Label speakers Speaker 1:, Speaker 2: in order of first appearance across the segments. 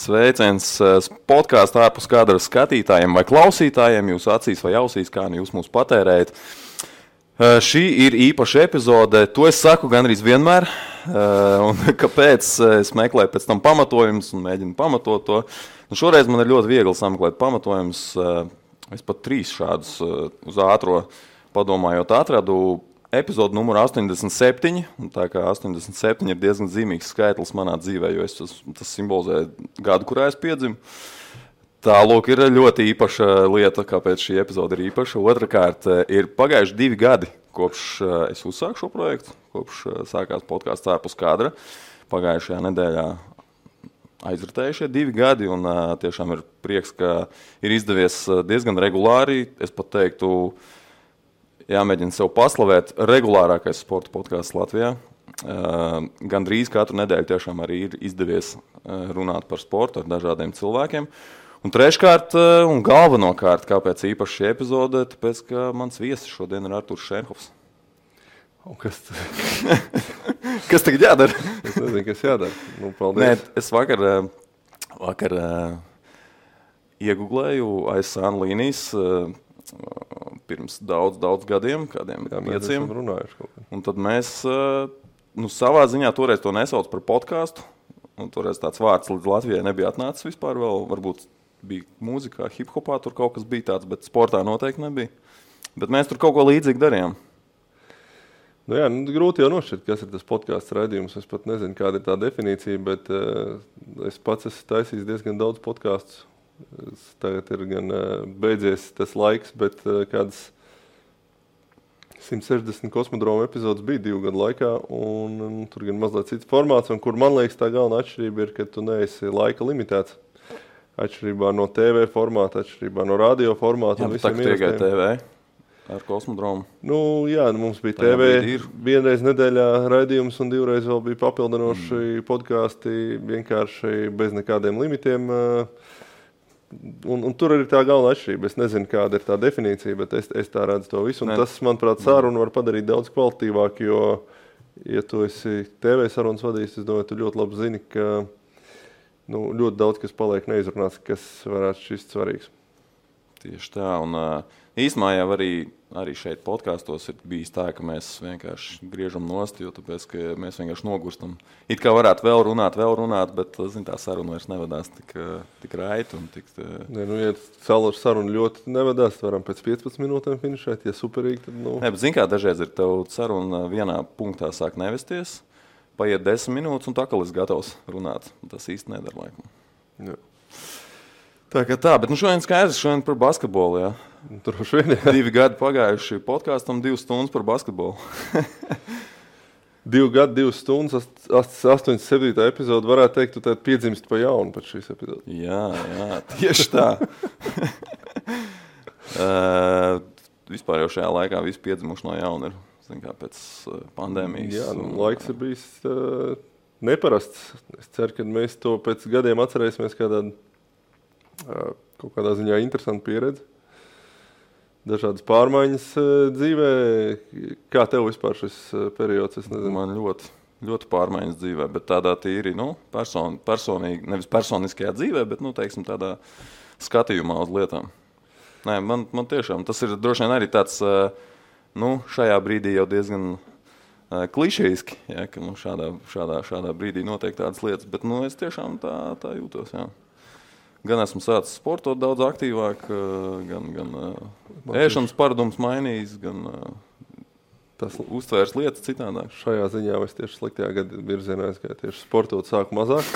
Speaker 1: Sveiciens podkāstu ārpus kadra skatītājiem vai klausītājiem, jūs acīs vai ausīs, kā nu jūs mūs patērējat. Šī ir īpaša epizode, to es saku gandrīz vienmēr, un kāpēc es meklēju pēc tam pamatojumus un mēģinu pamatot to. Nu, šoreiz man ir ļoti viegli sameklēt pamatojumus, es pat 3 šādus uz ātro padomājot atradu. Epizodu numuru 87, un tā kā 87 ir diezgan zīmīgs skaitlis manā dzīvē, jo tas simbolizē gadu, kurā es piedzimu. Tā, lūk, ir ļoti īpaša lieta, kāpēc šī epizode ir īpaša. Otrakārt, ir pagājuši 2 gadi, kopš es uzsāku šo projektu, kopš sākās podkāsts ārpus kadra. Pagājušajā nedēļā aizritējušie 2 gadi, un tiešām ir prieks, ka ir izdevies diezgan regulāri, es pat teiktu, jāmēģina sev paslavēt regulārākais sporta podkāsts Latvijā. Gandrīz katru nedēļu tiešām arī ir izdevies runāt par sportu ar dažādiem cilvēkiem. Un treškārt un galvenokārt, kāpēc īpaši šī epizode, tāpēc, ka mans viesis šodien ir Arturs Šenhofs.
Speaker 2: Un kas
Speaker 1: Kas tagad jādara?
Speaker 2: Es nezinu, kas jādara. Nu, paldies.
Speaker 1: Nē, es vakar ieguglēju ASAN līnijas pirms daudz gadiem, kādiem 5. Un tad mēs savā ziņā toreiz to nesauc par podkāstu. Un toreiz tāds vārds līdz Latvijai nebija atnācis vispār vēl. Varbūt bija mūzikā, hip-hopā tur kaut kas bija tāds, bet sportā noteikti nebija. Bet mēs tur kaut ko līdzīgi darījām.
Speaker 2: Nu jā, grūti jau nošķirt, kas ir tas podkāsts raidījums. Es pat nezinu, kāda ir tā definīcija, bet es pats esmu taisījis diezgan daudz podkāstus. Tagad ir gan beidzies tas laiks, bet kādas 160 kosmodroma epizodes bija 2 gadu laikā, un tur gan mazliet cits formāts, un kur man liekas tā galvenā atšķirība ir, ka tu neesi laika limitēts. Atšķirībā no TV formāta, atšķirībā no radio formāta.
Speaker 1: Jā, bet tā, ka tikai TV ar kosmodromu.
Speaker 2: Nu jā, mums bija TV vienreiz nedēļā raidījums, un 2 reiz vēl bija papildinoši podkāsti, vienkārši bez nekādiem limitiem. Un tur ir tā galvenā atšķirība. Es nezinu, kāda ir tā definīcija, bet es tā redzu to visu. Un tas, manuprāt, sarunu var padarīt daudz kvalitīvāk, jo, ja tu esi TV sarunas vadījis, es domāju, tu ļoti labi zini, ka ļoti daudz, kas paliek neizrunāts, kas varētu šķist svarīgs.
Speaker 1: Tieši tā, un īstenībā jau arī šeit podkāstos ir bijis tā, ka mēs vienkārši griežam nost, jo tāpēc, ka mēs vienkārši nogurstam. It kā varētu vēl runāt, bet tā saruna vairs nevedās tik raiti un tik...
Speaker 2: Nē, ja saruna ļoti nevedās, varam pēc 15 minūtēm finišēt, ja superīgi, tad
Speaker 1: Nē, bet zin kā, dažreiz ir tev saruna vienā punktā sāk nevesties, paiet 10 minūtes un tā, ka esi gatavs runāt. Tas īsti nedara laikam.
Speaker 2: Jā.
Speaker 1: Tā, bet šodien skaidrs, par basketbolu, jā.
Speaker 2: Droši vien, jā.
Speaker 1: 2 gadi pagājuši podkāstam, 2 stundas par basketbolu.
Speaker 2: 2 gadi, 2 stundas, 87. epizode, varētu teikt, tu piedzimst pa jaunu pēc šīs epizodes.
Speaker 1: Jā, tieši tā. Vispār jau šajā laikā visi piedzimuši no jauna ir, kā pēc pandēmijas.
Speaker 2: Jā, laiks ir bijis neparasts. Es ceru, ka mēs to pēc gadiem atcerēsimies kaut kādā ziņā interesanta pieredze. Dažādas pārmaiņas dzīvē. Kā tev vispār šis periods? Es nezinu.
Speaker 1: Man ļoti pārmaiņas dzīvē, bet tādā tīri, personīgi, nevis personiskajā dzīvē, bet, teiksim, tādā skatījumā uz lietām. Nē, man tiešām, tas ir droši vien arī tāds, šajā brīdī jau diezgan klišejiski, ja, ka šādā brīdī notiek tādas lietas, bet, es tiešām tā jūtos, jā. Gan esmu sācis sportot daudz aktīvāk, gan ēšanas paradums mainījis, gan tas uztvērs lietas citādāk.
Speaker 2: Šajā ziņā es tieši sliktajā gada virzienā aizgāju, tieši sportot sāku mazāk.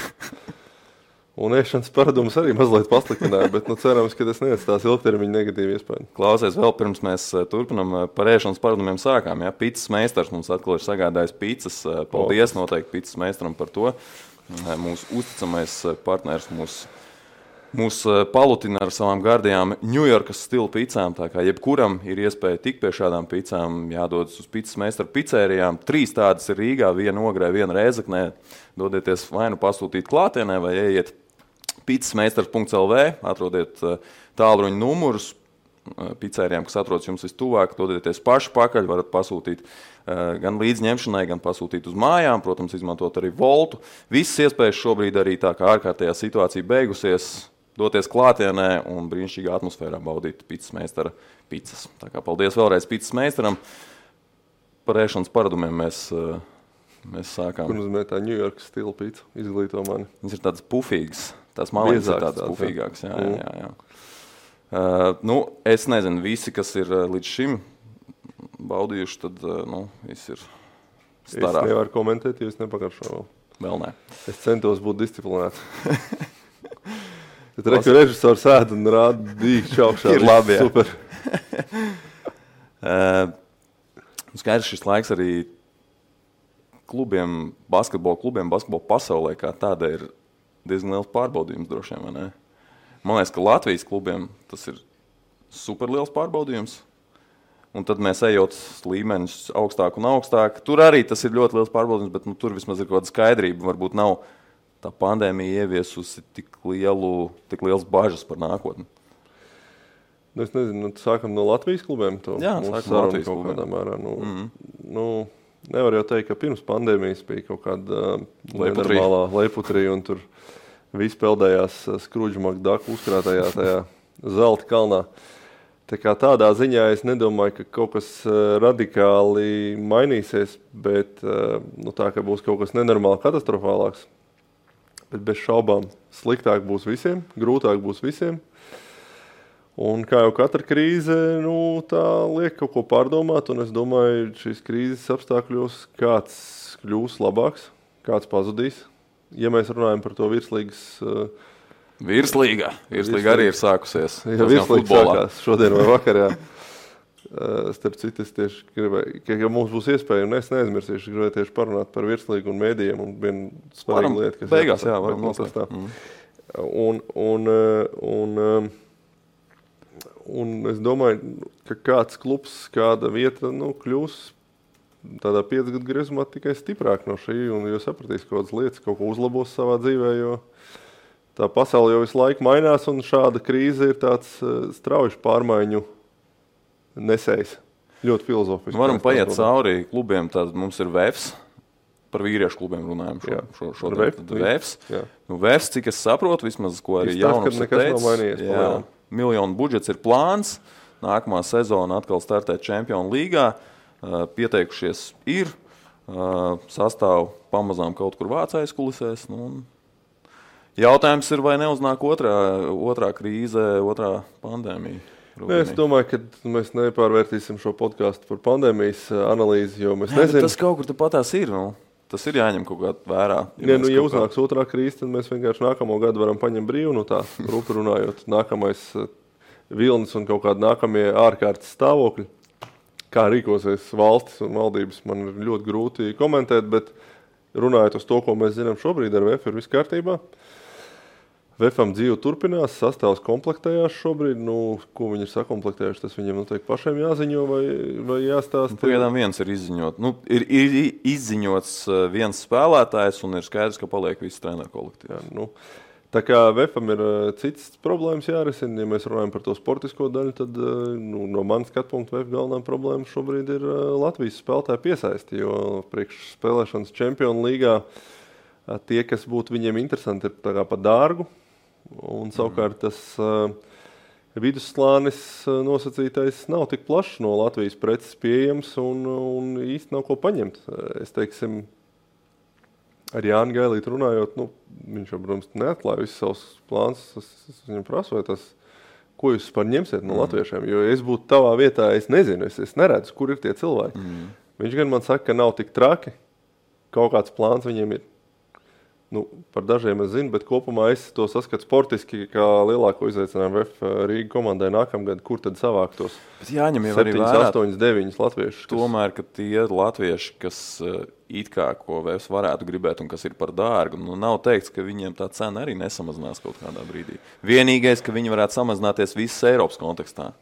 Speaker 2: Un ēšanas paradums arī mazliet pasliktināja, bet cerams, ka tas neatstās ilgtermiņa negatīvu iespēju.
Speaker 1: Klausies, vēl pirms mēs turpinam par ēšanas paradumiem sākām. Ja? Picas meistars mums atkal ir sagādājis picas. Paldies noteikti picas meistaram par to. Mūsu uzticamais partners mūs palutina ar savām gardajām Ņujorkas stila picām, tā kā jebkuram ir iespēja tikt pie šādām picām, jādodas uz picas meistaru picērijām. 3 tādas ir Rīgā, 1 Ogrē, 1 Rēzeknē. Dodieties vai nu pasūtīt klātienē, vai ejiet picasmeistars.lv, atrodiet tālruņa numurus, pizzērijām, kas atrodas jums vistuvāk, dodieties paši pakaļ, varat pasūtīt gan līdzņemšanai, gan pasūtīt uz mājām, protams, izmantot arī Voltu. Visas iespējas šobrīd arī tā kā ārkārtējā situācija beigusies, doties klātienē un brīnišķīgā atmosfērā baudīt pizzas meistara pizzas. Tā kā paldies vēlreiz pizzas meistaram. Par ēšanas paradumiem mēs sākām.
Speaker 2: Kur nozīmē tā New York stila pizza? Izglīto mani.
Speaker 1: Viņas ir tādas pufīgas. Tās malītes ir tādas pufīgākas. Jā. Es nezinu, visi, kas ir līdz šim baudījuši, tad viss ir starā.
Speaker 2: Es nevaru komentēt, jo es nepakaršoju vēl.
Speaker 1: Vēl nē.
Speaker 2: Es centos būt disciplinēts. Tad reku režisors ēd un rāda dīkšķi augšā.
Speaker 1: Ir labi, jā.
Speaker 2: Super.
Speaker 1: Skaidrs šis laiks arī klubiem, basketbola pasaulē kā tāda ir diezgan liels pārbaudījums droši vien, vai ne? Man liekas, ka Latvijas klubiem tas ir super liels pārbaudījums. Un tad mēs ejot līmeņus augstāk un augstāk. Tur arī tas ir ļoti liels pārbaudījums, bet tur vismaz ir kaut kāda skaidrība. Varbūt nav tā pandēmija ieviesusi tik liels bažas par nākotni.
Speaker 2: Es nezinu, sākam no Latvijas klubiem.
Speaker 1: Jā, sākam no Latvijas klubiem.
Speaker 2: Mērā, nevar jau teikt, ka pirms pandēmijas bija kaut kāda nenormālā leiputrija un tur visi peldējās Skrudžu Makdaku uzkrātajā tajā zelta kalnā. Tā kā tādā ziņā es nedomāju, ka kaut kas radikāli mainīsies, bet tā, ka būs kaut kas nenormāli katastrofālāks. Bet bez šaubām sliktāk būs visiem, grūtāk būs visiem. Un kā jau katra krīze, tā liek kaut ko pārdomāt, un es domāju, šīs krīzes apstākļos kāds kļūs labāks, kāds pazudīs. Ja mēs runājam par to virslīgas...
Speaker 1: Virslīga arī ir sākusies.
Speaker 2: Ja virslīga sākās šodien vai vakar, jā. Starp citu, es tieši gribēju, ka mums būs iespēja, un es neaizmirsīšu, gribēju tieši parunāt par virslīgu un mēdījiem, un viena svarīga lieta, kas...
Speaker 1: Beigās, jā, varam noslēgt.
Speaker 2: Un es domāju, ka kāds klubs, kāda vieta kļūs tādā 5 gadu griezumā tikai stiprāk no šī, un jūs sapratīs kaut kādas lietas, kaut ko uzlabos savā dzīvē, jo tā pasaule jau visu laiku mainās, un šāda krīze ir tāds strauji pārmaiņu nesējs. Ļoti filozofiski.
Speaker 1: Varam paiet cauri klubiem, tad mums ir VEFS, par vīriešu klubiem runājam šodien. VEFS. VEFS, cik es saprotu, vismaz, ko arī jaunums ir teicis. Miljonu budžets ir plāns, nākamā sezona atkal startēt Čempionu līgā, pieteikušies ir, sastāv pamazām kaut kur vācais kulisēs. Jautājums ir, vai neuznāk otrā krīze, otrā pandēmija?
Speaker 2: Es domāju, ka mēs nepārvērtīsim šo podcastu par pandēmijas analīzi, jo mēs nezinām.
Speaker 1: Tas kaut kur patās ir, tas ir jāņem kaut kā vērā.
Speaker 2: Ja uznāks otrā krīze, tad mēs vienkārši nākamo gadu varam paņemt brīvu, tā rupi runājot, nākamais vilnis un kaut kādi nākamie ārkārtas stāvokļi. Kā rīkosies valstis un valdības, man ir ļoti grūti komentēt, bet runājot uz to, ko mēs zinām šobrīd ar VF, ir viss kārtībā. VFam dzīve turpinās, sastāvs komplektējās šobrīd. Ko viņi ir sakomplektējuši, tas viņiem noteikti pašiem jāziņo vai jāstāsta.
Speaker 1: Pagaidām viens ir izziņot. Ir izziņots viens spēlētājs un ir skaidrs, ka paliek viss treneru kolektīvs.
Speaker 2: Tā kā VFam ir cits problēmas jārisina, ja mēs runājam par to sportisko daļu, tad no manas skatu punktu VF galvenā problēma šobrīd ir Latvijas spēlētāju piesaisti, jo priekš spēlēšanas Čempionu līgā tie, kas būtu viņiem interesanti, ir tā kā pa dārgu. Un savukārt tas vidusslānis nosacītais nav tik plašs no Latvijas preces pieejams un īsti nav ko paņemt. Es teiksim, ar Jāni Gailītu runājot, viņš jau, protams, neatklāja visus savus plāns. Es viņam prasu, vai tas, ko jūs par ņemsiet no latviešiem, jo es būtu tavā vietā, es nezinu, es neredzu, kur ir tie cilvēki. Viņš gan man saka, ka nav tik traki, kaut kāds plāns viņiem ir. Par dažiem es zinu, bet kopumā es to saskatu sportiski kā lielāko izaicinājumu VF Rīga komandai nākamgad, kur tad savākt tos 7, 8, 9 latviešus.
Speaker 1: Tomēr, ka tie latvieši, kas it kā ko VF varētu gribēt un kas ir par dārgu, nav teikts, ka viņiem tā cena arī nesamazinās kaut kādā brīdī. Vienīgais, ka viņi varētu samazināties visas Eiropas kontekstā.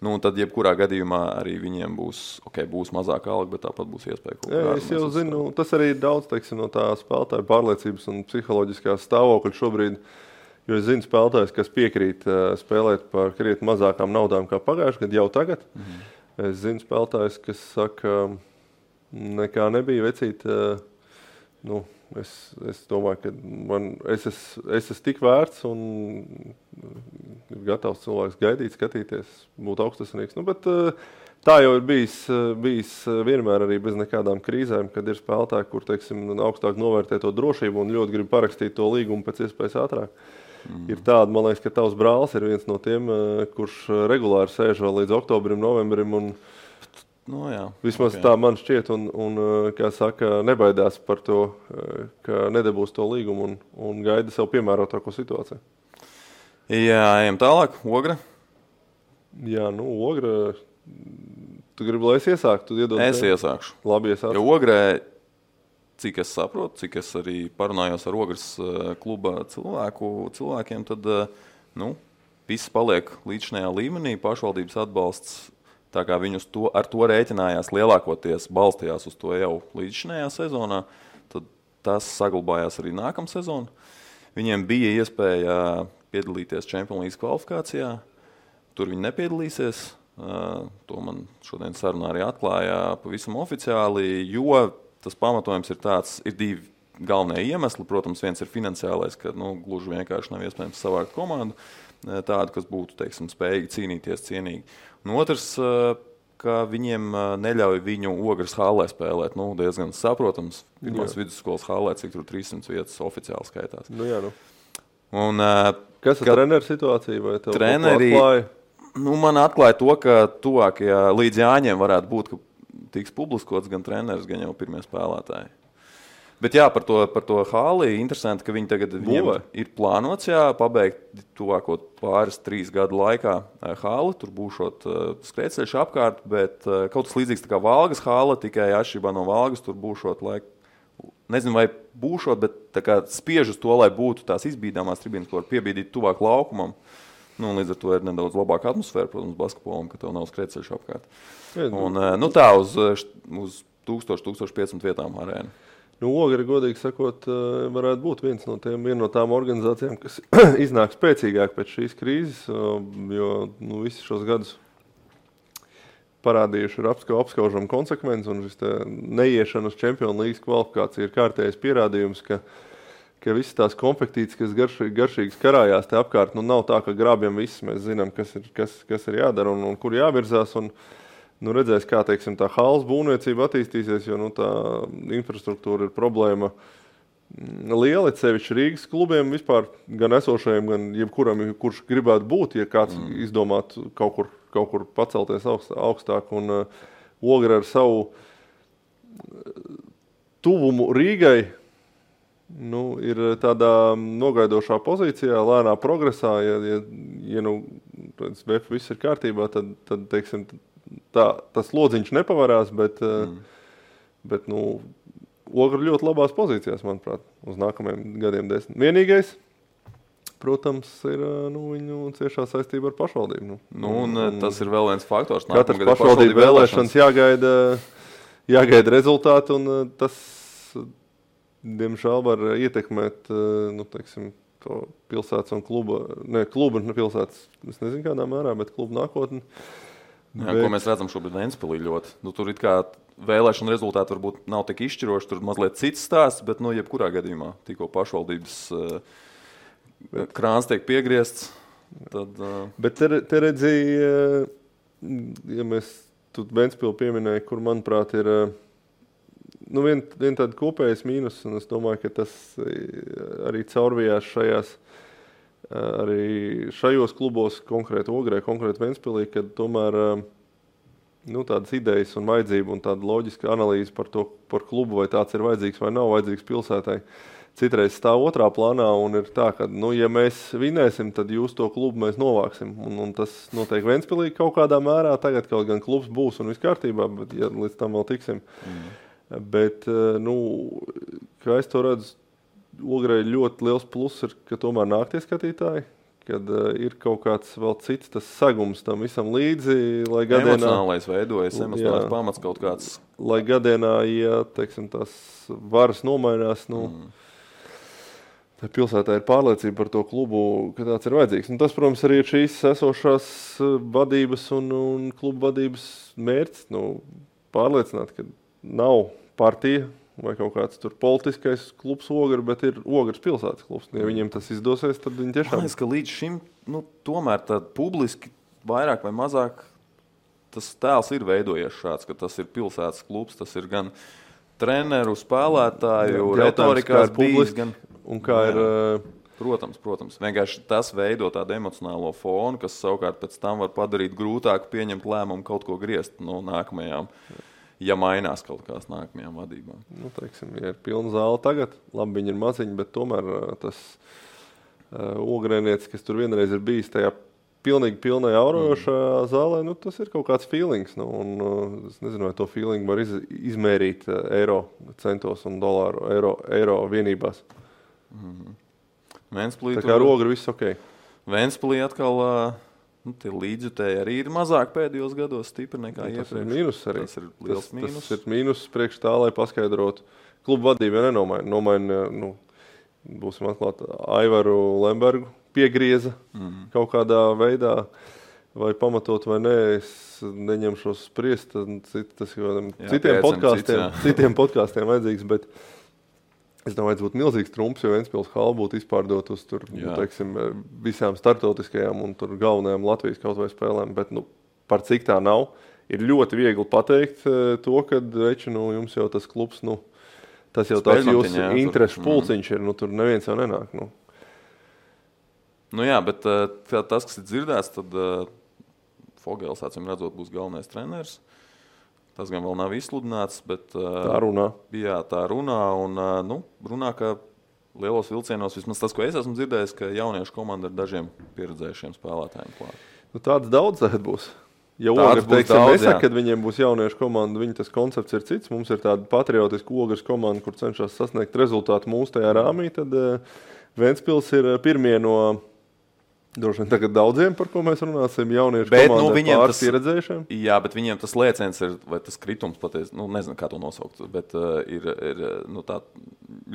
Speaker 1: Tad jebkurā gadījumā arī viņiem būs mazāka alga, bet tāpat būs iespēja kaut kādā.
Speaker 2: Es jau zinu, tas arī ir daudz, no tā spēlētāja pārliecības un psiholoģiskās stāvokļa šobrīd. Jo es zinu spēlētājs, kas piekrīt spēlēt par krietni mazākām naudām kā pagājuši gadu jau tagad. Es zinu spēlētājs, kas saka, nekā nebija vecīt. Es domāju, ka es esmu tik vērts un ir gatavs cilvēks gaidīt, skatīties, būt augstasnieks. Bet tā jau ir bijis vienmēr arī bez nekādām krīzēm, kad ir spēlētāji, kur, teiksim, augstāk novērtē to drošību un ļoti grib parakstīt to līgumu pēc iespējas ātrāk. Ir tāda, man liekas, ka tavs brālis ir viens no tiem, kurš regulāri sēž vēl līdz oktobrim, novembrim un vismaz tā man šķiet un kā saka, nebaidās par to, ka nedabūs to līgumu un gaida sev piemērotāko situāciju.
Speaker 1: Jā, ejam tālāk. Ogra?
Speaker 2: Jā, Ogra, tu gribi, lai es iesāktu?
Speaker 1: Es iesākšu.
Speaker 2: Labi, iesākšu.
Speaker 1: Jo Ogrē, cik es saprotu, cik es arī parunājos ar Ogras kluba cilvēkiem, tad viss paliek līdzinājā līmenī, pašvaldības atbalsts, tā kā viņi ar to rēķinājās lielākoties, balstījās uz to jau līdzinājā sezonā, tad tas saglabājās arī nākamā sezona. Viņiem bija iespēja piedalīties Champions League kvalifikācijā, tur viņi nepiedalīsies, to man šodien sarunā arī atklāja pavisam oficiāli, jo tas pamatojums ir tāds, ir divi galvenie iemesli. Protams, viens ir finansiālais, ka gluži vienkārši nav iespējams savākt komandu tādu, kas būtu, teiksim, spējīgi cīnīties cienīgi. Un otrs, ka viņiem neļauj viņu Ogras hallē spēlēt. Diezgan saprotams, pirmās vidusskolas hallē, cik tur 300 vietas oficiāli skaitās. Un,
Speaker 2: kas ir treneru situācija? Vai tev
Speaker 1: treneri, man atklāja to, ka tuvākajā līdz Jāņiem varētu būt, ka tiks publiskots gan treneris, gan jau pirmie spēlētāji. Bet jā, par to halli interesanti, ka viņi tagad viņiem ir plānots pabeigt tuvāko 2-3 gadu laikā halli. Tur būšot skrējceļš apkārt, bet kaut kas līdzīgs tā kā Valgas halla, tikai atšķirībā no Valgas tur būšot nezinu, vai būšot, bet tā kā spiež uz to, lai būtu tās izbīdāmās tribīnas, ko var piebīdīt tuvāk laukumam. Līdz ar to ir nedaudz labāka atmosfēra, protams, basketbolam, ka tev nav skrējceļš apkārt. Un tā uz 1000-1500 vietām arēna.
Speaker 2: Ogra, godīgi sakot, varētu būt viena no tām organizācijām, kas iznāk spēcīgāk pēc šīs krīzes, jo visi šos gadus parādījuši ir apskaužama konsekvence, un šis neiešana uz Champions League kvalifikācija ir kārtējais pierādījums, ka visas tās konfektītes, kas garšīgas karājās te apkārt, nav tā, ka grābjam viss, mēs zinām, kas ir jādara un kur jāvirzās, un redzēs, kā, teiksim, tā halles būvniecība attīstīsies, jo tā infrastruktūra ir problēma liela, sevišķi Rīgas klubiem vispār, gan esošajiem, gan jebkuram, kurš gribētu būt, ja kāds izdomātu kaut kur pacelties augstāk, un Ogra ar savu tuvumu Rīgai ir tādā nogaidošā pozīcijā, lēnā progresā, ja VF viss ir kārtībā, tad teiksim, tas lodziņš nepavarās, bet Ogra ļoti labās pozīcijās, manuprāt, uz nākamajiem gadiem 10. Vienīgais, protams, ir viņu ciešā saistība ar pašvaldību.
Speaker 1: Tas ir vēl viens faktors.
Speaker 2: Katrs pašvaldību vēlēšanas jāgaida rezultāti, un tas, diemžēl, var ietekmēt, teiksim, to pilsētas un kluba pilsētas, es nezinu kādā mērā, bet kluba nākotni.
Speaker 1: Ko mēs redzam šobrīd Ventspilī ļoti. Tur it kā vēlēšana rezultāti varbūt nav tik izšķiroši, tur mazliet cits stāsts, bet jebkurā gadījumā tikko pašvaldības krāns tiek piegriezts. Tad,
Speaker 2: Bet te redzēja, ja mēs tu Ventspilu pieminēja, kur, manuprāt, ir vien tāda kopējas mīnus, un es domāju, ka tas arī caurvijās šajos klubos, konkrēti Ogrē, konkrēti Ventspilī, kad tomēr tādas idejas un vajadzība un tāda loģiska analīze par klubu, vai tāds ir vajadzīgs vai nav vajadzīgs pilsētai, citreiz stāv otrā plānā, un ir tā, ka, ja mēs vinēsim, tad jūs to klubu mēs novāksim, un tas notiek Ventspilī kaut kādā mērā, tagad kaut gan klubs būs un viss kārtībā, bet ja līdz tam vēl tiksim. Bet, kā es to redzu, Ogrei ļoti liels pluss ir, ka tomēr nāk tie skatītāji, kad ir kaut kāds vēl cits tas sagums tam visam līdzi, lai gadienā...
Speaker 1: Emocionālais veidojas, emocionālais pamats kaut kāds.
Speaker 2: Lai 1 gadienā, ja, teiksim, tās varas nomainās, pilsētā ir pārliecība par to klubu, ka tāds ir vajadzīgs. Un tas, protams, arī ir šīs esošās vadības un klubu vadības mērķis. Pārliecināt, ka nav partija vai kaut kāds tur politiskais klubs Ogre, bet ir Ogres pilsētas klubs. Ja viņiem tas izdosies, tad viņi tiešām...
Speaker 1: Man liekas, ka līdz šim tomēr tad publiski vairāk vai mazāk tas tēls ir veidojies šāds, ka tas ir pilsētas klubs, tas ir gan treneru, spēlētāju, retorikās bijis, gan...
Speaker 2: Un kā ir...
Speaker 1: Protams. Vienkārši tas veido tādu emocionālo fonu, kas savukārt pēc tam var padarīt grūtāku pieņemt lēmumu kaut ko griezt no nākamajām, ja mainās kaut kās nākamajām vadībām.
Speaker 2: Teiksim, ja ir pilna zāle tagad, labi, viņi ir maziņi, bet tomēr tas ogrēnietis, kas tur vienreiz ir bijis tajā pilnīgi pilnai aurojošā zālē, tas ir kaut kāds feelings. Es nezinu, vai to feeling var izmērīt eiro centos un dolāru eiro vienībās.
Speaker 1: Ventspilī,
Speaker 2: tā kā ar Ogri viss ok.
Speaker 1: Ventspilī atkal tie līdzjutēji arī ir mazāk pēdējos gados stipri nekā iepriekš.
Speaker 2: Tas ir mīnus arī.
Speaker 1: Tas ir liels mīnus.
Speaker 2: Tas ir mīnus priekš tā, lai paskaidrotu. Klubu vadība nenomaina, būsim atklāti, Aivaru Lembergu piegrieza kaut kādā veidā, vai pamatot vai nē, es neņemšos spriest, tas citiem podkāstiem vajadzīgs, bet es domāju, būtu milzīgs trumps, jo Ventspils hala būtu izpārdot uz tur, teiksim, visām startautiskajām un tur galvenajām Latvijas kaut vai spēlēm, bet par cik tā nav, ir ļoti viegli pateikt to, ka jums jau tas klubs, tas jau tāds jūsu interešu pulciņš ir, tur neviens jau nenāk.
Speaker 1: Jā, bet tas, kas ir dzirdēts, tad Fogels, acīm redzot, būs galvenais treneris. Tas gan vēl nav izsludināts, bet
Speaker 2: tā runā.
Speaker 1: Jā, tā runā un runā, ka lielos vilcienos, vismaz tas, ko es esmu dzirdējis, ka jauniešu komanda ar dažiem pieredzējušiem spēlētājiem klāt.
Speaker 2: Tāds daudz tagad būs. Ja Ogres, teiksim, nesaka, kad viņiem būs jauniešu komanda, viņa tas koncepts ir cits. Mums ir tāda patriotiska Ogres komanda, kur cenšas sasniegt rezultātu mūsu tajā rāmī, tad Ventspils ir pirmie no droši vien tagad daudziem, par ko mēs runāsim, jauniešu komandā pāris pieredzējušiem.
Speaker 1: Jā, bet viņiem tas lēciens ir, vai tas kritums patiesi, nezinu, kā to nosaukt, bet ir tā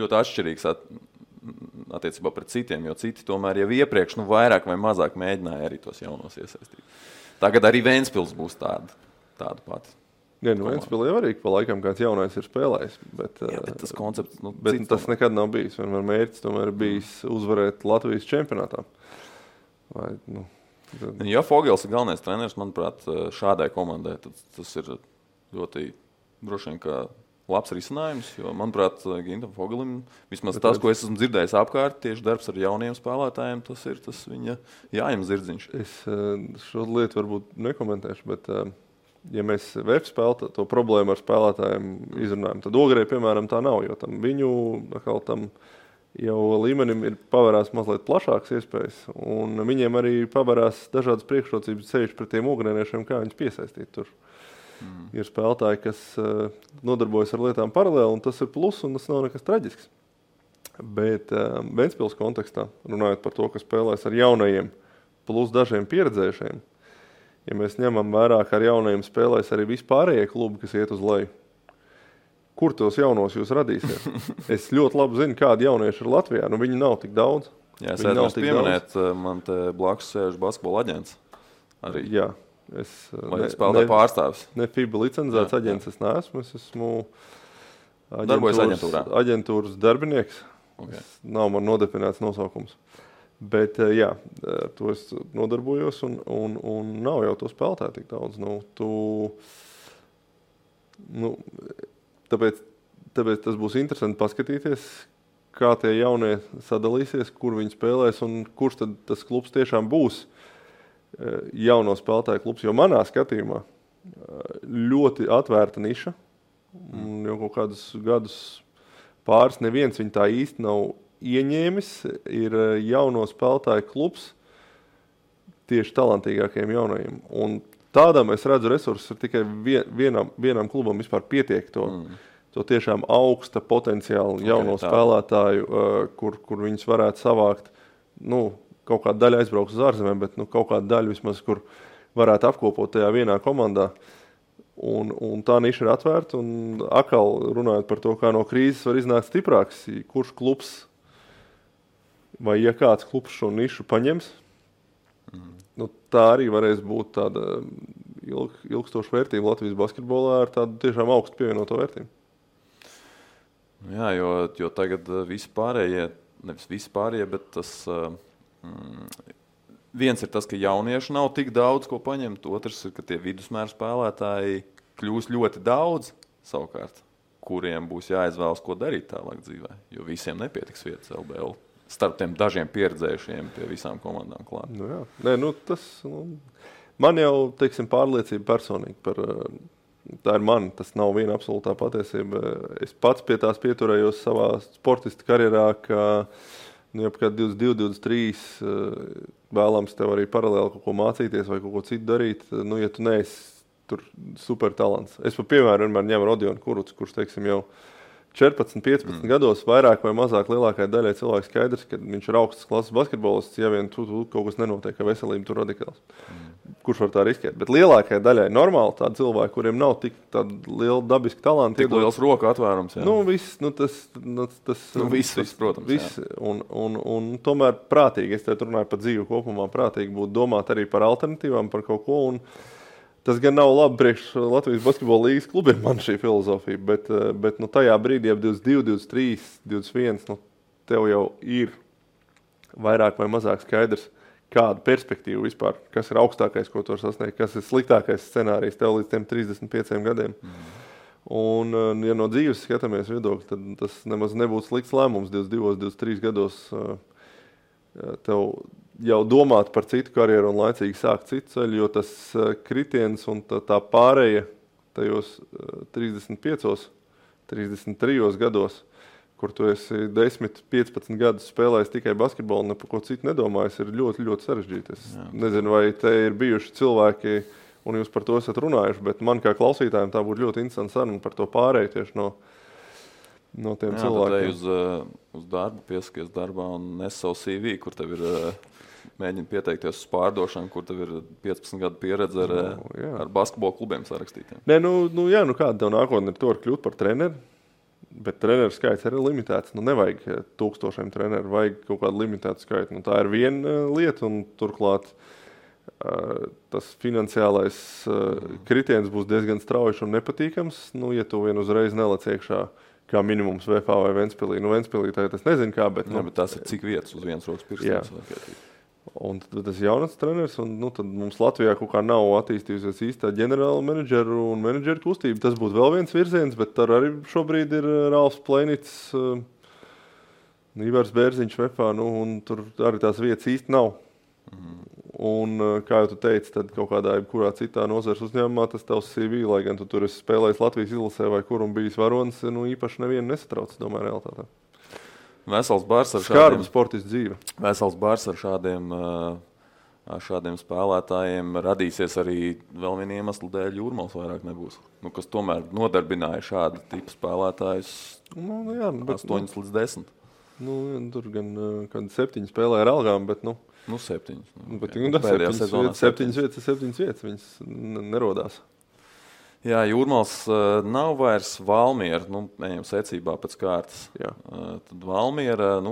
Speaker 1: ļoti atšķirīgs attiecībā pret citiem, jo citi tomēr jau iepriekš vairāk vai mazāk mēģināja arī tos jaunos iesaistīt. Tagad arī Ventspils būs tāda pati.
Speaker 2: Ventspilī jau arī pa laikam kāds jaunais ir spēlējis. Bet
Speaker 1: tas koncepts...
Speaker 2: bet tas nekad nav bijis. Vienmēr mērķis tomēr bijis uzvarēt Latvijas čempionātā.
Speaker 1: Ja Fogels ir galvenais treneris, manuprāt, šādai komandai, tad tas ir ļoti droši vien kā labs risinājums, jo, manuprāt, Gintam Fogelim, vismaz tas, ko es esmu dzirdējis apkārt, tieši darbs ar jauniem spēlētājiem, tas ir tas viņa jājam zirdziņš.
Speaker 2: Es šo lietu varbūt nekomentēšu, bet ja mēs VF spēlētu to problēmu ar spēlētājiem izrunājam, tad Ogrē, piemēram, tā nav, jo viņu tam jau līmenim ir pavērās mazliet plašāks iespējas, un viņiem arī pavērās dažādas priekšrocības ceļš pret tiem ogrēniešiem, kā viņus piesaistīt tur. Ir spēlētāji, kas nodarbojas ar lietām paralēli, un tas ir plus, un tas nav nekas traģisks. Bet Ventspils kontekstā, runājot par to, ka spēlēs ar jaunajiem plus dažiem pieredzējušiem, ja mēs ņemam vērā, ka ar jaunajiem spēlēs arī vispārējie klubi, kas iet uz leju, kur tos jaunos jūs radīsiet? Es ļoti labi zinu, kādi jaunieši ir Latvijā, viņi nav tik daudz.
Speaker 1: Jā, es vēlos pieminēt, man te blakus sēž basketbola aģents. Arī.
Speaker 2: Jā.
Speaker 1: Vai spēlētāju pārstāvis?
Speaker 2: Ne FIBA licencēts aģents es neesmu. Es esmu aģentūras darbinieks. Okay. Nav man nodefinēts nosaukums. Bet jā, to es nodarbojos un nav jau to spēlētāju tik daudz. Tāpēc tas būs interesanti paskatīties, kā tie jaunie sadalīsies, kur viņi spēlēs un kurš tad tas klubs tiešām būs jauno spēlētāju klubs, jo manā skatījumā ļoti atvērta niša. Jau kaut kādus gadus pāris neviens viņu tā īsti nav ieņēmis. Ir jauno spēlētāju klubs tieši talantīgākajiem jaunajiem. Un tādām es redzu resursus ir tikai vienam klubam vispār pietiek to tiešām augsta potenciālu jauno spēlētāju, kur viņus varētu savākt, kaut kāda daļa aizbrauks uz ārzemēm, bet kaut kāda daļa vismaz, kur varētu apkopot tajā vienā komandā. Un tā niša ir atvērta. Un atkal runājot par to, kā no krīzes var iznākt stiprāks, kurš klubs vai ja kāds klubs šo nišu paņems, nu, tā arī varēs būt tāda ilgstoša vērtība Latvijas basketbolā ar tādu tiešām augstu pievienoto vērtību.
Speaker 1: Jā, jo tagad vispārējie, nevis vispārējie, bet tas viens ir tas, ka jaunieši nav tik daudz ko paņemt, otrs ir, ka tie vidusmēra spēlētāji kļūs ļoti daudz savukārt, kuriem būs jāizvēlas, ko darīt tālāk dzīvē, jo visiem nepietiks vietas LBL. Starp tiem dažiem pieredzējušiem pie visām komandām klāt.
Speaker 2: Nu jā. Nē, man jau, teiksim, pārliecība personīgi par, tā ir man, tas nav viena absolūtā patiesība. Es pats pie tās pieturējos savā sportista karjerā, ka, jau kā 22, 23 vēlams tev arī paralēli kaut ko mācīties vai kaut ko citu darīt, ja tu neesi tur super talants. Es par piemēru vienmēr ņemu Rodionu Kurucu, kurš, teiksim, jau 14, 15 gados vairāk vai mazāk lielākai daļai cilvēku skaidrs, ka viņš ir augstas klases basketbolists, ja vien tu kaut kas nenotiek, ka veselība tur radikāls. Kurš var tā riskēt? Bet lielākai daļai normāli tādi cilvēki, kuriem nav tik tāda liela dabiska talanta.
Speaker 1: Tik liels roku atvērums, jā.
Speaker 2: Viss,
Speaker 1: protams.
Speaker 2: Viss. Un tomēr prātīgi, es te runāju par dzīvi kopumā, prātīgi būtu domāt arī par alternatīvām, par kaut ko. Un tas gan nav labi priekš Latvijas basketbola līgas klubiem, man šī filozofija, bet tajā brīdī, ap 22, 23, 21, tev jau ir vairāk vai mazāk skaidrs, kāda perspektīva vispār, kas ir augstākais, ko tu var sasniegt, kas ir sliktākais scenārijs tev līdz tiem 35 gadiem. Un, ja no dzīves skatāmies viedokļi, tad tas nemaz nebūtu slikts lēmums 22, 23 gados tev jau domāt par citu karjeru un laicīgi sākt citu ceļu, jo tas kritiens un tā pārēja tajos 35, 33 gados, kur tu esi 10, 15 gadus spēlējis tikai basketbolu un par ko citu nedomājis, ir ļoti, ļoti sarežģīti. Es nezinu, vai te ir bijuši cilvēki, un jūs par to esat runājuši, bet man kā klausītājiem tā būtu ļoti interesanti saruna par to pārēju tieši no tiem cilvēkiem.
Speaker 1: Uz darbu, piesakies darbā un nes savu CV, kur tev ir mēģina pieteikties uz pārdošanu, kur tev ir 15 gadu pieredze ar basketbola klubiem sarakstītiem.
Speaker 2: Nē, kāda tev nākotnē ir to var kļūt par treneri, bet treneru skaits arī limitēts. Nevajag 1000 treneru, vajag kaut kādu limitētu skaitu. Tā ir viena lieta, un turklāt tas finansiālais kritiens būs diezgan strauji un nepatīkams, ja tu vien uzreiz nelec iekšā kā minimums VFA vai Ventspilī. Ventspilī tagad es nezinu kā, bet...
Speaker 1: bet tas ir cik vietas uz vienas rokas pirkstiem.
Speaker 2: Un tad tas jaunats treneris, un tad mums Latvijā kaut kā nav attīstījusies īstā ģenerāla menedžeru un menedžeru kustība. Tas būtu vēl viens virziens, bet tur arī šobrīd ir Ralfs Pleinits, Ivars Bērziņš VFA, un tur arī tās vietas īsti nav. Un, kā jau tu teici, tad kaut kādā jebkurā citā nozares uzņēmumā tas tavs CV, lai gan tu tur esi spēlējis Latvijas izlasē vai kur un bijis varonis, īpaši nevienu nesatrauc, domāju, realitātē.
Speaker 1: Vesels bars ar
Speaker 2: šādiem sportistu dzīve.
Speaker 1: Vesels bars ar šādiem spēlētājiem radīsies arī vēl viena iemesla dēļ Jūrmals vairāk nebūs. Kas tomēr nodarbināja šādu tipu spēlētājus 8 līdz 10.
Speaker 2: Tur gan kādi 7 spēlē ar algām, bet
Speaker 1: 7.
Speaker 2: Septiņas vietas, viņas nerodās.
Speaker 1: Jā, Jūrmals nav vairs Valmiera, ejam secībā pēc kārtas. Tad Valmiera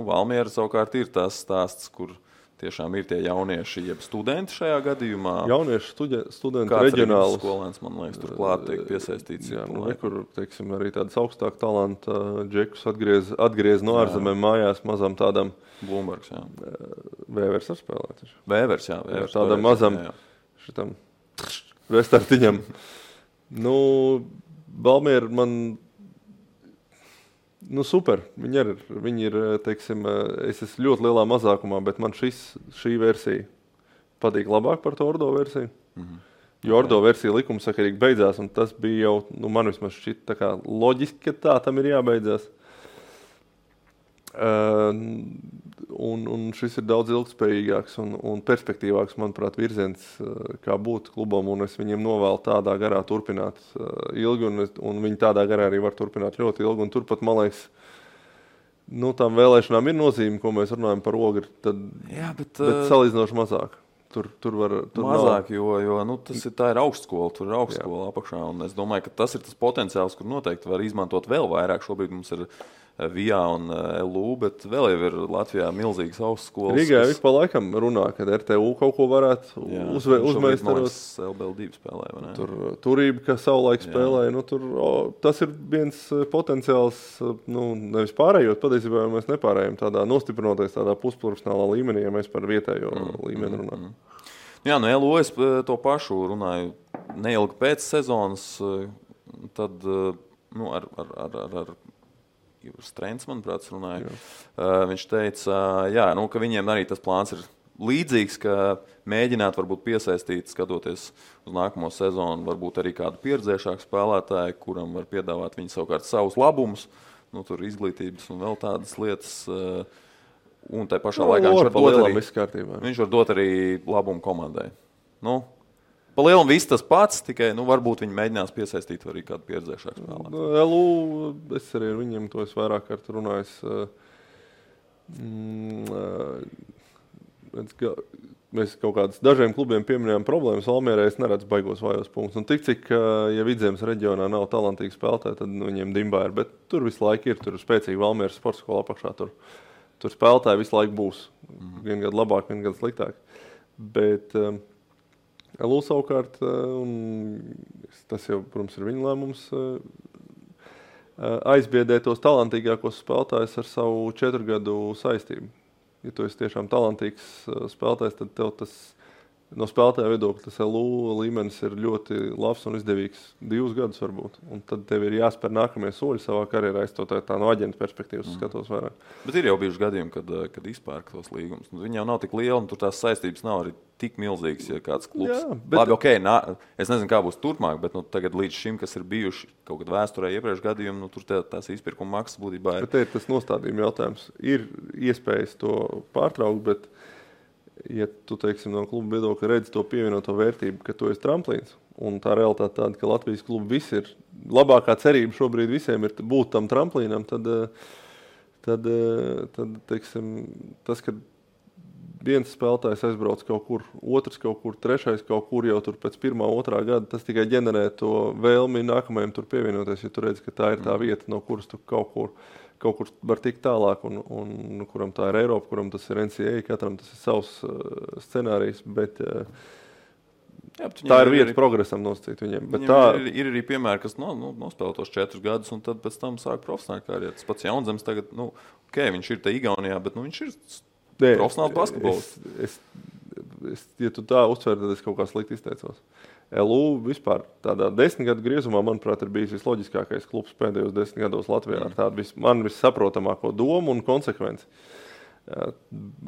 Speaker 1: savukārt ir tas stāsts, kur tiešām ir tie jaunieši, jeb studenti šajā gadījumā.
Speaker 2: Jaunieši studenti reģionāli.
Speaker 1: Kāds skolēns, man liekas, turklāt tiek piesaistīts.
Speaker 2: Kur, teiksim, arī tādas augstāk talanta džekus atgriez no ārzemēm mājās mazam tādam.
Speaker 1: Blūmbergs, jā.
Speaker 2: Vēvers ar spēlēt.
Speaker 1: Vēvers, jā.
Speaker 2: Tādam mazam šitam restartiņam. Valmiera man super. Viņi ir, teiksim, es esmu ļoti lielā mazākumā, bet man šī versija patīk labāk par to Ordo versiju. Jo Ordo versija likumsakarīgi beidzās, un tas bija jau, man vismaz šķiet tā kā loģiski, ka tā tam ir jābeidzās. Un šis ir daudz ilgspējīgāks un perspektīvāks, manuprāt, virziens, kā būt klubam, un es viņiem novēlu tādā garā turpināt ilgi, un viņi tādā garā arī var turpināt ļoti ilgi, un turpat, man liekas, tām vēlēšanām ir nozīme, ko mēs runājam par Ogri, bet salīdzinoši mazāk. Tur
Speaker 1: mazāk, jo tā ir augstskola, tur ir augstskola apakšā. Un es domāju, ka tas ir tas potenciāls, kur noteikti var izmantot vēl vairāk. Šobrīd mums ir VIA un LU, bet vēl jau ir Latvijā milzīgas augstskolas.
Speaker 2: Rīgā ik pa laikam runā, ka RTU kaut ko varētu uzmeistarot.
Speaker 1: LBL2 spēlē, vai ne?
Speaker 2: Turība, ka savulaik spēlēja, tas ir viens potenciāls, nevis pārējot, patiesībā mēs nepārējam tādā nostiprinoties tādā pusprofesionālā līmenī, ja mēs par vietējo līmeni runājam.
Speaker 1: Jā, LU es to pašu runāju neilgi pēc sezonas, tad ar Strēns, manuprāt, runāja. Viņš teica, ka viņiem arī tas plāns ir līdzīgs, ka mēģināt varbūt piesaistīt, skatoties uz nākamo sezonu, varbūt arī kādu pieredzējušāku spēlētāju, kuram var piedāvāt viņi savukārt savus labumus, tur izglītības un vēl tādas lietas. Un tai pašā laikā viņš var dot arī labumu komandai. Pa lielam viss tas pats, tikai varbūt viņi mēģinās piesaistīt arī kādu pieredzējušāku spēlētāju.
Speaker 2: LU, es arī ar viņiem to esmu vairāk kārt runājis. Mēs kaut kādus dažiem klubiem pieminējām problēmas. Valmierē es neredzu baigos vājos punktus. Un tik cik, ja Vidzemes reģionā nav talantīgi spēlētāji, tad viņiem dimbā ir. Bet tur visu laiku ir, tur ir spēcīgi Valmieras sporta skola apakšā. Tur spēlētāji visu laiku būs. Vien gadu labāk, vien gadu sliktāk. Bet LU savukārt, un tas jau, protams, ir viņa lēmums, aizbiedē tos talantīgākos spēlētājus ar savu 4 gadu saistību. Ja tu esi tiešām talantīgs spēlētājs, tad tev tas no spēlētāja viedokļa tas LU līmenis ir ļoti labs un izdevīgs 2 gadus varbūt. Un tad tev ir jāspēr nākamie soļi savā karjerā, es to tā no aģenta perspektīvas skatos vairāk.
Speaker 1: Bet ir jau bijuši gadījumi, kad izpērk tos līgumus. Viņi jau nav tik lieli un tur tās saistības nav arī tik milzīgas, ja kāds klubs. Jā, bet... Labi, es nezinu, kā būs turpmāk, bet tagad līdz šim, kas ir bijuši kaut kad vēsturē iepriekš gadījumi, tur tās izpirkuma maksas būtībā ir.
Speaker 2: Bet te ir tas nostādījuma jautājums. Ir iespējas to pārtraukt, bet ja tu, teiksim, no kluba viedokļa redzi to pievienoto vērtību, ka tu esi tramplīns, un tā realitāte tāda, ka Latvijas kluba visi ir, labākā cerība šobrīd visiem ir būt tam tramplīnam, tad teiksim, tas, ka viens spēlētājs aizbrauc kaut kur, otrs kaut kur, trešais kaut kur jau tur pēc 1. 2. gada, tas tikai ģenerē to vēlmi nākamajam tur pievienoties, ja tu redzi, ka tā ir tā vieta, no kuras tu kaut kur var tikt tālāk, un kuram tā ir Eiropa, kuram tas ir NCAA, katram tas ir savs scenārijs, bet tā ir vieta progresam nosacīt viņiem. Bet
Speaker 1: ir arī piemēri, kas nospēlē tos 4 gadus, un tad pēc tam sāk profesionāli karjeru. Tas pats Jaunzems tagad, viņš ir te Igaunijā, bet viņš ir profesionāls basketbolists.
Speaker 2: Ja tu tā uztver, tad es kaut kā slikti izteicos. LU vispār tādā 10 gadu griezumā, manuprāt, ir bijis visloģiskākais klubs pēdējos 10 gados Latvijā ar tādu man vissaprotamāko domu un konsekvenci.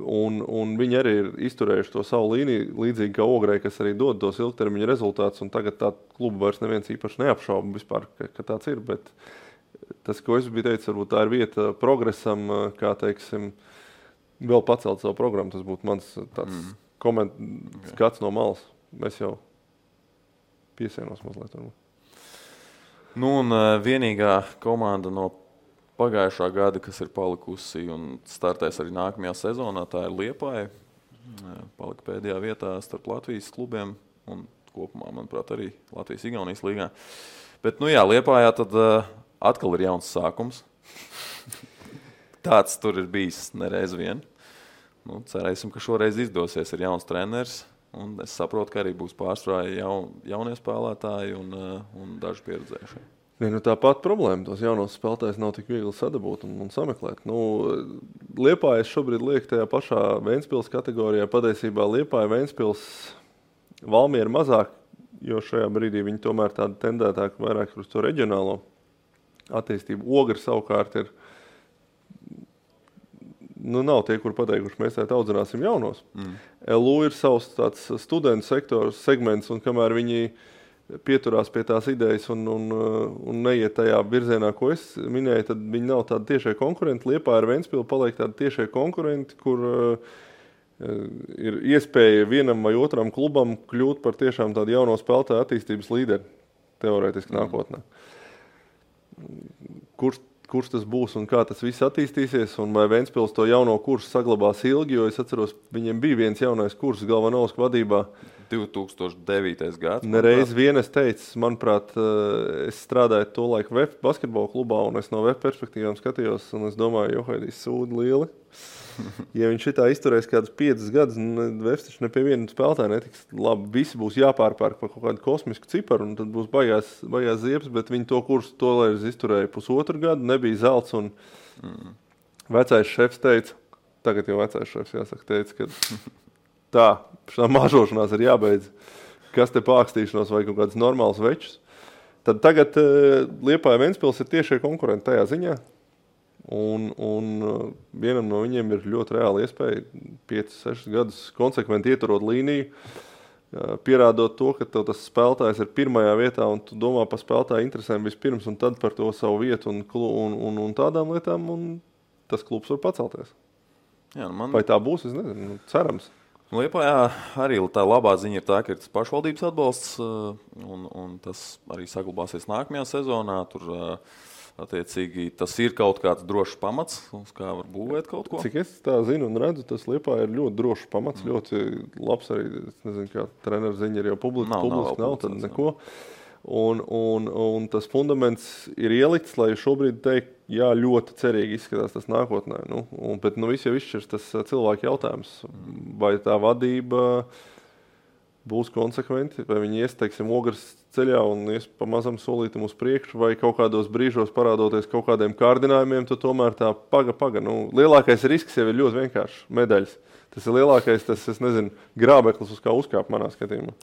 Speaker 2: Un viņi arī ir izturējuši to savu līniju, līdzīgi kā Ogrei, kas arī dod tos ilgtermiņa rezultātus, un tagad tā klubu vairs neviens īpaši neapšauba vispār, ka tāds ir, bet tas, ko es biju teicis, varbūt tā ir vieta progresam, kā, teiksim, vēl pacelt savu programmu, tas būtu mans tāds skats no malas. Mēs jau piesienos mazliet.
Speaker 1: Un vienīgā komanda no pagājušā gada, kas ir palikusi un startēs arī nākamajā sezonā, tā ir Liepāja. Palika pēdējā vietā starp Latvijas klubiem un kopumā, manuprāt, arī Latvijas-Igaunijas līgā. Bet, Liepājā tad atkal ir jauns sākums. Tāds tur ir bijis nereiz vien. Cerēsim, ka šoreiz izdosies, ir jauns treneris. Un es saprotu, ka arī būs pārsvarā jaunie spēlētāji un daži pieredzējušie.
Speaker 2: Tā pati problēma. Tos jaunos spēlētājus nav tik viegli sadabūt un sameklēt. Liepāja šobrīd liek tajā pašā Ventspils kategorijā. Patiesībā Liepāja, Ventspils, Valmiera mazāk, jo šajā brīdī viņi tomēr tāda tendētāk vairāk uz to reģionālo attīstību. Ogri savukārt ir nav tie, kur pateikuši, mēs audzināsim jaunos. LU ir savs tāds studentu sektors, segments, un kamēr viņi pieturās pie tās idejas un neiet tajā virzienā, ko es minēju, tad viņi nav tādi tiešie konkurenti. Liepāja ar Ventspilu paliek tādi tiešie konkurenti, kur ir iespēja vienam vai otram klubam kļūt par tiešām tādu jauno spēlētāju attīstības līderi, teorētiski nākotnē. kurš tas būs un kā tas viss attīstīsies, un vai Ventspils to jauno kursu saglabās ilgi, jo es atceros, viņiem bija viens jaunais kurs Galvanovska vadībā.
Speaker 1: 2009. gads.
Speaker 2: Nereiz vien es teicu, manuprāt, es strādāju to laiku VF basketbola klubā, un es no VF perspektīvām skatījos, un es domāju, Johaidīs sūdi lieli. Ja viņš šitā izturēs kādus 5 gadus, VF taču ne pie viena spēlētāja netiks labi, visi būs jāpārpērk par kaut kādu kosmisku ciparu, un tad būs baigās ziepes, bet viņi to kursu tolēļ izturēja 1,5 gadu, nebija zelts, un vecais šefs teica, tagad jau vecais šefs jāsaka, teica, ka tā, šā mažošanās ir jābeidz, kas te pākstīšanos vai kaut kāds normāls večus. Tad tagad Liepāja Ventspils ir tiešie konkurenti tajā ziņā, un vienam no viņiem ir ļoti reāla iespēja 5-6 gadus konsekventi ieturot līniju, pierādot to, ka tev tas spēlētājs ir pirmajā vietā, un tu domā par spēlētāju interesēm vispirms, un tad par to savu vietu un tādām lietām, un tas klubs var pacelties.
Speaker 1: Jā,
Speaker 2: Vai tā būs, es nezinu, cerams.
Speaker 1: Liepājā arī tā labā ziņa ir tā, ka ir tas pašvaldības atbalsts, un tas arī saglabāsies nākamajā sezonā. Tur attiecīgi tas ir kaut kāds drošs pamats, uz kā var būvēt kaut ko.
Speaker 2: Cik es tā zinu un redzu, tas Liepājā ir ļoti drošs pamats, ļoti labs arī, es nezinu, kā treneru ziņa ir jau publiski nav tad neko. Un tas fundaments ir ielikts, lai šobrīd teikt, jā, ļoti cerīgi izskatās tas nākotnē. Bet viss jau izšķirs tas cilvēku jautājums, vai tā vadība būs konsekventi, vai viņi ies, teiksim, ogres ceļā un ies pa mazam solītam uz priekšu, vai kaut kādos brīžos parādoties kaut kādiem kārdinājumiem, tad tomēr tā paga. Lielākais risks jau ir ļoti vienkārši medaļas. Tas ir lielākais, es nezinu, grābeklis, uz kā uzkāp manā skatījumā.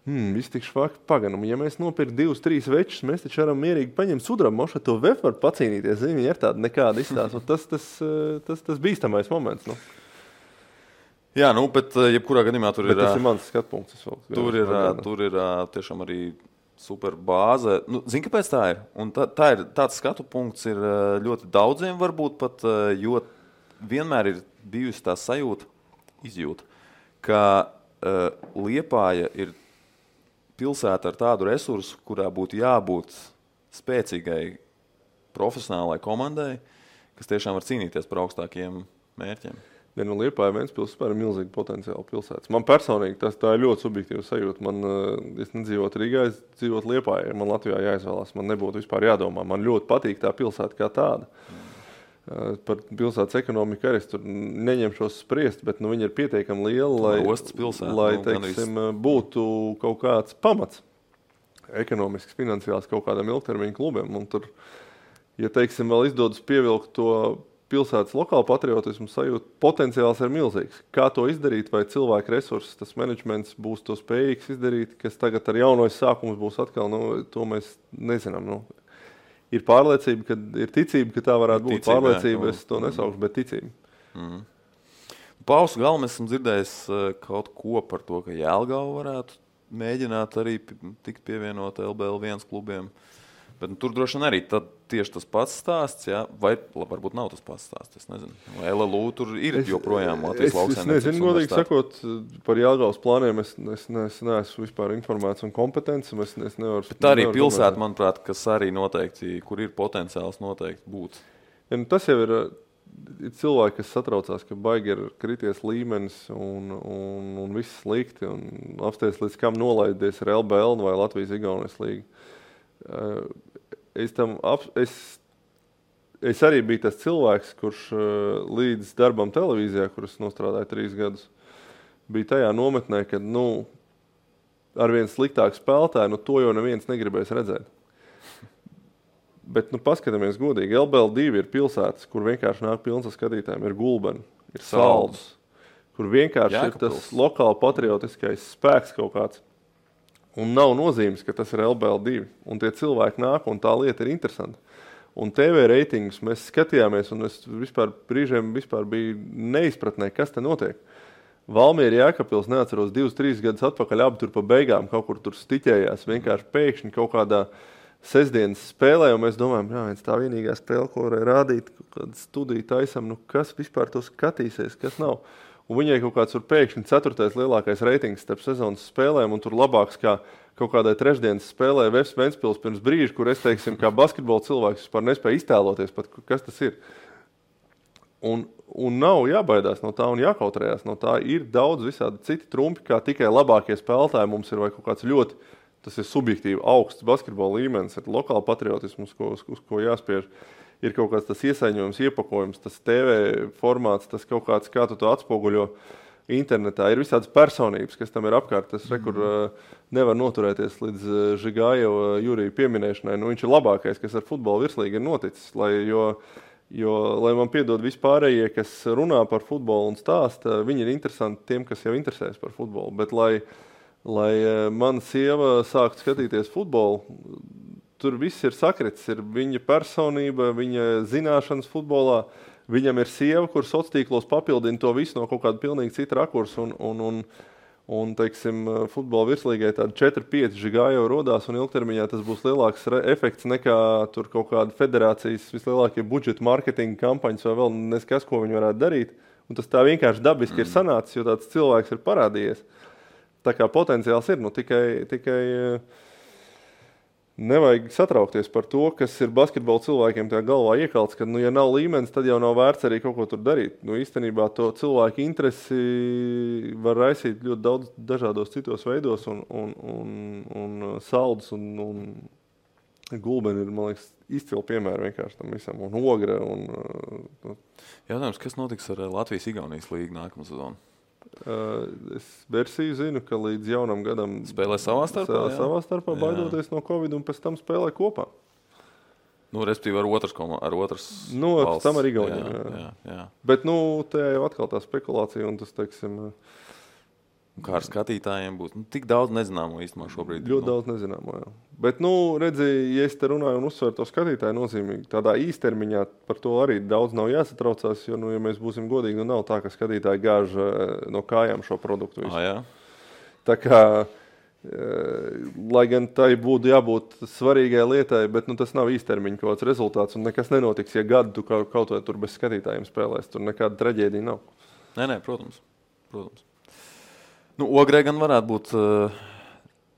Speaker 2: Viss tik švaki paganam. Ja mēs nopirkt 2-3 večus, mēs taču varam mierīgi paņemt sudrabu mošu, to VF var pacīnīties. Viņi ir tāda nekāda izstāsta. Tas bīstamais moments.
Speaker 1: Jā, bet jebkurā gadījumā tur ir...
Speaker 2: Tas ir mans skatpunkts.
Speaker 1: Tur ir tiešām arī super bāze. Zini, kāpēc tā ir? Un tā ir tāds skatu punkts ir ļoti daudziem varbūt pat, jo vienmēr ir bijusi tā izjūta, ka Liepāja ir pilsēta ar tādu resursu, kurā būtu jābūt spēcīgai profesionālai komandai, kas tiešām var cīnīties par augstākiem mērķiem.
Speaker 2: Liepāja Ventspils ir milzīgi potenciāli pilsētas. Man personīgi tā ir ļoti subjektīva sajūta. Es nedzīvotu Rīgā, es dzīvotu Liepājā. Man Latvijā jāizvēlās, man nebūtu vispār jādomā. Man ļoti patīk tā pilsēta kā tāda. Par pilsētas ekonomiku arī es tur neņemšos spriest, bet viņa ir pietiekami liela, lai teiksim, būtu kaut kāds pamats ekonomisks, finansiāls kaut kādam ilgtermiņa klubiem. Un tur, ja teiksim, vēl izdodas pievilkt to pilsētas lokālu patriotismu sajūtu, potenciāls ir milzīgs. Kā to izdarīt, vai cilvēku resursus, tas menedžments būs to spējīgs izdarīt, kas tagad ar jaunojas sākums būs atkal, to mēs nezinām. Ir pārliecība, ir ticība, ka tā varētu būt. Pārliecība, es to nesaukšu, bet ticība.
Speaker 1: Pausu galu mēs esam dzirdējis kaut ko par to, ka Jelgava varētu mēģināt arī tikt pievienot LBL1 klubiem. Bet tur droši vien arī tieši tas pats stāsts, jā? Vai varbūt nav tas pats stāsts, es nezinu. Vai LLU tur ir joprojām Latvijas lauksaimniecības
Speaker 2: Es nezinu, godīgi sakot, par Jelgavas plāniem es neesmu vispār informēts un kompetents.
Speaker 1: Bet arī pilsēta, manuprāt, kas arī noteikti, kur ir potenciāls noteikti būt.
Speaker 2: Ja, tas jau ir cilvēki, kas satraucās, ka baigi ir krities līmenis un viss slikti un apsties līdz kam nolaidies ar LBL vai Latvijas-Igaunijas līgu. Es arī biju tas cilvēks, kurš līdz darbam televīzijā, kuras nostrādāja 3 gadus, bija tajā nometnē, kad arvien sliktāk spēlētāji, to jau neviens negribēs redzēt. Bet paskatāmies godīgi, LBL2 ir pilsētas, kur vienkārši nāk pilns ar skatītājiem, ir Gulbeni, ir Saldus, kur vienkārši ir tas lokāli patriotiskais spēks kaut kāds. Un nav nozīmes, ka tas ir LBL2. Un tie cilvēki nāk, un tā lieta ir interesanta. Un TV reitingus mēs skatījāmies, un es brīžiem biju neizpratnē, kas te notiek. Valmiera Jēkabpils, neatceros, 2-3 gadus atpakaļ, abi tur pa beigām kaut kur tur stiķējās. Vienkārši pēkšņi kaut kādā sestdienas spēlē, un mēs domājam, viens tā vienīgā spēle, ko varēja rādīt, kaut kāda studija taisam, kas vispār to skatīsies, kas nav. un viņai kaut kāds pēkšņi 4. lielākais reitings starp sezonas spēlēm, un tur labāks kā kaut kādai trešdienas spēlē Vefs Ventspils pirms brīža, kur es, teiksim, kā basketbola cilvēks vispār nespēju iztēloties pat, kas tas ir. Un nav jābaidās no tā un jākautrējās no tā. Ir daudz visādi citi trumpi, kā tikai labākie spēlētāji mums ir vai kaut kāds ļoti, tas ir subjektīvi augsts basketbola līmenis, ir lokāla patriotisms, uz ko jāspiež. Ir kaut kāds tas iesaņojums, iepakojums, tas TV formāts, tas kaut kāds, kā tu to atspoguļo internetā. Ir visādas personības, kas tam ir apkārt. Tas rekur nevar noturēties līdz Žigājeva Jurija pieminēšanai. Nu, viņš ir labākais, kas ar futbolu virslīgi ir noticis. Lai man piedod vispārējie, kas runā par futbolu un stāsta, viņi ir interesanti tiem, kas jau interesēs par futbolu. Bet lai mana sieva sāktu skatīties futbolu, tur viss ir sakritis, ir viņa personība, viņa zināšanas futbolā. Viņam ir sieva, kur sociālos tīklos papildina to visu no kaut kāda pilnīgi cita rakursa. Un teiksim, futbola virslīgai tādi 4-5 Žigājeva rodās, un ilgtermiņā tas būs lielāks efekts nekā tur kaut kāda federācijas vislielākie budžeta marketinga kampaņas vai vēl neskas, ko viņi varētu darīt. Un tas tā vienkārši dabiski ir sanācis, jo tāds cilvēks ir parādījies. Tā kā potenciāls ir, nu tikai nevajag satraukties par to, kas ir basketbola cilvēkiem tajā galvā iekalts, ka, ja nav līmenis, tad jau nav vērts arī kaut ko tur darīt. Īstenībā to cilvēku interesi var raisīt ļoti daudz dažādos citos veidos, un Saldus un Gulbeni ir, man liekas, izcili piemēri vienkārši tam visam, un Ogra.
Speaker 1: Jautājums, kas notiks ar Latvijas-Igaunijas līgu nākamā sezonu?
Speaker 2: Es versiju zinu, ka līdz jaunam gadam
Speaker 1: spēlē savā starpā,
Speaker 2: baidoties no Covid, un pēc tam spēlē kopā.
Speaker 1: Nu, respektīvi ar otras valsts.
Speaker 2: Pēc tam ar Igauniem.
Speaker 1: Jā.
Speaker 2: Bet, tajā jau atkal tā spekulācija, un tas, teiksim...
Speaker 1: Kā ar skatītājiem būs? Tik daudz nezināmo īstenībā šobrīd.
Speaker 2: Ļoti daudz nezināmo, jā. Bet, redzi, ja es te runāju un uzsveru to skatītāju nozīmīgi, tādā īstermiņā par to arī daudz nav jāsatraucās, jo, ja mēs būsim godīgi, nav tā, ka skatītāji gāž no kājām šo produktu visu.
Speaker 1: Jā.
Speaker 2: Tā kā, lai gan tai būtu jābūt svarīgai lietai, bet tas nav īstermiņa kaut kāds rezultāts, un nekas nenotiks, ja gadu tu kaut vai tur bez skatītājiem spēlēs. Tur nekāda traģēdija nav.
Speaker 1: Nē, protams. Ogrē gan varētu būt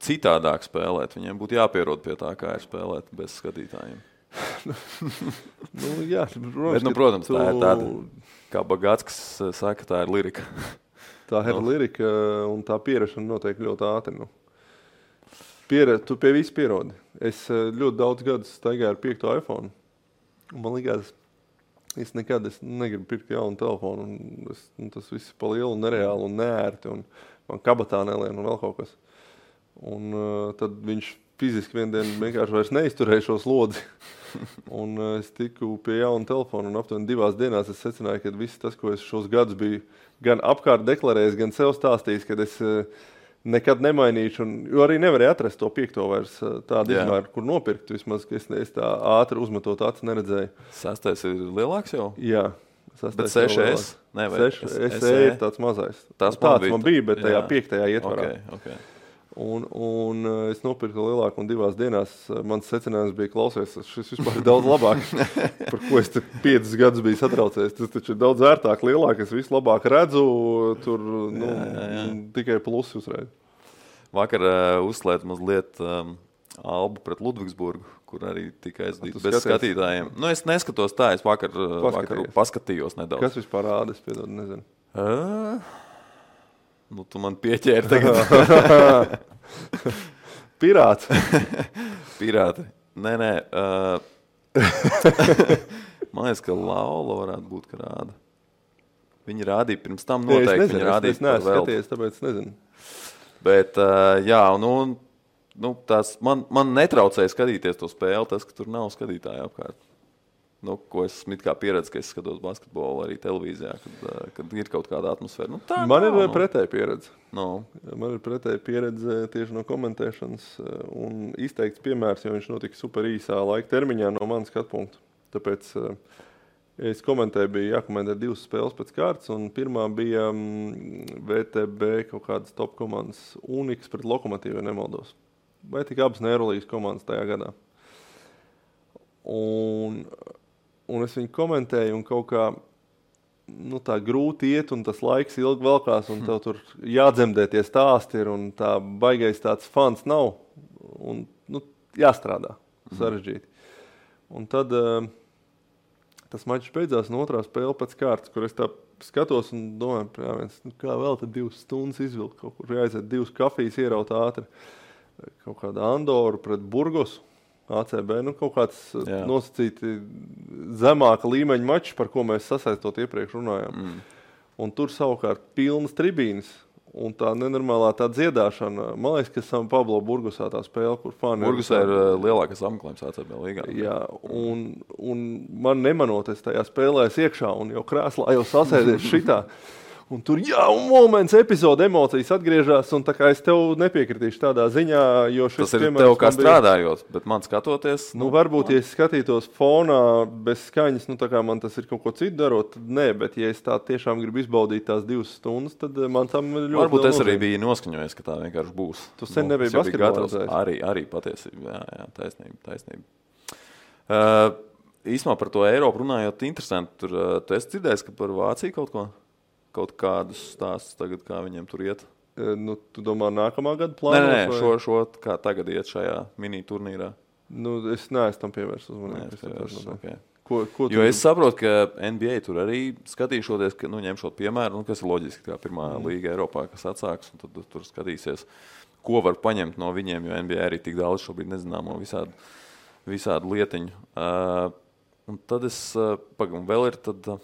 Speaker 1: citādāk spēlēt. Viņiem būtu jāpierod pie tā, kā ir spēlēt bez skatītājiem.
Speaker 2: Jā,
Speaker 1: protams, tā ir tāda, kā Bagātskis saka, tā ir lirika.
Speaker 2: Tā ir lirika, un tā pierašana notiek ļoti ātri. Tu pie visu pierodi. Es ļoti daudz gadus staigāju ar 5. iPhone. Un man likās, es negribu pirkt jaunu telefonu. Tas viss ir pa lielu un nereāli un neērti. Un man kabatā nelien un vēl kaut kas. Un tad viņš fiziski vien dienu vienkārši vairs neizturēja šo slodzi. Un es tiku pie jauna telefona un aptuveni 2 dienās es secināju, ka viss tas, ko es šos gadus biju gan apkārt deklarējis, gan sev stāstījis, kad es nekad nemainīšu, jo arī nevarēju atrast to 5. vairs tādu izmēru, kur nopirkt. Vismaz, ka es tā ātri uzmetot acis neredzēju.
Speaker 1: 6. ir lielāks jau?
Speaker 2: Jā.
Speaker 1: Bet 6S? Nē,
Speaker 2: 6SE ir tāds mazais.
Speaker 1: Tāds
Speaker 2: man bija, bet tajā 5. ietvarā.
Speaker 1: Okay.
Speaker 2: Un es nopirku lielāku un 2 dienās mans secinājums bija klausies, šis vispār ir daudz labāk, par ko es 5 gadus biju satraucies. Tas taču ir daudz vērtāk, lielāk, es visu labāk redzu, tur tikai plusi uzreiz.
Speaker 1: Vakar uzslēdz mazliet Albu pret Ludvigsburgu, kur arī tika aizdīts bez skatītājiem. Es neskatos tā, es vakar paskatījos nedaudz.
Speaker 2: Kas vispār rāda, es piedod, nezinu.
Speaker 1: Tu man pieķēri tagad.
Speaker 2: Pirāts.
Speaker 1: Pirāti. Nē. Man liekas, ka Laula varētu būt, ka rāda. Viņi rādīja pirms tam noteikti.
Speaker 2: Es nezinu, es neesmu skatījies, tāpēc nezinu.
Speaker 1: Bet, man netraucēja skatīties to spēli, tas, ka tur nav skatītāju apkārt. Ko es esmu kā pieredzi, ka es skatos basketbolu arī televīzijā, kad ir kaut kāda atmosfēra.
Speaker 2: Man ir pretēja pieredze.
Speaker 1: Man
Speaker 2: ir pretēja pieredze tieši no komentēšanas un izteikts piemērs, jo viņš notika super īsā laika termiņā no manas skatpunkta. Tāpēc es komentēju, bija jākomentē 2 spēles pēc kārtas, un pirmā bija VTB kaut kādas top komandas Uniks pret Lokomotīvu, ja nemaldos. Vai tik abas Eirolīgas komandas tajā gadā. Un es viņu komentēju, un kaut kā tā grūti iet, un tas laiks ilgi velkās, un tev tur jādzemdē tie stāsti ir, un tā baigais tāds fans nav, un jāstrādā sarežģīti. Un tad tas mačs beidzās, un otrā spēle pēc kārtas, kur es tā skatos un domāju, kā vēl tad 2 stundas izvilkt, kaut kur jāaiziet 2 kafijas ieraut ātri, kaut kāda Andoru pret Burgosu. ACB, kaut kāds nosacīti zemāka līmeņa mačs, par ko mēs sasaistot iepriekš runājām. Un tur savukārt pilnas tribīnes un tā nenormālā tā dziedāšana. Man liekas, ka San Pablo Burgosā tā spēle, kur fani...
Speaker 1: Burgosā ir lielākais apmeklējums ACB līgā.
Speaker 2: Jā, un man nemanoties tajā spēlēs iekšā un jau krēslā jau sasēdies šitā. Un tur, un moments, epizode, emocijas atgriežas, un tā kā es tev nepiekritīšu tādā ziņā, jo šis
Speaker 1: tas ir tev kā strādājot, bet man skatoties...
Speaker 2: varbūt, ja es skatītos fonā bez skaņas, tā kā man tas ir kaut ko citu darot, tad nē, bet ja es tā tiešām gribu izbaudīt tās 2 stundas, tad man tam ļoti
Speaker 1: varbūt es arī biju noskaņojies, ka tā vienkārši būs.
Speaker 2: Tu sen nebija basketbolā.
Speaker 1: Arī patiesībā, jā, taisnība. Īsumā par to Eiropu runājot, interesanti, tur tu esi dzirdējis, ka par Vāciju kaut kādus stāstus tagad, kā viņiem tur iet?
Speaker 2: Tu domā nākamā gada plānos?
Speaker 1: Nē, šo kā tagad iet šajā mini turnīrā.
Speaker 2: Es neesmu tam pievērst uzmanību.
Speaker 1: Okay. Jo es saprotu, ka NBA tur arī skatīšoties, ka ņemšot piemēru, kas ir loģiski, kā pirmā līga Eiropā, kas atsāks, un tad tur skatīsies, ko var paņemt no viņiem, jo NBA arī tik daudz šobrīd nezināmo visādu lietiņu. Un tad vēl ir tad...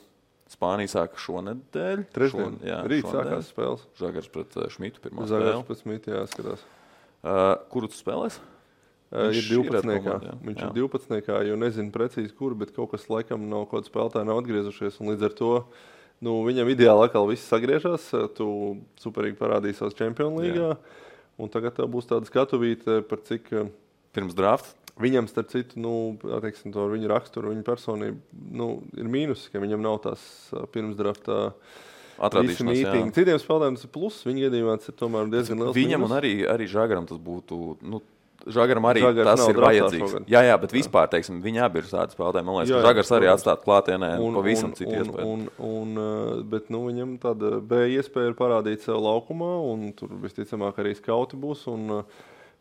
Speaker 1: Spānija sāka šonedēļ.
Speaker 2: Trešdien. Rīt sākās spēles.
Speaker 1: Žagars pret Šmitu pirmā
Speaker 2: spēle. Žagars pret Šmitu, jāskatās.
Speaker 1: Kuru tu spēlēs?
Speaker 2: Ir 12. Viņš ir 12. Jo nezinu precīzi kur, bet kaut kas laikam kaut kāda spēlētāja nav atgriezušies. Un līdz ar to viņam ideāli atkal viss sagriežas. Tu superīgi parādīji savas Champions līgā. Un tagad tev būs tāda skatuvīte par cik...
Speaker 1: Pirms drafta?
Speaker 2: Viņam, starp citu, attieksim to ar viņu raksturu, viņu personību, ir mīnus, ka viņam nav tās pirms draftā visi mītingi. Citiem spēlētājiem tas ir plus, viņa gadījumā tas ir tomēr diezgan liels
Speaker 1: viņam
Speaker 2: mīnus.
Speaker 1: Un arī Žagaram tas būtu, Žagaram arī tas ir vajadzīgs. Jā, bet vispār, teiksim, viņi abi ir tādi spēlētāji. Man liekas, ka Žagars arī atstāt klātienē pavisam citu iespēju.
Speaker 2: Bet viņam tāda B iespēja ir parādīt sev laukumā, un tur visticamāk arī skauti būs, un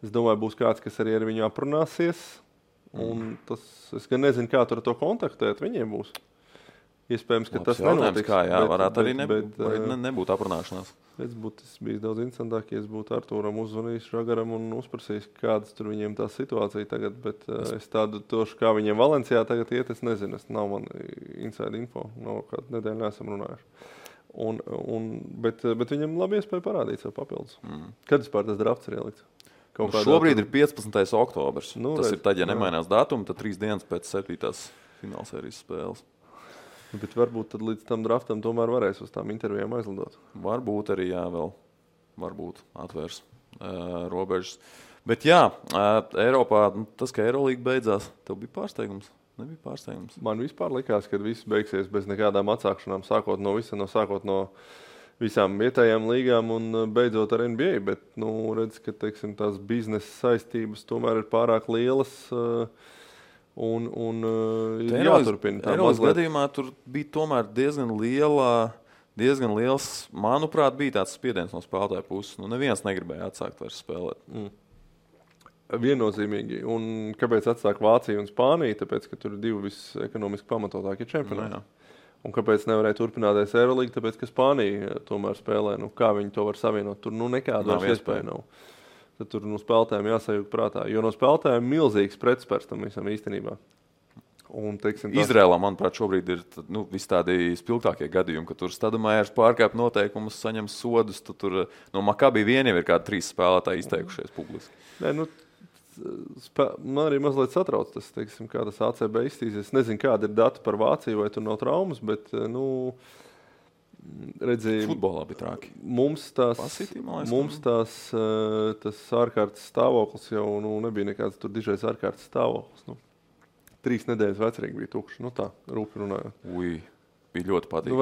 Speaker 2: es domāju, būs kāds, kas arī ar viņu aprunāsies, un es gan nezinu, kā tur to kontaktēt, viņiem būs. Iespējams, ka tas nenotiks.
Speaker 1: Varētu arī nebūt aprunāšanās.
Speaker 2: Tas bija daudz interesantāk, ja es būtu Artūram uzvanījis Žagaram un uzprasījis, kādas tur viņiem tā situācija tagad, bet es tādu tošu, kā viņiem Valencijā tagad iet, es nezinu, nav man inside info, nav kādu nedēļu neesam runājuši. Bet viņam labi iespēja parādīt sev papildus. Kad vispār tas drafts ir ielikts?
Speaker 1: Šobrīd ir 15. oktobrs. Tas ir tad, ja nemainās datumi, tad 3 dienas pēc 7. finālsērijas spēles.
Speaker 2: Bet varbūt tad līdz tam draftam tomēr varēs uz tām intervijām aizlidot.
Speaker 1: Varbūt arī, vēl. Varbūt atvērs robežas. Bet Eiropā, tas, ka Eirolīga beidzās, tev bija pārsteigums? Nebija pārsteigums?
Speaker 2: Man vispār likās, ka viss beigsies bez nekādām atsākšanām, sākot no visām vietējām līgām un beidzot ar NBA, bet, redz, ka, teiksim, tās biznesa saistības tomēr ir pārāk lielas un ir jāturpina.
Speaker 1: Eiropas gadījumā tur bija tomēr diezgan liels, manuprāt, bija tāds spiediens no spēlētāja puses. Neviens negribēja atsākt vairs spēlēt.
Speaker 2: Viennozīmīgi. Un kāpēc atsāk Vācija un Spānija? Tāpēc, ka tur ir 2 visekonomiski pamatotākie čempionāti. Un kāpēc nevarēja turpināties Eirolīga? Tāpēc, ka Spānija tomēr spēlē. Kā viņi to var savienot? Tur nekāda iespēja nav. Tad tur spēlētājiem jāsajūt prātā. Jo no spēlētājiem milzīgs pretspērs tam visam īstenībā. Un, teiksim,
Speaker 1: Izrēlā, manuprāt, šobrīd ir visi tādi spilgtākie gadījumi, ka tur Stadamājers pārkāp noteikumus, saņem sodus. Tur no Makabi vien jau ir kādi 3 spēlētāji izteikušies publiski.
Speaker 2: Man arī mazliet satrauc tas, teiksim, kā tas ACB iztīsies. Es nezinu, kāda ir data par Vāciju, vai tur nav traumas, bet, redzēju...
Speaker 1: Futbolā bija trāki.
Speaker 2: Mums tas ārkārtas stāvoklis jau nebija nekāds tur dižais ārkārtas stāvoklis. 3 nedēļas vecrīgi bija tukši. Tā, rūpi runājot.
Speaker 1: Bija ļoti patīkami.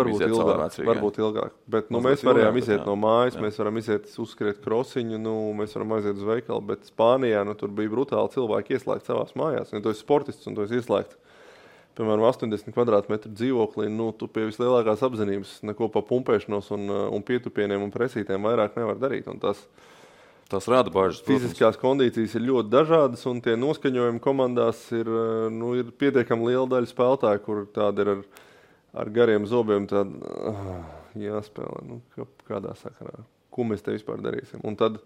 Speaker 2: Varbūt ilgāk. Bet mēs varējām iziet no mājas, mēs varam iziet uzskriet krosiņu, mēs varam aiziet uz veikalu, bet Spānijā tur bija brutāli cilvēki ieslēgt savās mājās. Ja tu esi sportists un tu esi ieslēgts piemēram, 80 kvadrātmetru dzīvoklī, tu pie vislielākās apzinības neko pa pumpēšanos un pietupieniem un presītēm vairāk nevar darīt. Un
Speaker 1: tas rada bažas.
Speaker 2: Fiziskās kondīcijas ir ļoti dažādas, un tie noskaņojumi komandās ir pietiekami liela daļa spēlētāju, kur tādi ir ar gariem zobiem jāspēlē. Kādā sakarā? Ko mēs te vispār darīsim? Un tad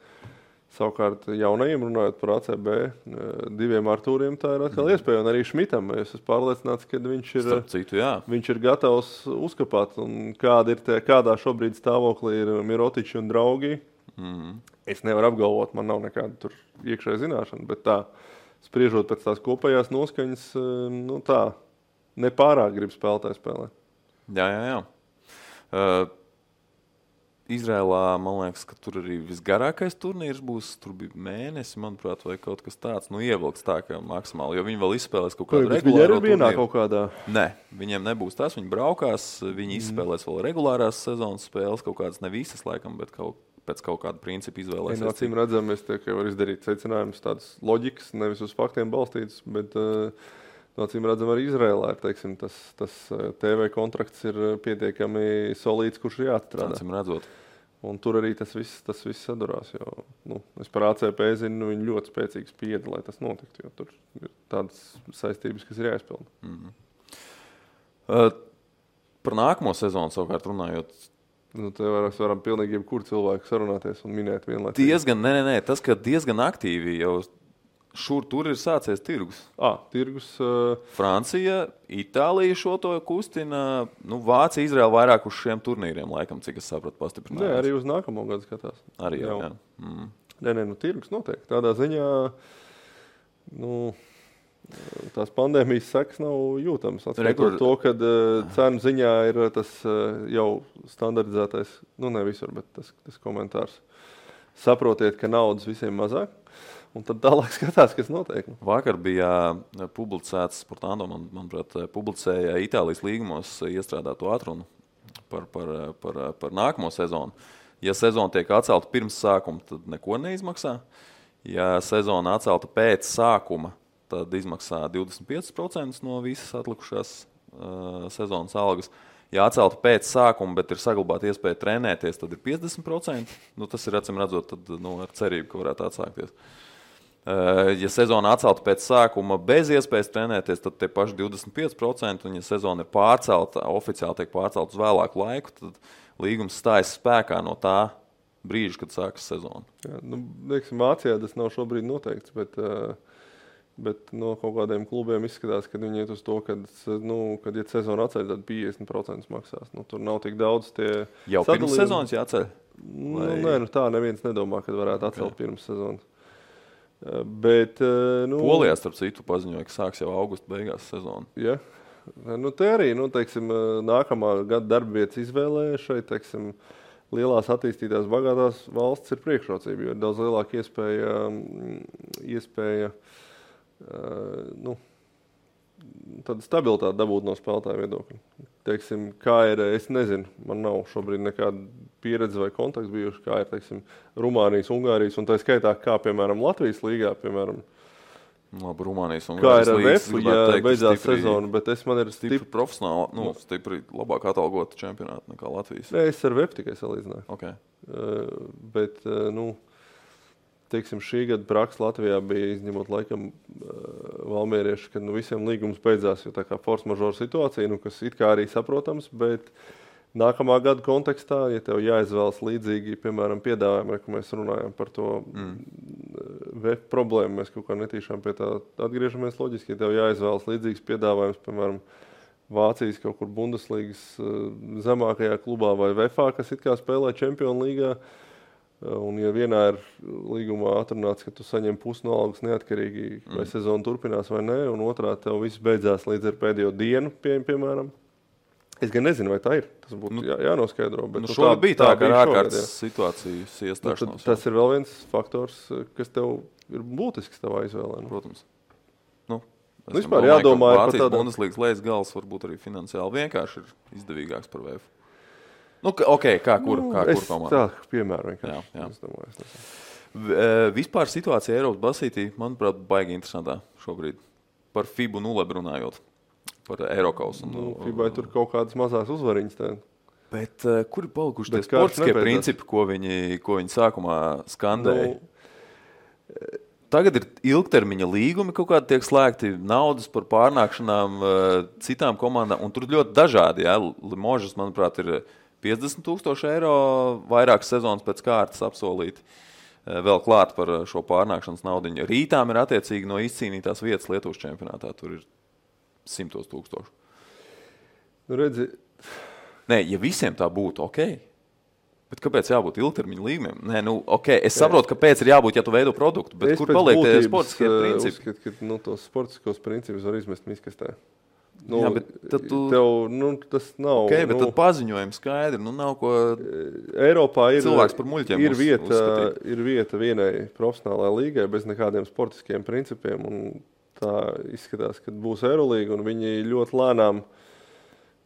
Speaker 2: savukārt jaunajiem, runājot par ACB, 2 Artūriem, tā ir atkal iespēja. Un arī Šmitam, es esmu pārliecināts, ka viņš ir gatavs uzkapāt. Un kādā šobrīd stāvoklī ir Mirotiči un draugi. Es nevaru apgalvot, man nav nekāda tur iekšēja zināšana, bet tā, spriežot pēc tās kopējās noskaņas, tā, nepārāk grib spēlētāji spēlēt.
Speaker 1: Jā. Izrēlā, man liekas, ka tur arī visgarākais turnīrs būs. Tur bija mēnesi, manuprāt, vai kaut kas tāds. Ievilks tā, ka maksimāli, jo viņi vēl izspēlēs kaut kādu regulāro turnīru.
Speaker 2: Kaut kādā?
Speaker 1: Nē, viņiem nebūs tas. Viņi braukās, viņi izspēlēs vēl regulārās sezonas spēles, kaut kādas ne visas, laikam, bet pēc kaut kāda principa izvēlēsies.
Speaker 2: Acīm redzam, es tikai varu izdarīt secinājumus tādas loģikas, nevis uz faktiem balstītas, bet acīm redzam arī Izrēlā ir, teiksim, tas TV kontrakts ir pietiekami solīts, kurš ir jāatstrādā.
Speaker 1: Acīm redzot.
Speaker 2: Un tur arī tas viss sadurās, jo es par ACP zinu, viņi ļoti spēcīgi spieda, lai tas notiktu, jo tur ir tādas saistības, kas ir jāizpilda.
Speaker 1: Par nākamo sezonu savukārt runājot,
Speaker 2: te varam pilnīgi jebkur cilvēku sarunāties un minēt vienlaicīgi.
Speaker 1: Tas, ka diezgan aktīvi jau tur ir sācies tirgus.
Speaker 2: Tirgus.
Speaker 1: Francija, Itālija šo to kustina. Vācija, Izraela vairāk uz šiem turnīriem, laikam, cik es sapratu, pastiprinājās.
Speaker 2: Nē, arī uz nākamo gadu skatās.
Speaker 1: Arī jau.
Speaker 2: Nē, tirgus noteikti. Tādā ziņā, tās pandēmijas sekas nav jūtamas. Atskaitot to, kad cenu ziņā ir tas jau standardizētais, ne visur, bet tas komentārs. Saprotiet, ka naudas visiem mazāk. Un tad tālāk skatās, kas notiek.
Speaker 1: Vakar bija publicēts, Sportando, manuprāt, publicēja Itālijas līgumos iestrādāto atrunu par nākamo sezonu. Ja sezona tiek atcelta pirms sākuma, tad neko neizmaksā. Ja sezona atcelta pēc sākuma, tad izmaksā 25% no visas atlikušās sezonas algas. Ja atcelta pēc sākuma, bet ir saglabāta iespēja trenēties, tad ir 50%. Tas ir, acīm redzot, tad, ar cerību, ka varētu atsākties. Ja sezona atcelta pēc sākuma bez iespējas trenēties, tad tie paši 25%, un ja sezona ir pārcelta, oficiāli tiek pārcelta uz vēlāku laiku, tad līgums stājas spēkā no tā brīža, kad sākas sezona.
Speaker 2: Jā, Vācijā tas nav šobrīd noteikts, bet no kaut kādiem klubiem izskatās, ka viņi iet uz to, kad ja sezona atceļ, tad 50% maksās. Tur nav tik daudz tie
Speaker 1: jau pirms sezonas jāceļ?
Speaker 2: Nē, tā neviens nedomā, kad varētu atcelt pirms sezonas. Bet,
Speaker 1: Polijā, starp citu, paziņoja, ka sāks jau augusta beigās sezonu.
Speaker 2: Ja? Te arī, teiksim, nākamā gada darbvietas izvēlē šeit, teiksim, lielās attīstītās bagātās valsts ir priekšrocība, jo ir daudz lielāka iespēja tāda stabilitāte dabūt no spēlētāju viedokļa. Teiksim, kā ir, es nezinu, man nav šobrīd nekāda pieredze vai kontakts bijuši, kā ir, teiksim, Rumānijas, Ungārijas, un tā skaitā, kā, piemēram, Latvijas līgā, piemēram.
Speaker 1: Rumānijas,
Speaker 2: Ungārijas kā ir ar VEF, ja beidzās sezonu, bet man ir
Speaker 1: stipri profesionāli, stipri labāk atalgota čempionāta nekā Latvijas.
Speaker 2: Nē, es ar VEF tikai salīdzināju.
Speaker 1: Okay.
Speaker 2: Bet, teiksim, šī gada praksa Latvijā bija izņemot laikam valmierieši, kad visiem līgums beidzās, jo tā kā force majeure situācija, kas it kā arī saprotams, bet nākamā gada kontekstā, ja tev jāizvēlas līdzīgi, piemēram, piedāvājumi, ka mēs runājam par to VEF problēmu, mēs kaut kā netīšām pie tā atgriežamies loģiski, ja tev jāizvēlas līdzīgs piedāvājums, piemēram, Vācijas kaut kur Bundeslīgas zemākajā klubā vai VEFā, kas it kā spēlē Čempionu līgā, un ja vienā ir līgumā atrunāts, ka tu saņem pusi no algas neatkarīgi, vai sezona turpinās vai nē, un otrā tev viss beidzās līdz ar pēdējo dienu, piemēram. Es gan nezinu, vai tā ir. Tas būtu jānoskaidro. Bet
Speaker 1: šobrīd bija tā, ka ar ārkārtas situācijas iestāšanos.
Speaker 2: Tas ir vēl viens faktors, kas tev ir būtisks tavā izvēlē.
Speaker 1: Protams.
Speaker 2: Vispār jādomā par
Speaker 1: tādu. Vācijas Bundeslīgas lejas gals varbūt arī finansiāli vienkārši ir izdevīgāks par VF. Kā kur komanda?
Speaker 2: Tā, piemēram, vienkārši.
Speaker 1: Jā.
Speaker 2: Es domāju,
Speaker 1: vispār situācija Eiropas basītī, manuprāt, baigi interesantā šobrīd. Par FIBU 0 runājot. par Eirokausu.
Speaker 2: FIBA tur kaut kādas mazās uzvariņas.
Speaker 1: Bet kur ir palikuši tie sportiskie principi, ko viņi sākumā skandēja? Tagad ir ilgtermiņa līgumi, kaut kādi tiek slēgti, naudas par pārnākšanām citām komandām, un tur ļoti dažādi. Ja? Limožas, manuprāt, ir 50,000 eiro vairākas sezonas pēc kārtas apsolīti. Vēl klāt par šo pārnākšanas naudiņu. Rītām ir attiecīgi no izcīnītās vietas Lietuvas čempionātā. Tur ir 100,000.
Speaker 2: Redzi.
Speaker 1: Nē, ja visiem tā būtu, ok. Bet kāpēc jābūt ilgtermiņa līgumiem? Nē, ok, es saprotu, kāpēc ir jābūt, ja tu veido produktu, bet kur paliek tie sportiskie principi?
Speaker 2: Es uzskatu, ka tos sportiskos principus var izmest miskastē.
Speaker 1: Jā, bet tad
Speaker 2: tas nav.
Speaker 1: Ok, bet tad paziņojumi skaidri, nav ko
Speaker 2: Eiropā
Speaker 1: cilvēks par muļķiem
Speaker 2: ir vieta vienai profesionālajai līgai bez nekādiem sportiskiem principiem, un tā izskatās, ka būs Eirolīga, un viņi ļoti lēnām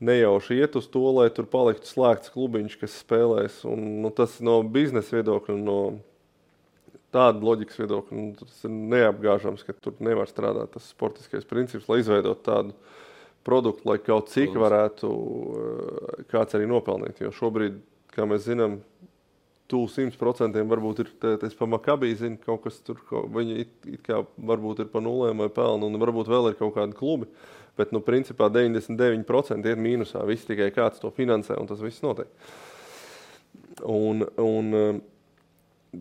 Speaker 2: nejauši iet uz to, lai tur paliktu slēgts klubiņš, kas spēlēs, un tas no biznesa viedokļa, no tāda loģikas viedokļa, tas ir neapgāžams, ka tur nevar strādāt tas sportiskais princips, lai izveidot tādu produktu, lai kaut cik varētu kāds arī nopelnīt. Jo šobrīd, kā mēs zinām, 100% varbūt ir, es pa Makabī zinu, kaut kas tur, viņi it kā varbūt ir pa nulēm vai pelnu, un varbūt vēl ir kaut kādi klubi, bet, principā 99% iet mīnusā, viss tikai kāds to finansē, un tas viss notiek. Un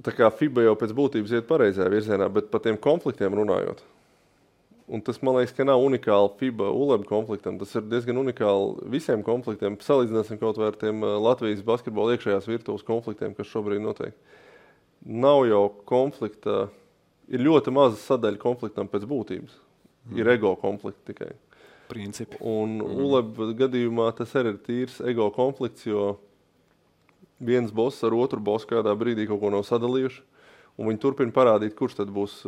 Speaker 2: tā kā FIBA jau pēc būtības iet pareizajā virzienā, bet par tiem konfliktiem runājot, un tas, man liekas, ka nav unikāli FIBA ULEB konfliktam. Tas ir diezgan unikāli visiem konfliktiem. Salīdzināsim kaut vai ar tiem Latvijas basketbola iekšējās virtuves konfliktiem, kas šobrīd notiek. Nav jau konflikta, ir ļoti maza sadaļa konfliktam pēc būtības. Ir ego konflikti tikai.
Speaker 1: Principi.
Speaker 2: Un ULEB gadījumā tas arī ir tīrs ego konflikts, jo viens boss ar otru bossu kādā brīdī kaut ko nav sadalījuši, un viņi turpina parādīt, kurš tad būs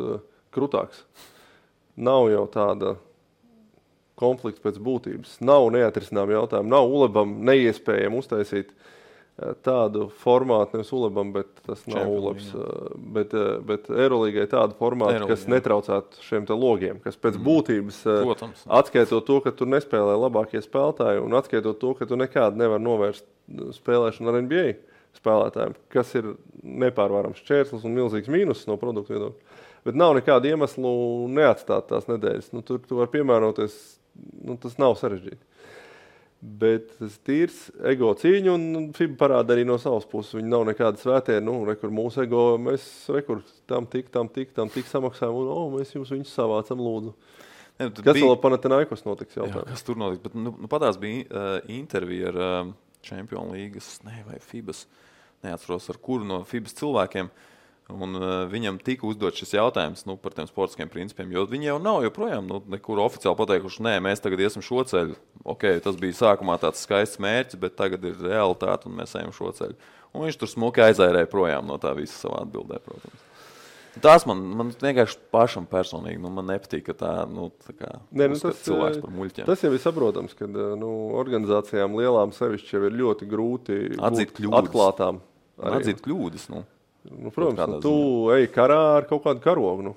Speaker 2: krutāks. Nav jau tāda konflikta pēc būtības. Nav neatrisinām jautājumu. Nav ULEBam neiespējami uztaisīt tādu formātu, nevis ULEBam, bet tas nav ULEBs. Bet Eirolīgai tādu formātu, kas netraucētu šiem te logiem, kas pēc būtības atskaitot to, ka tur nespēlē labākie spēlētāji, un atskaitot to, ka tu nekādu nevar novērst spēlēšanu ar NBA spēlētājiem, kas ir nepārvarams šķērslis un milzīgs mīnus no produktu viedokļa. Bet nav nekādu iemeslu neatstāt tās nedēļas. Tur tu var piemēroties, tas nav sarežģīti. Bet tas tīrs ego cīņa, un FIBA parāda arī no savas puses. Viņi nav nekāda svētie, rekur mūsu ego, mēs tam tik samaksājam, un mēs viņus savācam lūdzu. Kas vēl Panathinaikos notiks jautājums?
Speaker 1: Jā, kas tur notiks? Bet patās bija intervija ar Champions Līgas, vai FIBAs, neatceros ar kuru no FIBAs cilvēkiem. Un viņam tika uzdot šis jautājums par tiem sportiskiem principiem, jo viņi jau nav joprojām nekur oficiāli pateikuši, nē, mēs tagad iesim šo ceļu. Ok, tas bija sākumā tāds skaists mērķis, bet tagad ir realitāte un mēs ejam šo ceļu. Un viņš tur smuki aizairēja projām no tā visa savā atbildē, protams. Tās man vienkārši pašam personīgi, man nepatīk, ka tā uzskata cilvēks par muļķiem.
Speaker 2: Tas jau ir saprotams, ka organizācijām lielām sevišķi jau ir ļoti grūti
Speaker 1: atzīt kļūdas.
Speaker 2: Atklātām.
Speaker 1: Atzīt kļūdas,
Speaker 2: protams, tu ej karā ar kaut kādu karogu.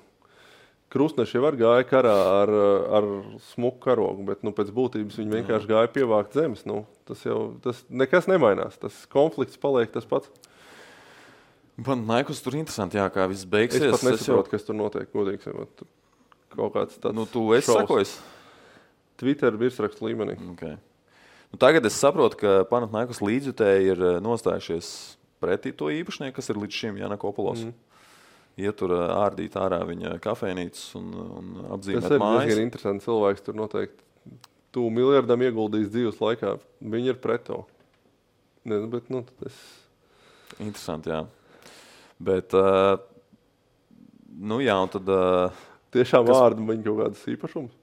Speaker 2: Krustneši jau gāja karā ar smuku karogu, bet pēc būtības viņi vienkārši gāja pievākt zemes. Tas nekas nemainās. Tas konflikts paliek tas pats.
Speaker 1: Panathinaikos tur interesanti, kā viss beigsies.
Speaker 2: Es pat nesaprotu, kas tur notiek, godīgi sakot. Kaut kāds tāds
Speaker 1: tu esi sakojis?
Speaker 2: Twitter virsrakstu līmenī.
Speaker 1: Okay. Tagad es saprotu, ka Panathinaikos līdzjutēji ir nostājušies pretī to īpašnieku, kas ir līdz šim Janakopulos. Ietur ārdīt ārā viņa kafejnīcas un apzīmēt mājas.
Speaker 2: Tas ir diezgan interesants cilvēks, tur noteikti tu miljardam ieguldījis dzīves laikā. Viņi ir pret to. Bet,
Speaker 1: Interesanti, jā. Bet, jā, un tad...
Speaker 2: Tiešām vārdu viņa kaut kādas īpašums?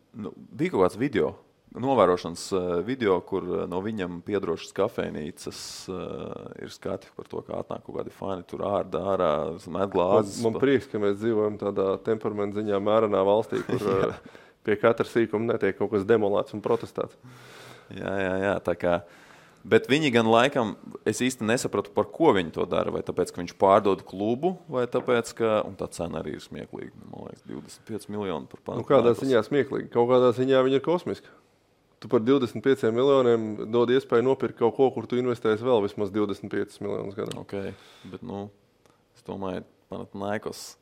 Speaker 1: Bija kaut kāds video. Novērošanas video, kur no viņam piedrošas kafejnīcas ir skati par to, kā atnāk kaut kādi fani, tur ārā, met glāzes.
Speaker 2: Man prieks, ka mēs dzīvojam tādā temperamenta ziņā mērenā valstī, kur pie katra sīkuma netiek kaut kas demolēts un protestēts.
Speaker 1: Jā, tā kā. Bet viņi gan laikam, es īsti nesapratu, par ko viņi to dara, vai tāpēc, ka viņš pārdod klubu, vai tāpēc, ka, un tā cena arī ir smieklīga, man liekas, 25 miljoni par Panathinaikos.
Speaker 2: Kādā ziņā smieklīga? Kaut kādā ziņā viņa ir kosmiska. tu par 25 miljoniem dod iespēju nopirkt kaut ko, kur tu investēsi vēl vismaz 25 miljonus gadā.
Speaker 1: Okay, bet, es domāju, Panathinaikos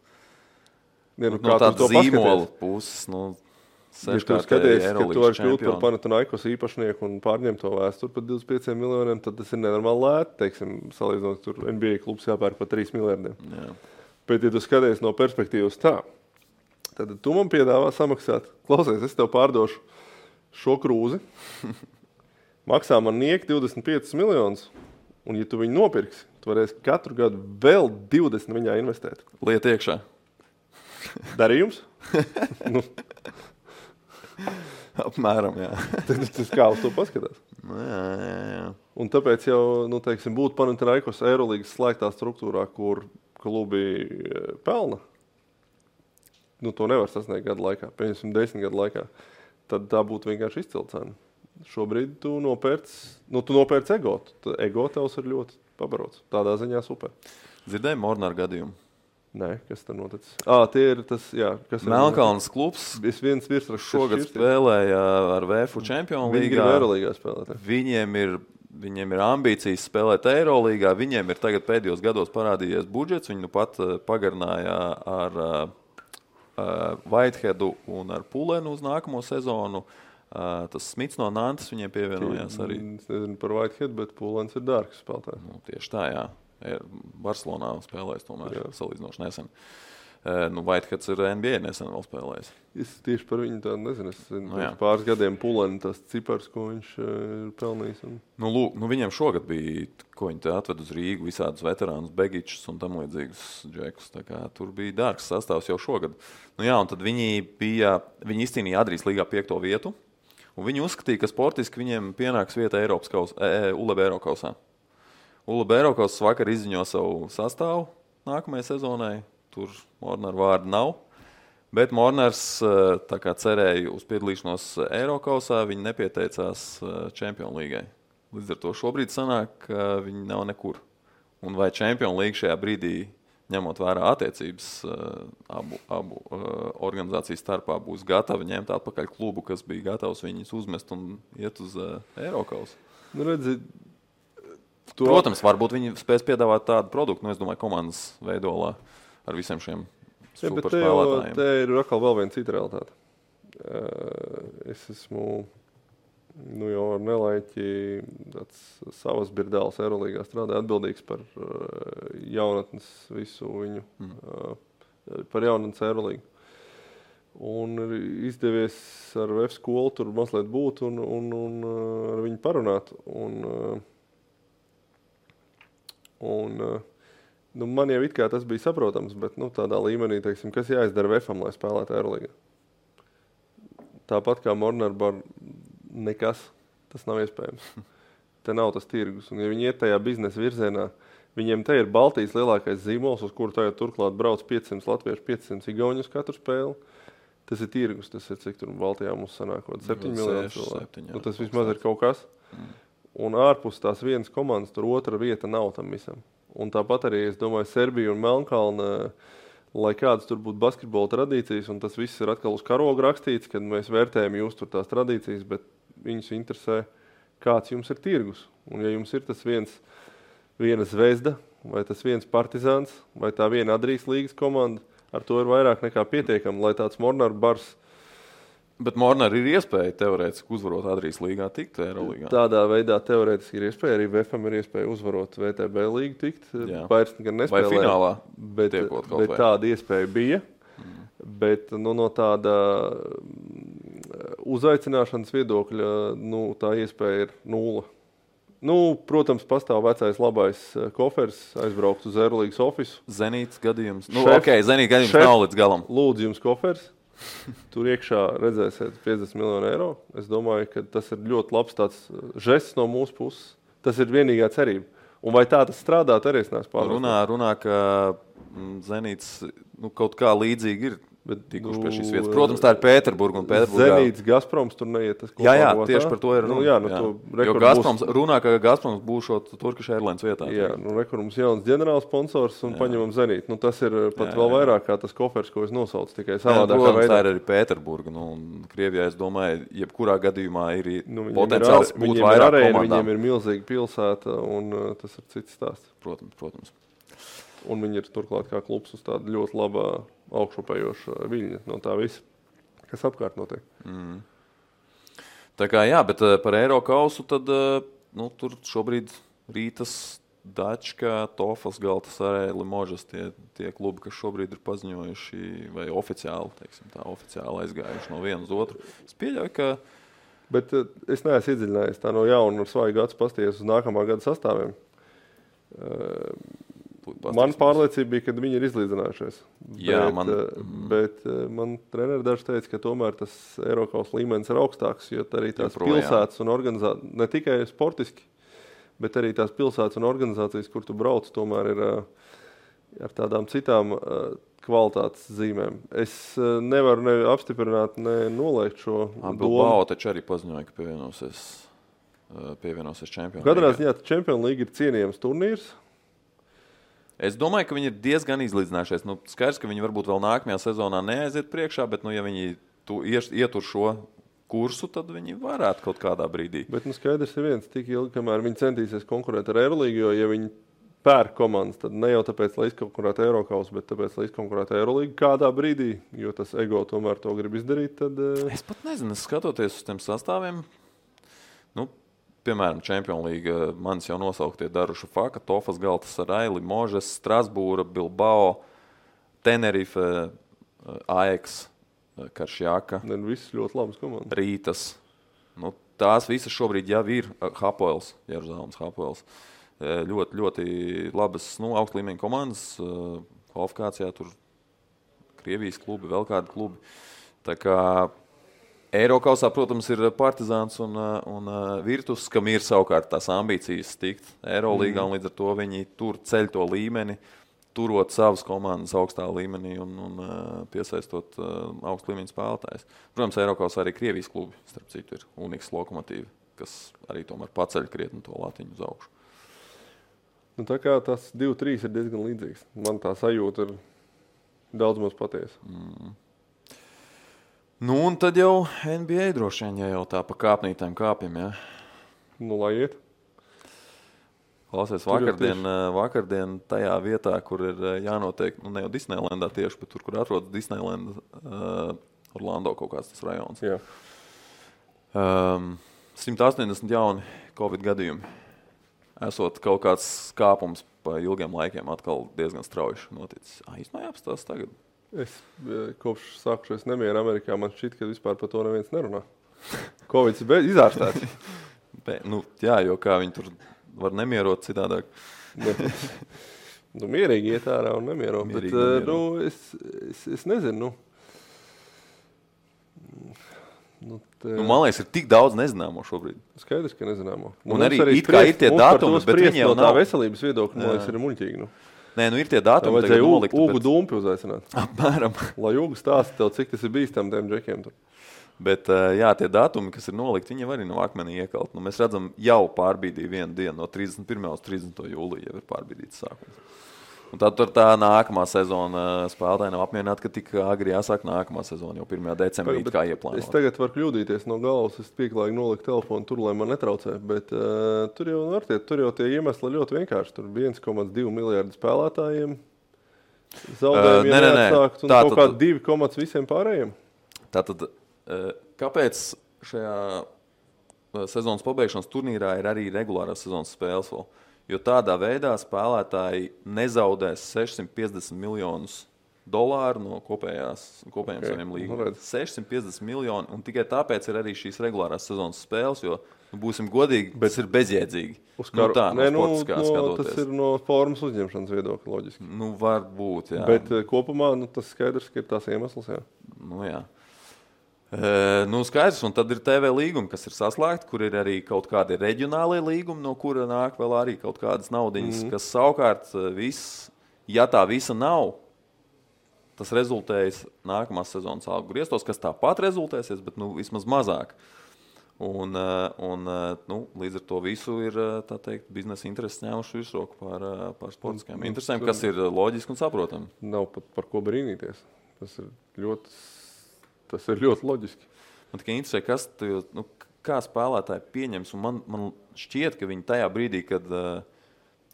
Speaker 2: No
Speaker 1: tāda zīmola puses,
Speaker 2: ja tu skaties, ka tu vari kļūt par Panathinaikos īpašnieku un pārņemt to vēsturi par 25 miljoniem, tad tas ir nenormāli lēti, teiksim, salīdzinot, tur NBA klubs jāpērk par 3 miljardiem.
Speaker 1: Jā.
Speaker 2: Bet, ja tu skaties no perspektīvas tā, tad tu man piedāvā samaksāt, klausies, es tev pārdošu šo krūzi, maksā man nieki 25 miljonus, un ja tu viņu nopirksi, tu varēsi katru gadu vēl 20 viņā investēt.
Speaker 1: Liet iekšā.
Speaker 2: Darījums?
Speaker 1: Apmēram, jā.
Speaker 2: Tas kā uz to paskatās.
Speaker 1: Jā.
Speaker 2: Un tāpēc jau, teiksim, būt Panathinaikos Eirolīgas slēgtā struktūrā, kur klubi pelna, to nevar sasniegt gadu laikā, pieņemsim 10 gadu laikā, tad tā būtu vienkārši izcila cena. Šobrīd tu nopērc ego. Ego tevs ir ļoti pabarots. Tādā ziņā super.
Speaker 1: Dzirdēji Mornara gadījumu?
Speaker 2: Nē, kas tur noticis? Tie ir tas, jā.
Speaker 1: Melnkalnes klubs
Speaker 2: viens virsraksts
Speaker 1: šogad spēlēja ar VFU Čempionu līgā.
Speaker 2: Viņi grib Eirolīgā spēlēt.
Speaker 1: Viņiem ir ambīcijas spēlēt Eirolīgā. Viņiem ir tagad pēdējos gados parādījies budžets. Viņi pat pagarināja ar Whiteheadu un ar Pulenu uz nākamo sezonu. Tas Smits no Nantes viņiem pievienojās arī.
Speaker 2: Es nezinu par Whitehead, bet Pulens ir dārgs spēlētājs.
Speaker 1: Tieši tā, jā. Barcelonā spēlējis tomēr salīdzinoši nesen. Whiteheads ir NBA nesen vēl spēlējis.
Speaker 2: Es tieši par viņu tādu nezinu. Es pāris gadiem Puleni tas cipars, ko viņš ir pelnījis.
Speaker 1: Viņiem šogad bija, ko viņi te atved uz Rīgu, visādus veterānus, Begičus un tam līdzīgus džekus. Tā kā tur bija dārgs sastāvs jau šogad. Un tad viņi izcīnīja Adrijas līgā 5. vietu. Un viņi uzskatīja, ka sportiski viņiem pienāks vieta ULEB Eirokausā. ULEB Eirokausas vakar izziņo savu sastāvu nākamajai sezonai. Tur Mornara vārda nav. Bet Mornars tā kā cerēja uz piedalīšanos Eirokausā, viņi nepieteicās Čempionu līgai. Līdz ar to šobrīd sanāk, ka viņi nav nekur. Un vai Čempionu līga šajā brīdī, ņemot vērā attiecības abu organizāciju starpā, būs gatava ņemt atpakaļ klubu, kas bija gatavs viņus uzmest un iet uz Eirokausu? Protams, varbūt viņi spēs piedāvāt tādu produktu, es domāju, komandas veidolā ar visiem šiem superspēlētājiem.
Speaker 2: Te ir atkal vēl viena cita realitāte. Es esmu jau ar nelaiķi savas birdēlas Eirolīgā strādāju atbildīgs par jaunatnes visu viņu, par jaunatnes Eirolīgu. Un ir izdevies ar VF skolu tur mazliet būt un ar viņu parunāt. Man jau it kā tas bija saprotams, bet tādā līmenī, teiksim, kas jāizdara VF-am, lai spēlētu Eirolīgā. Tāpat kā Mornar bar nekas, tas nav iespējams. Te nav tas tirgus. Un ja viņi iet tajā biznesa virzienā, viņiem te ir Baltijas lielākais zīmols, uz kuru tagad turklāt brauc 500 latviešu, 500 igauņus katru spēli. Tas ir tirgus, tas ir cik tur Baltijā mums sanākot 7 miljonu cilvēku. Tas vismaz ir kaut kas. Un ārpus tās vienas komandas tur otra vieta nav tam visam. Un tāpat arī, es domāju, Serbija un Melnkalne, lai kādas tur būtu basketbola tradīcijas, un tas viss ir atkal uz karoga rakstīts, kad mēs vērtējam jūs tur tās tradīcijas, bet viņus interesē, kāds jums ir tirgus. Un ja jums ir tas viena Zvezda, vai tas viens Partizāns, vai tā viena Adrijas līgas komanda, ar to ir vairāk nekā pietiekami, lai tāds Mornar bars.
Speaker 1: Bet Mornar ir iespēja teorētiski uzvarot Adrijas līgā tikt Eirolīgā.
Speaker 2: Tādā veidā teorētiski ir iespēja, arī VFam ir iespēja uzvarot VTB līgu tikt. Vairs gan nespēlē.
Speaker 1: Vai finālā
Speaker 2: bet tāda iespēja bija. Bet no tāda uzaicināšanas viedokļa, tā iespēja ir 0. Protams, pastāv vecais labais kofers, aizbraukt uz Eirolīgas ofisu.
Speaker 1: Zenīts gadījums. Zenīts gadījums nav līdz galam.
Speaker 2: Lūdzu jums kofers. Tur iekšā redzēsiet 50 miljonu eiro. Es domāju, ka tas ir ļoti labs tāds žests no mūsu puses. Tas ir vienīgā cerība. Un vai tā tas strādāt, arī es neesmu pārliecināts.
Speaker 1: Runā, ka Zenīts kaut kā līdzīgi ir tikuši pie šīs vietas. Protams, tā ir Pēterburga un Pēterburgā.
Speaker 2: Zenīts, Gazproms tur neiet.
Speaker 1: Jā, tieši par to ir runa. Jo Gazproms, runā, ka Gazproms būšot Turkish Airlines vietā.
Speaker 2: Jā, mums jauns ģenerāls sponsors un paņemam Zenīt. Tas ir pat vēl vairāk kā tas kofers, ko es nosaucu, tikai savādākā veidā.
Speaker 1: Protams, tā ir arī Pēterburga. Un Krievijā, es domāju, jebkurā gadījumā ir potenciāls būt vairāk komandām.
Speaker 2: Viņiem ir milzīga pilsēta un tas ir cits stāsts.
Speaker 1: Protams.
Speaker 2: Un viņi ir turklāt kā klubs uz tāda ļoti labā augšupējoša viļņa no tā visa, kas apkārt notiek.
Speaker 1: Tā kā jā, bet par Eirokausu tad tur šobrīd Rītas, Dačka, Tofas, Galtasaraj, Limožas tie klubi, kas šobrīd ir paziņojuši vai oficiāli, oficiāli aizgājuši no vienu uz otru. Es pieļauju, ka...
Speaker 2: Bet es neesmu iedziļinājies tā no jauna ar svaigu acu pasties uz nākamā gada sastāviem. Man pārliecība bija, ka viņi ir izlīdzinājušies.
Speaker 1: Jā,
Speaker 2: bet man treneri daži teica, ka tomēr tas Eirokaus līmenis ir augstāks, jo arī tās pilsētas un organizācijas, ne tikai sportiski, bet arī tās pilsētas un organizācijas, kur tu brauc, tomēr ir ar tādām citām kvalitātes zīmēm. Es nevaru ne apstiprināt, ne noliegt šo domu.
Speaker 1: Bilbao taču arī paziņoja, ka pievienosies Champions League.
Speaker 2: Katrā ziņā Champions League ir cienījams turnīrs.
Speaker 1: Es domāju, ka viņi ir diezgan izlīdzinājušies. Skaidrs, ka viņi varbūt vēl nākamajā sezonā neaiziet priekšā, bet ja viņi ietur šo kursu, tad viņi varētu kaut kādā brīdī.
Speaker 2: Bet skaidrs ir viens, tik ilgi, kamēr viņi centīsies konkurēt ar Eirolīgu, jo ja viņi pērk komandas, tad ne jau tāpēc, lai izkonkurētu Eirokausu, bet tāpēc, lai izkonkurētu Eirolīgu kādā brīdī, jo tas ego tomēr to grib izdarīt, tad...
Speaker 1: Es pat nezinu, skatoties uz tiem sastāviem, piemēram, Champions League manis jau nosauktie Daruša Faka, Tofas, Galtasaraj, Limožas, Strasbūra, Bilbao, Tenerife, Ajax, Karšjaka.
Speaker 2: Viss ļoti labas komandas.
Speaker 1: Rītas. Tās visas šobrīd jau ir Hapoels, Jeruzalemes Hapoels. Ļoti, ļoti labas, augsta līmeņa komandas. Kvalifikācijā tur Krievijas klubi, vēl kādi klubi. Tā kā Eirokausā, protams, ir Partizāns un Virtus, kam ir savukārt tās ambīcijas tikt Eirolīgā, un līdz ar to viņi tur ceļ to līmeni, turot savas komandas augstā līmenī un piesaistot augstu līmeņu spēlētājus. Protams, Eirokausā arī Krievijas klubi, starp citu, ir Uniks Lokomotīvi, kas arī tomēr paceļ krietni to latiņu uz augšu.
Speaker 2: Tā kā tas 2-3 ir diezgan līdzīgs. Man tā sajūta ir daudz maz patiesa.
Speaker 1: Un tad jau NBA droši vien, ja jau tā pa kāpnītēm kāpjam, jā.
Speaker 2: Lai iet.
Speaker 1: Klausies, vakardien tajā vietā, kur ir jānotiek, ne jau Disneylandā tieši, bet tur, kur atrodas Disneylanda, Orlando kaut kāds tas rajons.
Speaker 2: Jā.
Speaker 1: 180 jauni Covid gadījumi. Esot kaut kāds kāpums pa ilgiem laikiem atkal diezgan strauji noticis. Īstenībā jāapstās tagad.
Speaker 2: Es kopš sākušies nemieru Amerikā, man šķiet, ka vispār par to neviens nerunā. Covid ir izārstēts.
Speaker 1: Jā, jo kā viņi tur var nemierot citādāk.
Speaker 2: Mierīgi iet ārā un nemierot. Bet es nezinu.
Speaker 1: Man liekas, ir tik daudz nezināmo šobrīd.
Speaker 2: Skaidrs, ka nezināmo.
Speaker 1: Un arī it kā ir tie datumi, bet viņi jau nav.
Speaker 2: Tā veselības viedokļa, man liekas, ir muļķīgi.
Speaker 1: Nē, ir tie datumi.
Speaker 2: Tā vajadzēja Ugu Dumpi uzaicināt.
Speaker 1: Apmēram.
Speaker 2: Lai Ugu stāsta tev, cik tas ir bīstam tiem džekiem tur.
Speaker 1: Bet, jā, tie datumi, kas ir nolikti, viņi arī nav akmenī iekalt. Mēs redzam, jau pārbīdīja vienu dienu, no 31. uz 30. jūlija jau ir pārbīdīts sākums. Un tad tur tā nākamā sezona spēlētāji nav apmierināti, ka tik agri jāsāk nākamā sezona, jau 1. decembrī kā ieplānot.
Speaker 2: Es tagad varu kļūdīties no galvas, es pieklājīgi noliku telefonu tur, lai man netraucē, bet tur jau tie iemesli ļoti vienkārši. Tur 1,2 miljardi spēlētājiem, zaudējumi jāatsākt un kaut kādi 2 visiem pārējiem.
Speaker 1: Tātad, kāpēc šajā sezonas pabeigšanas turnīrā ir arī regulārās sezonas spēles vēl? Jo tādā veidā spēlētāji nezaudēs $650 miljonus no kopējiem saviem līgumiem. 650 miljoni, un tikai tāpēc ir arī šīs regulārās sezonas spēles, jo, būsim godīgi, tas ir bezjēdzīgi.
Speaker 2: Tas ir no formas uzņemšanas viedokļa loģiski.
Speaker 1: Var būt, jā.
Speaker 2: Bet kopumā tas skaidrs, ka ir tās iemesls, jā.
Speaker 1: Jā. Skaidrs, un tad ir TV līgumi, kas ir saslēgti, kur ir arī kaut kādi reģionālie līgumi, no kura nāk vēl arī kaut kādas naudiņas, kas savukārt ja tā visa nav, tas rezultējas nākamās sezonas algu griestos, kas tāpat rezultēsies, bet vismaz mazāk. Un līdz ar to visu ir tā teikt, biznesa intereses ņēmuši virsroku par sportiskajām interesēm, kas ir loģiski un saprotami.
Speaker 2: Nav pat par ko brīnīties. Tas ir ļoti loģiski.
Speaker 1: Man tikai interesē, kā spēlētāji pieņems. Un man šķiet, ka viņi tajā brīdī, kad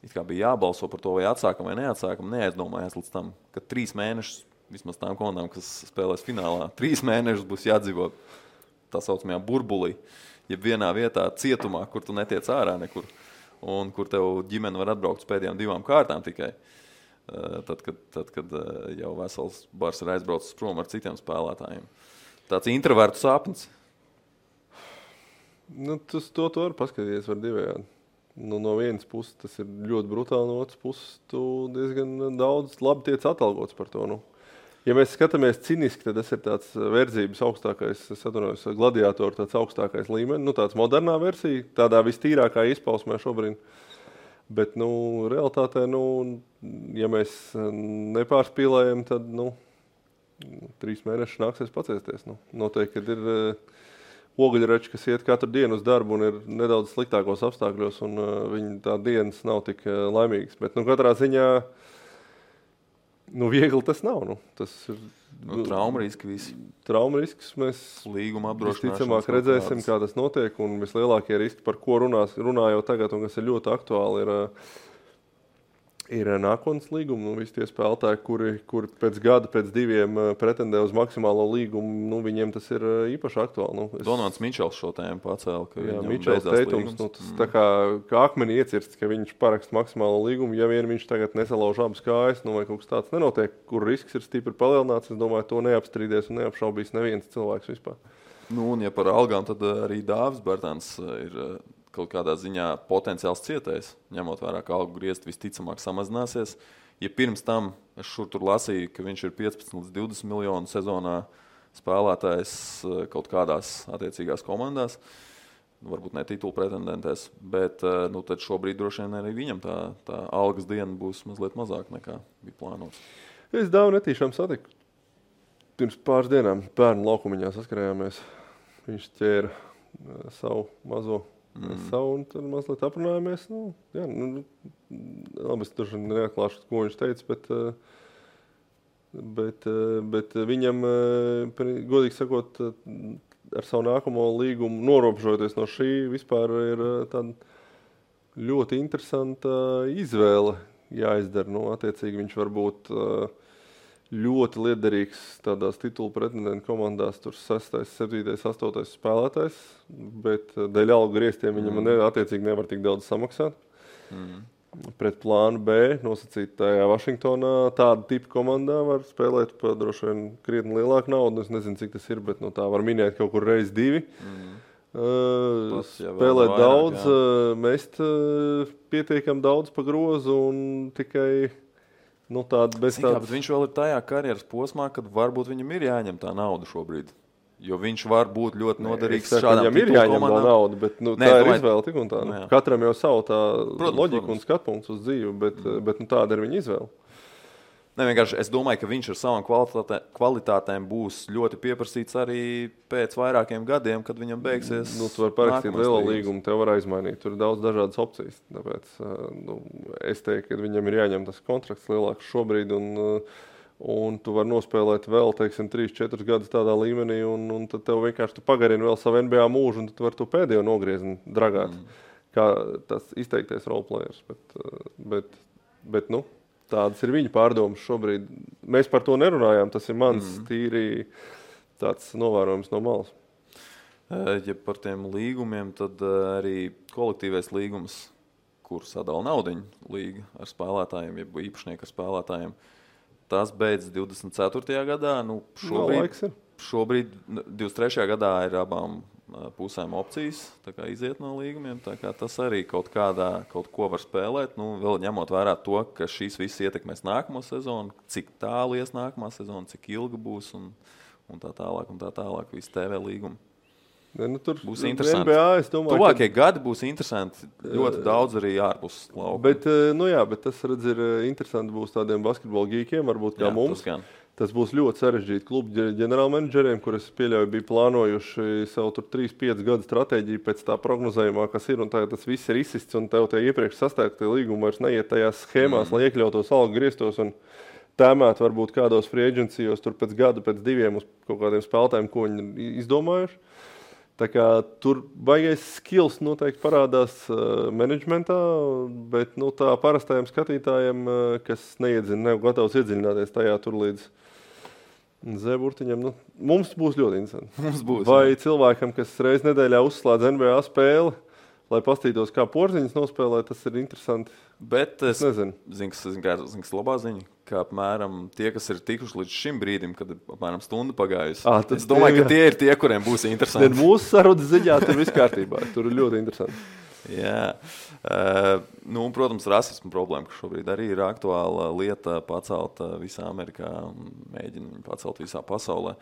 Speaker 1: it kā bija jābalso par to, vai atsākam vai neatsākam, neaizdomājās līdz tam, ka 3 mēnešus, vismaz tām komandām, kas spēlēs finālā, 3 mēnešus būs jādzīvo tā saucamajā burbulī, jeb vienā vietā cietumā, kur tu netiec ārā nekur, un kur tev ģimene var atbraukt uz pēdējām 2 kārtām tikai. Tad, kad jau vesels bars ir aizbraucis prom ar citiem spēlētājiem. Tāds introvertu sapnis.
Speaker 2: To var paskatīties var divējādi. No vienas puses tas ir ļoti brutāli, no otras puses tu diezgan daudz labi tiec atalgots par to. Ja mēs skatāmies ciniski, tad tas ir tāds verdzības augstākais, es atvainojos, gladiātoru tāds augstākais līmenis, tāds modernā versija, tādā vistīrākā izpausmē šobrīd. Bet, realitātē, ja mēs nepārspīlējam, tad, 3 mēnešus nāksies paciesties. Noteikti, kad ir ogļrači, kas iet katru dienu uz darbu un ir nedaudz sliktākos apstākļos, un viņi tā dienas nav tik laimīgas. Bet, katrā ziņā, viegli tas nav. Tas ir
Speaker 1: trauma riski visi.
Speaker 2: Trauma risks mēs
Speaker 1: līguma apdrošināšanas
Speaker 2: visticamāk redzēsim, kā tas notiek, un vislielākie riski, par ko runā jau tagad, un kas ir ļoti aktuāli, ir nākotnes līgumi. Visi tie spēlētāji, kuri pēc gada, pēc 2 pretendē uz maksimālo līgumu, viņiem tas ir īpaši aktuāli.
Speaker 1: Donalds Mičels šo tēmu pacēla, ka viņam
Speaker 2: Mičels teikums, tas tā kā akmeni iecirsts, ka viņš parakst maksimālo līgumu, ja vien viņš tagad nesalauž abas kājas, vai kaut kas tāds nenotiek, kur risks ir stipri palielināts, es domāju, to neapstrīdēs un neapšaubīs neviens cilvēks vispār.
Speaker 1: Un ja par algām, tad arī Dāvis Bērtāns ir kaut kādā ziņā potenciāls cietējs, ņemot vērā, ka algu griezti visticamāk samazināsies. Ja pirms tam es tur lasīju, ka viņš ir 15 līdz 20 miljonu sezonā spēlētājs kaut kādās attiecīgās komandās, varbūt ne titulu pretendentēs, bet tad šobrīd droši vien arī viņam tā algas diena būs mazliet mazāk nekā bija plānots.
Speaker 2: Es Dāvu netīšām satiku. Pirms pāris dienām bērnu laukumiņā saskarējāmies. Viņš ķēra savu mazo un tad mazliet aprunājāmies. Labi, es tur neatklāšu, ko viņš teica, bet viņam, godīgi sakot, ar savu nākamo līgumu norobežojoties no šī, vispār ir tāda ļoti interesanta izvēle jāizdara. Attiecīgi viņš var būt ļoti liederīgs tādās titulu pretendentu komandās, tur 6., 7., 8. spēlētājs, bet dēļ algu grieztiem viņam attiecīgi nevar tik daudz samaksāt. Pret plānu B nosacītajā Vašingtonā tāda tipa komandā var spēlēt par droši vien krietni lielāku naudu. Es nezinu, cik tas ir, bet tā var minēt kaut kur reiz 2. Spēlēt daudz, mest pietiekam daudz pa grozu un tikai... bet
Speaker 1: viņš vēl ir tajā karjeras posmā, kad varbūt viņam ir jāņem tā nauda šobrīd. Jo viņš var būt ļoti noderīgs šādām
Speaker 2: viņam ir jāņem tā nauda, bet tā ir izvēle tik un tā. Katram jau savu tā loģiku un skatpunkts uz dzīvi, bet tāda ir viņa izvēle.
Speaker 1: Vienkārši es domāju, ka viņš ar savām kvalitātēm būs ļoti pieprasīts arī pēc vairākiem gadiem, kad viņam beigsies.
Speaker 2: Tu vari parakstīt lielo līgumu, tev var aizmainīt. Tur ir daudz dažādas opcijas. Tāpēc es teiktu, ka viņam ir jāņem tas kontrakts lielāks šobrīd, un tu vari nospēlēt vēl, 3-4 gadus tādā līmenī, un tad tev vienkārši pagarini vēl savu NBA mūžu, un tad tu vari to pēdējo nogriezni dragāt, kā tas izteikties roleplayers. Bet tādas ir viņa pārdomas šobrīd. Mēs par to nerunājām, tas ir mans tīri tāds novērojums no malas.
Speaker 1: Ja par tiem līgumiem, tad arī kolektīvais līgums, kur sadala naudiņu līga ar spēlētājiem, jeb īpašnieku ar spēlētājiem, tas beidz 24. gadā. Šobrīd 23. gadā ir abām pusēm opcijas iziet no līgumiem. Tas arī kaut ko var spēlēt. Vēl ņemot vērā to, ka šīs viss ietekmēs nākamo sezonu, cik tālu ies nākamā sezona, cik ilga būs un tā tālāk visi TV līgumi.
Speaker 2: Tur
Speaker 1: būs interesanti.
Speaker 2: Tuvākie
Speaker 1: gadi būs interesanti. Ļoti daudz arī ārpus lauka.
Speaker 2: Bet tas, redz, ir interesanti būs tādiem basketbola gīkiem, varbūt kā mums. Tas būs ļoti sarežģīti klubu ģenerālmenedžeriem, kurus pieļauju bija plānojuši savu 3-5 gadu stratēģiju pēc tā prognozējumā, kas ir, un tagad tas viss ir izsists, un tev tie iepriekš sastāktie līgumi vairs neiet tajās schēmās, lai iekļautos algu griestos un tēmēt varbūt kādos free agencijos tur pēc gada, pēc 2 uz kaut kādiem spēlētājiem, ko viņi izdomājuši. Tā kā tur baigais skills noteikti parādās menedžmentā, bet tā parastajiem skatītājiem, kas neiedzina, nav gatavs iedziļināties tajā tur līdz Z-burtiņam, mums būs ļoti interesanti.
Speaker 1: Mums būs,
Speaker 2: vai cilvēkam, kas reiz nedēļā uzslēdz NBA spēli, lai pastītos, kā Porziņas nospēlē, tas ir interesanti.
Speaker 1: Bet es
Speaker 2: nezinu.
Speaker 1: Zinu, labā ziņa, ka apmēram tie, kas ir tikuši līdz šim brīdim, kad apmēram stunda pagājusi, es domāju, ka tie ir tie, kuriem būs interesanti.
Speaker 2: Mūsu sarunas ziņā tur viss kārtībā, tur ir ļoti interesanti.
Speaker 1: Jā, protams, rasismu problēma, kas šobrīd arī ir aktuāla lieta pacelt visā Amerikā un mēģina viņu pacelt visā pasaulē.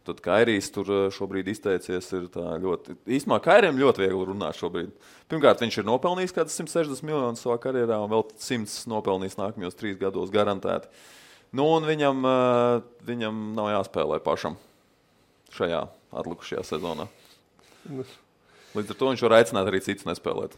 Speaker 1: Tad Kairijs tur šobrīd izteicies ir tā ļoti... Īstumā Kairijam ļoti viegli runāt šobrīd. Pirmkārt, viņš ir nopelnījis kādas 160 miljonus savā karjerā un vēl 100 nopelnījis nākamajos 3 gados garantēti. Un viņam nav jāspēlē pašam šajā atlikušajā sezonā. Līdz ar to viņš var aicināt arī citus nespēlēt.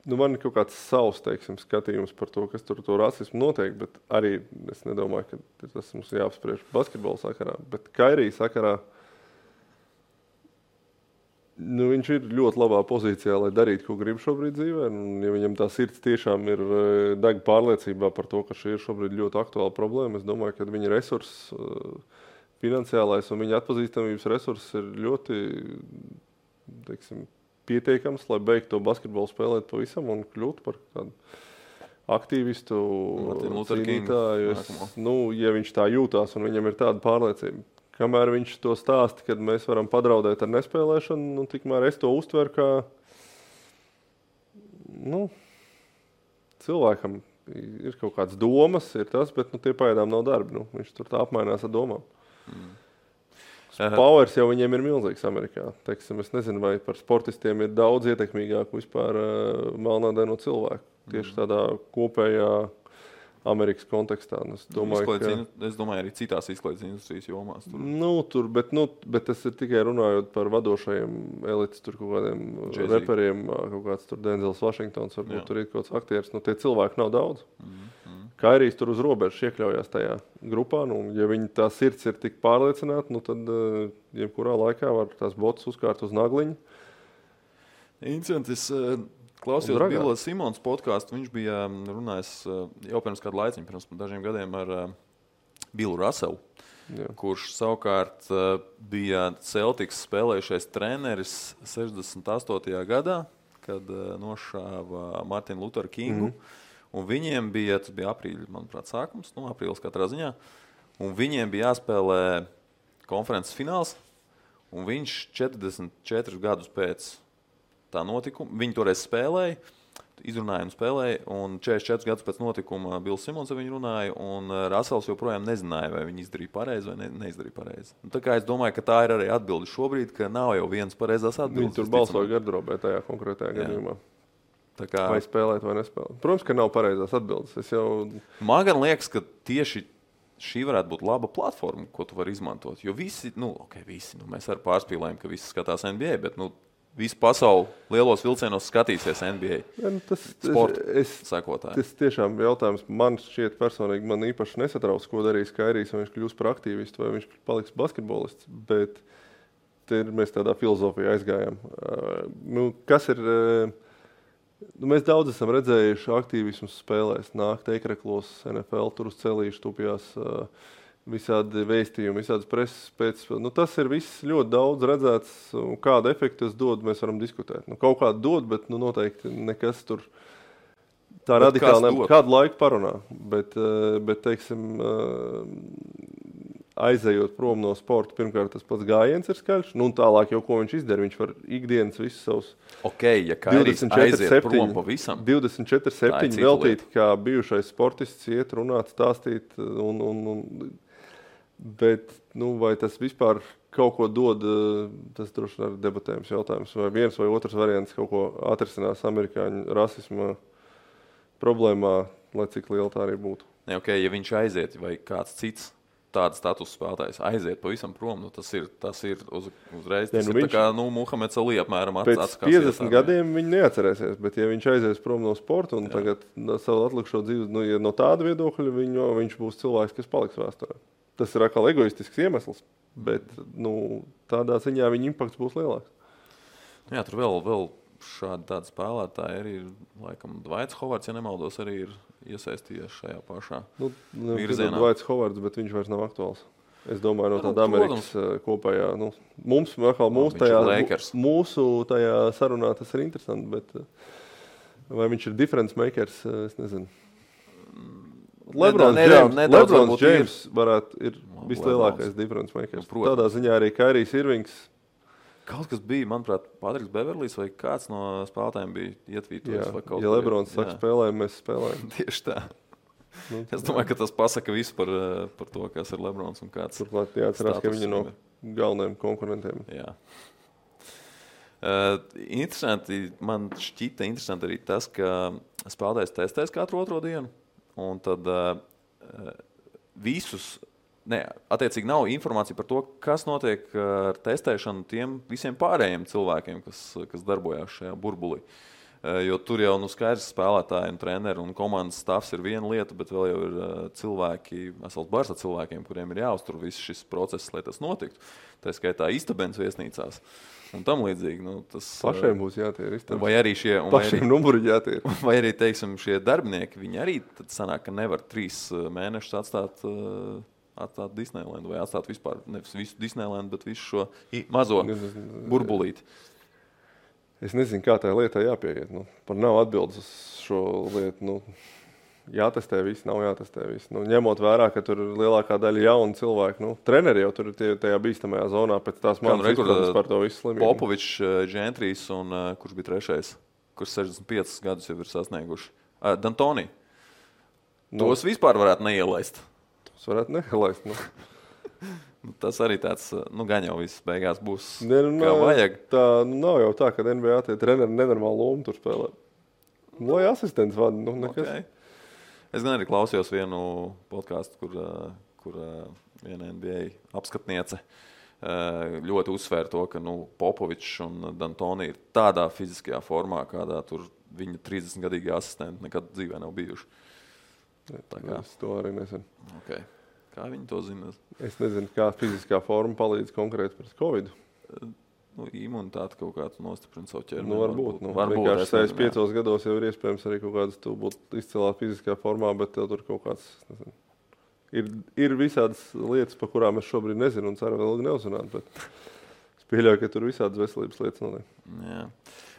Speaker 2: Man ir kaut kāds savs skatījums par to, kas tur to rasismu notiek, bet arī es nedomāju, ka tas mums jāapspriež basketbola sakarā. Bet Kairija sakarā viņš ir ļoti labā pozīcijā, lai darītu, ko grib šobrīd dzīvē. Ja viņam tā sirds tiešām ir deg pārliecībā par to, ka šī ir šobrīd ļoti aktuāla problēma, es domāju, ka viņa resurss finansiālais un viņa atpazīstamības resurss ir ļoti, pietiekams, lai beigtu to basketbolu spēlēt pavisam un kļūt par tādu aktīvistu, cīnītāju. Ja viņš tā jūtās un viņam ir tāda pārliecība. Kamēr viņš to stāsta, kad mēs varam padraudēt ar nespēlēšanu, tikmēr es to uztveru kā cilvēkam ir kaut kādas domas, ir tas, bet tie pagaidām nav darbi. Viņš tur tā apmainās ar domām. Powers jau viņiem ir milzīgs Amerikā. Es nezinu, vai par sportistiem ir daudz ietekmīgāku vispār melnādaino cilvēku. Tieši tādā kopējā Amerikas kontekstā. Es
Speaker 1: domāju, arī citās izklaides industrijas jomās.
Speaker 2: Bet tas ir tikai runājot par vadošajiem elites, tur kaut kādiem reperiem, kaut kāds tur Denzels Vašingtons, varbūt tur ir kaut kāds aktieris. Tie cilvēki nav daudz. Kairijs tur uz robežas iekļaujās tajā grupā. Ja viņa tā sirds ir tik pārliecināta, tad jebkurā laikā var tās botas uzkārt uz nagliņu.
Speaker 1: Interesanti. Es klausījos Bila Simons podcastu. Viņš bija runājis jau pirms kādu laiciņu, pirms dažiem gadiem ar Billu Russellu, kurš savukārt bija Celtics spēlējušais treneris 68. gadā, kad nošāva Martinu Lutheru Kingu. Un viņiem bija, tas bija aprīļa, manuprāt, sākums, aprīlis katrā ziņā, un viņiem bija jāspēlē konferences fināls, un viņš 44 gadus pēc tā notikuma, viņi toreiz spēlēja, izrunāja un spēlēja, un 44 gadus pēc notikuma Bills Simons ar viņu runāja, un Russells joprojām nezināja, vai viņi izdarīja pareizi vai neizdarīja pareizi. Tā kā es domāju, ka tā ir arī atbilde šobrīd, ka nav jau viens pareizās atbildes.
Speaker 2: Viņi tur balsoja gardrobē tajā konkrētajā gadījumā. Vai spēlēt, vai nespēlēt. Protams, ka nav pareizās atbildes.
Speaker 1: Man gan liekas, ka tieši šī varētu būt laba platforma, ko tu vari izmantot. Jo visi, mēs arī pārspīlējam, ka visi skatās NBA, bet visu pasauli lielos vilcienos skatīsies NBA. Sporta
Speaker 2: tas tiešām jautājums man šķiet personīgi, man īpaši nesatrauc, ko darīs Kairijs, vai viņš kļūs par aktīvistu, vai viņš paliks basketbolists. Bet mēs tādā filozofijā aizgājām. Kas ir... Mēs daudz esam redzējuši aktīvismus spēlēs, nākt ekreklos, NFL, tur uz celīšu tupjās visādi vēstījumi, visādas preses pēc. Tas ir viss ļoti daudz redzēts, kādu efektu tas dod, mēs varam diskutēt. Kaut kādu dod, bet noteikti nekas tur tā radikāli kādu laiku parunā. Bet aizejot prom no sporta, pirmkārt tas pats gājiens ir skaļš, un tālāk jau ko viņš izdara, viņš var ikdienas visus savus
Speaker 1: ja Kairijs aiziet prom pavisam
Speaker 2: 24/7 veltīt, kā bijušais sportists iet, runāt, stāstīt, bet, vai tas vispār kaut ko dod, tas droši vien ir debatējums jautājums, vai viens vai otrs variants kaut ko atrisinās amerikāņu rasisma problēmā. lai cik liela tā arī būtu.
Speaker 1: Ne, okay, ja viņš aiziet vai kāds cits tāds status spēlētājs aiziet pavisam prom, tas ir uzreiz. Tas ir tā kā Muhameds Ali apmēram
Speaker 2: pēc 50 gadiem viņi neatcerēsies, bet ja viņš aizies prom no sporta un tagad savu atlikušo dzīvi, ja no tāda viedokļa viņš būs cilvēks, kas paliks vēsturē. Tas ir atkal egoistisks iemesls, bet tādā ziņā viņa impakts būs lielāks.
Speaker 1: Jā, tur vēl tādi spēlētāji arī ir, laikam, Dvaits Hovards, ja nemaldos, arī ir iesaistījies šajā pašā virzienā.
Speaker 2: Dvaits Hovards, bet viņš vairs nav aktuāls. Es domāju, no tāda Amerikas kopējā. Mūsu tajā sarunā tas ir interesanti, bet vai viņš ir difference makers, es nezinu. LeBron James ir vislielākais difference makers. Tādā ziņā arī Kairijs Irvings.
Speaker 1: Kaut kas bija, manuprāt, Patriks Beverlijs vai kāds no spēlētājiem bija ietvītojis.
Speaker 2: Ja Lebrons saka spēlējam, mēs spēlējam.
Speaker 1: Tieši tā. Es domāju, ka tas pasaka visu par to, kas ir Lebrons un kāds.
Speaker 2: Turklāt jāatcerās, ka viņi no galvenajiem konkurentiem.
Speaker 1: Jā. Interesanti, man šķita interesanti arī tas, ka spēlētājs testēs katru otro dienu. Un tad attiecīgi nav informācija par to, kas notiek ar testēšanu tiem visiem pārējiem cilvēkiem, kas darbojās šajā burbulī. Jo tur jau skaidrs spēlētāji un treneri un komandas stāvs ir viena lieta, bet vēl jau ir cilvēki, vesels bars ar cilvēkiem, kuriem ir jāuztur viss šis process, lai tas notiktu. Tā skaitā istabens viesnīcās un tam līdzīgi.
Speaker 2: Pašiem būs jātier istabens.
Speaker 1: Vai arī
Speaker 2: pašiem numuri jātier.
Speaker 1: Vai arī, teiksim, šie darbinieki, viņi arī tad sanāk, ka nevar 3 mēnešus atstāt Disneylandu vai atstāt vispār, nevis visu Disneylandu, bet visu šo mazo burbulīti.
Speaker 2: Es nezinu, kā tā lietā jāpieiet. Par nav atbildes uz šo lietu. Jātestē viss, nav jātestē viss. Ņemot vērā, ka tur ir lielākā daļa jaunu cilvēku. Treneri jau tur ir tajā bīstamajā zonā pēc tās manas izpratnes par to visu slimību.
Speaker 1: Popovičs, Džentrijs un kurš bija trešais, kurš 65 gadus jau ir sasnieguši. D'Antoni. Tos vispār varētu neielaist.
Speaker 2: Varētu neielaist.
Speaker 1: Tas arī tāds, gan jau viss beigās būs kā vajag.
Speaker 2: Tā nav jau tā, ka NBA tie treneri nenormāli lomu tur spēlē. Lai asistents vada, nekas. Okay.
Speaker 1: Es gan arī klausījos vienu podcastu, kur viena NBA apskatniece ļoti uzsvēra to, ka Popovičs un D'Antoni ir tādā fiziskajā formā, kādā tur viņa 30-gadīgi asistenti nekad dzīvē nav bijuši.
Speaker 2: Es to arī nezinu.
Speaker 1: Okay. Kā viņi to zina?
Speaker 2: Es nezinu, kā fiziskā forma palīdz konkrēti pret Covid.
Speaker 1: Imunitāte kaut kāds nostiprina savu ķermeni.
Speaker 2: Varbūt. Vienkārši 65 gados jau ir iespējams arī kaut kādas tu būt izcilā fiziskā formā, bet tev tur kaut kāds, nezinu. Ir visādas lietas, par kurām es šobrīd nezinu un ceru vēl ilgi neuzzināt, bet es pieļauju, ka tur visādas veselības lietas notiek.
Speaker 1: Jā.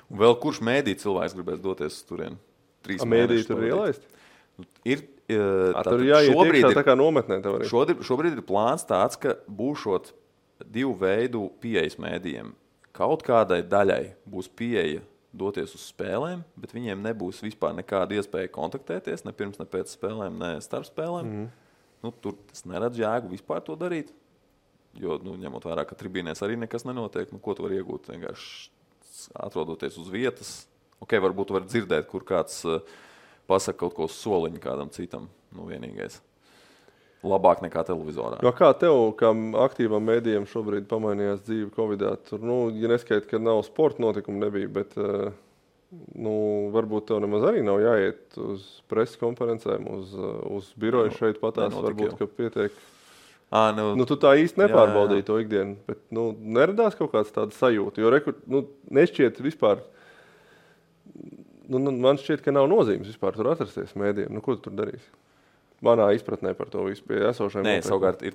Speaker 1: Un vēl kurš mēdī cilvēks gribēs doties uz turieni?
Speaker 2: Mēdī tur ir ielaisti?
Speaker 1: Tur
Speaker 2: jāiet iekšā tā kā nometnē.
Speaker 1: Šobrīd ir plāns tāds, ka būšot 2 veidu pieejas mēdījiem. Kaut kādai daļai būs pieeja doties uz spēlēm, bet viņiem nebūs vispār nekāda iespēja kontaktēties, ne pirms, ne pēc spēlēm, ne starp spēlēm. Tur tas neredz jēgu vispār to darīt, jo, ņemot vērā, ka tribīnēs arī nekas nenotiek, ko tu vari iegūt vienkārši atrodoties uz vietas. Varbūt tu vari dzirdēt, kur kāds pasaka kaut ko uz soliņu kādam citam, vienīgais. Labāk nekā televizorā.
Speaker 2: Kā tev, kā aktīvam mēdījam šobrīd pamainījās dzīve Covidā? Tur, ja neskaita, ka nav sporta notikumu nebija, bet varbūt tev nemaz arī nav jāiet uz preses konferencēm, uz biroju šeit patās, varbūt, ka pietiek. Tu tā īsti nepārbaudīji to ikdienu, bet neradās kaut kāds tāda sajūta, jo nešķiet vispār. Man šķiet, ka nav nozīmes vispār tur atrasties mēdījiem. Ko tu tur darīsi? Manā izpratnē par to visu pie esošajiem.
Speaker 1: Nē, savukārt ir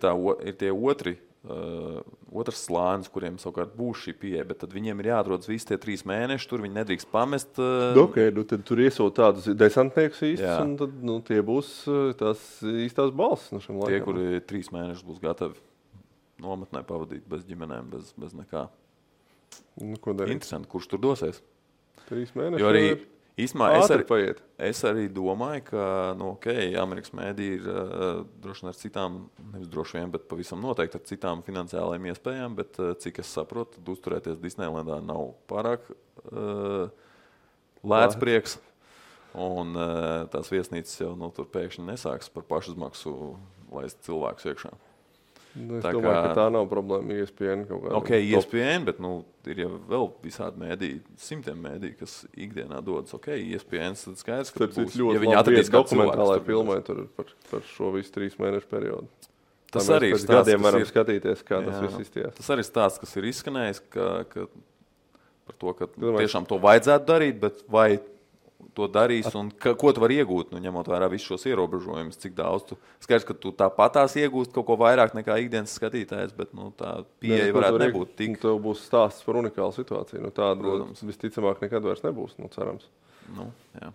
Speaker 1: tie otrs slānis, kuriem savukārt būs šī pieeja, bet tad viņiem ir jāatrodas visi tie 3 mēneši, tur viņi nedrīkst pamest.
Speaker 2: Tad tur iesūt tādus desantniekus īstus, un tad tie būs tās īstās balss no šim laikam.
Speaker 1: Tie, kuri 3 mēnešus būs gatavi nometnē pavadīt bez ģimenēm, bez nekā.
Speaker 2: Ko darīt?
Speaker 1: Interesanti, kurš tur dosies?
Speaker 2: 3 mēneši.
Speaker 1: Jo arī es arī domāju, ka Amerikas mēdī ir droši vien ar citām, nevis droši vien, bet pavisam noteikti ar citām finansiālajām iespējām, bet cik es saprotu, tad uzturēties Disneylandā nav pārāk lēts prieks. Un tās viesnīcas jau tur pēkšņi nesāks par pašizmaksu laist cilvēkus iekšā.
Speaker 2: Es domāju, ka tā nav problēma ESPN kaut kādā.
Speaker 1: Ok, ESPN, bet ir jau vēl visādi mēdīji, simtiem mēdīji, kas ikdienā dodas. Ok, ESPN, tad skaidrs, ka būs, ja viņi atradīs
Speaker 2: dokumentālai filmai par šo visu 3 mēnešu periodu.
Speaker 1: Tas arī ir
Speaker 2: stāsts, gadiem varam skatīties, kā tas viss izties.
Speaker 1: Tas arī stāsts, kas ir izskanējis, ka par to, ka tiešām to vajadzētu darīt, bet vai to darīs un ko tu vari iegūt, ņemot vērā visus šos ierobežojumus, cik daudz tu skaidrs, ka tu tāpatās iegūst kaut ko vairāk nekā ikdienas skatītājs, bet tā pieeja varētu nebūt tik.
Speaker 2: Tev būs stāsts par unikālu situāciju, tāda visticamāk nekad vairs nebūs, cerams.
Speaker 1: Jā.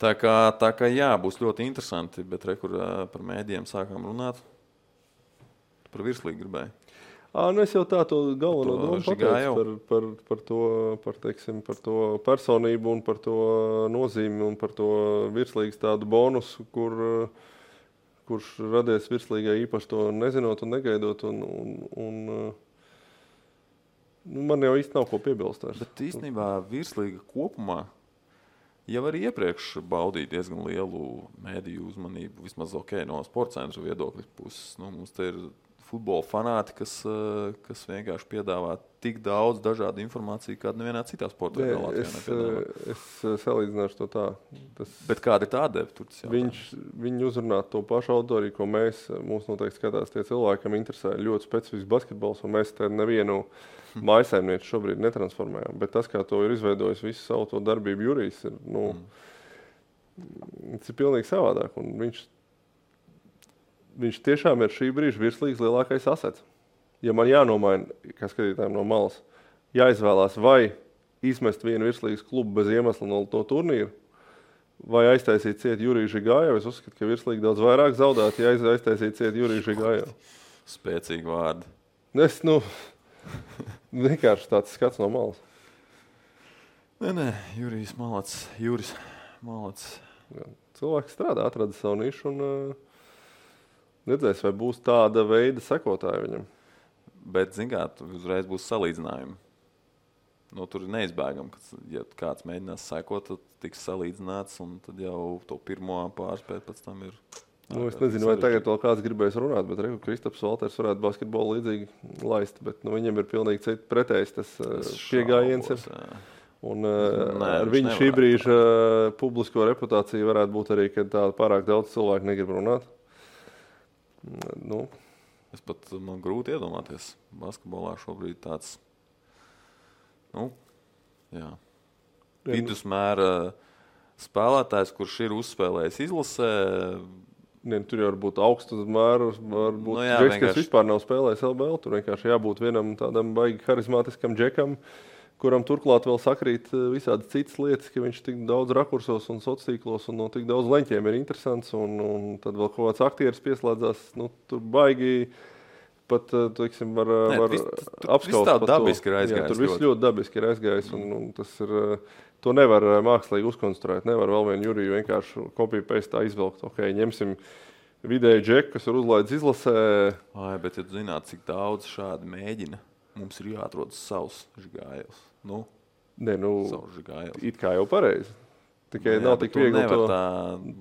Speaker 1: Tā kā jā, būs ļoti interesanti, bet kur par mēdījiem sākām runāt, par virslīgu gribēju.
Speaker 2: Es jau tā to galveno domu pateicu par to personību un par to nozīmi un par to virslīgas tādu bonusu, kurš radies virslīgai īpaši to nezinot un negaidot. Man jau īsti nav ko piebilst.
Speaker 1: Bet īstenībā virslīga kopumā jau arī iepriekš baudīja diezgan lielu mēdīju uzmanību, vismaz no sporta centra viedokļa puses. Mums te ir futbola fanāti, kas vienkārši piedāvā tik daudz dažādu informāciju, kāda nevienā citā sporta veidā Latvijā nepiedāvā.
Speaker 2: Es salīdzināšu to tā.
Speaker 1: Bet kāda ir tā deva?
Speaker 2: Viņi uzrunā to pašu auditoriju, ko mūs noteikti skatās tie cilvēki, kam interesē ļoti specifisks basketbols, un mēs te nevienu mājsaimnieku šobrīd netransformējam. Bet tas, kā to ir izveidojis visu savu to darbību Jurijs, tas ir pilnīgi savādāk. Un viņš tiešām ir šī brīža virslīgas lielākais asets. Ja man jānomaina, kā skatītājiem no malas, jāizvēlās vai izmest vienu virslīgas klubu bez iemesla no turnīra, vai aiztaisīt ciet Juriju Žigājevu, es uzskatu, ka virslīga daudz vairāk zaudēt, ja aiztaisīt ciet Juriju Žigājevu.
Speaker 1: Spēcīgi vārdi.
Speaker 2: Vienkārši tāds skats no malas.
Speaker 1: Nē, Jurijs malac.
Speaker 2: Cilvēks strādā, atrada savu nišu un redzēs, vai būs tāda veida sekotāji viņam.
Speaker 1: Bet, zin kā, uzreiz būs salīdzinājumi. Tur ir neizbēgam, ka, ja kāds mēģinās sekot, tad tiks salīdzināts, un tad jau to pirmo pārspēt pēc tam ir...
Speaker 2: Es nezinu, vai tagad vēl kāds gribēs runāt, bet Kristaps Valters varētu basketbolu līdzīgi laist, bet viņam ir pilnīgi citi pretējs tas piegājiens ir. Un ar viņu šī brīža publisko reputāciju varētu būt arī, ka tā pārāk daudz cilvēku negrib runāt.
Speaker 1: Man grūti iedomāties. Basketbolā šobrīd tāds vidusmēra spēlētājs, kurš ir uzspēlējis izlasē.
Speaker 2: Tur jau var būt augstu mēru, varbūt džeks, kas vispār nav spēlējis LBL. Tur vienkārši jābūt vienam tādam baigi harizmātiskam džekam, kuram turklāt vēl sakrīt visādi citas lietas, ka viņš tik daudz rakursos un sociālos un no tik daudz leņķiem ir interesants, un tad vēl kaut kāds aktieris pieslēdzās, tur baigi pat, teiksim, var apskaust
Speaker 1: par to. Dabiski ir aizgājis.
Speaker 2: Tur viss ļoti dabiski ir aizgājis, un tas ir, to nevar mākslīgi uzkonstruēt, nevar vēl vienu Juriju vienkārši copy-paste izvelkt. Ok, ņemsim vidēju džeku, kas ir uzlaidis izlasē.
Speaker 1: Bet ja tu zināt, cik daudz šādi mēģina, mums ir jāatrod savs Žigājevs.
Speaker 2: Savs Žigājevs. It kā jau pareizi. Tikai nav tik viegli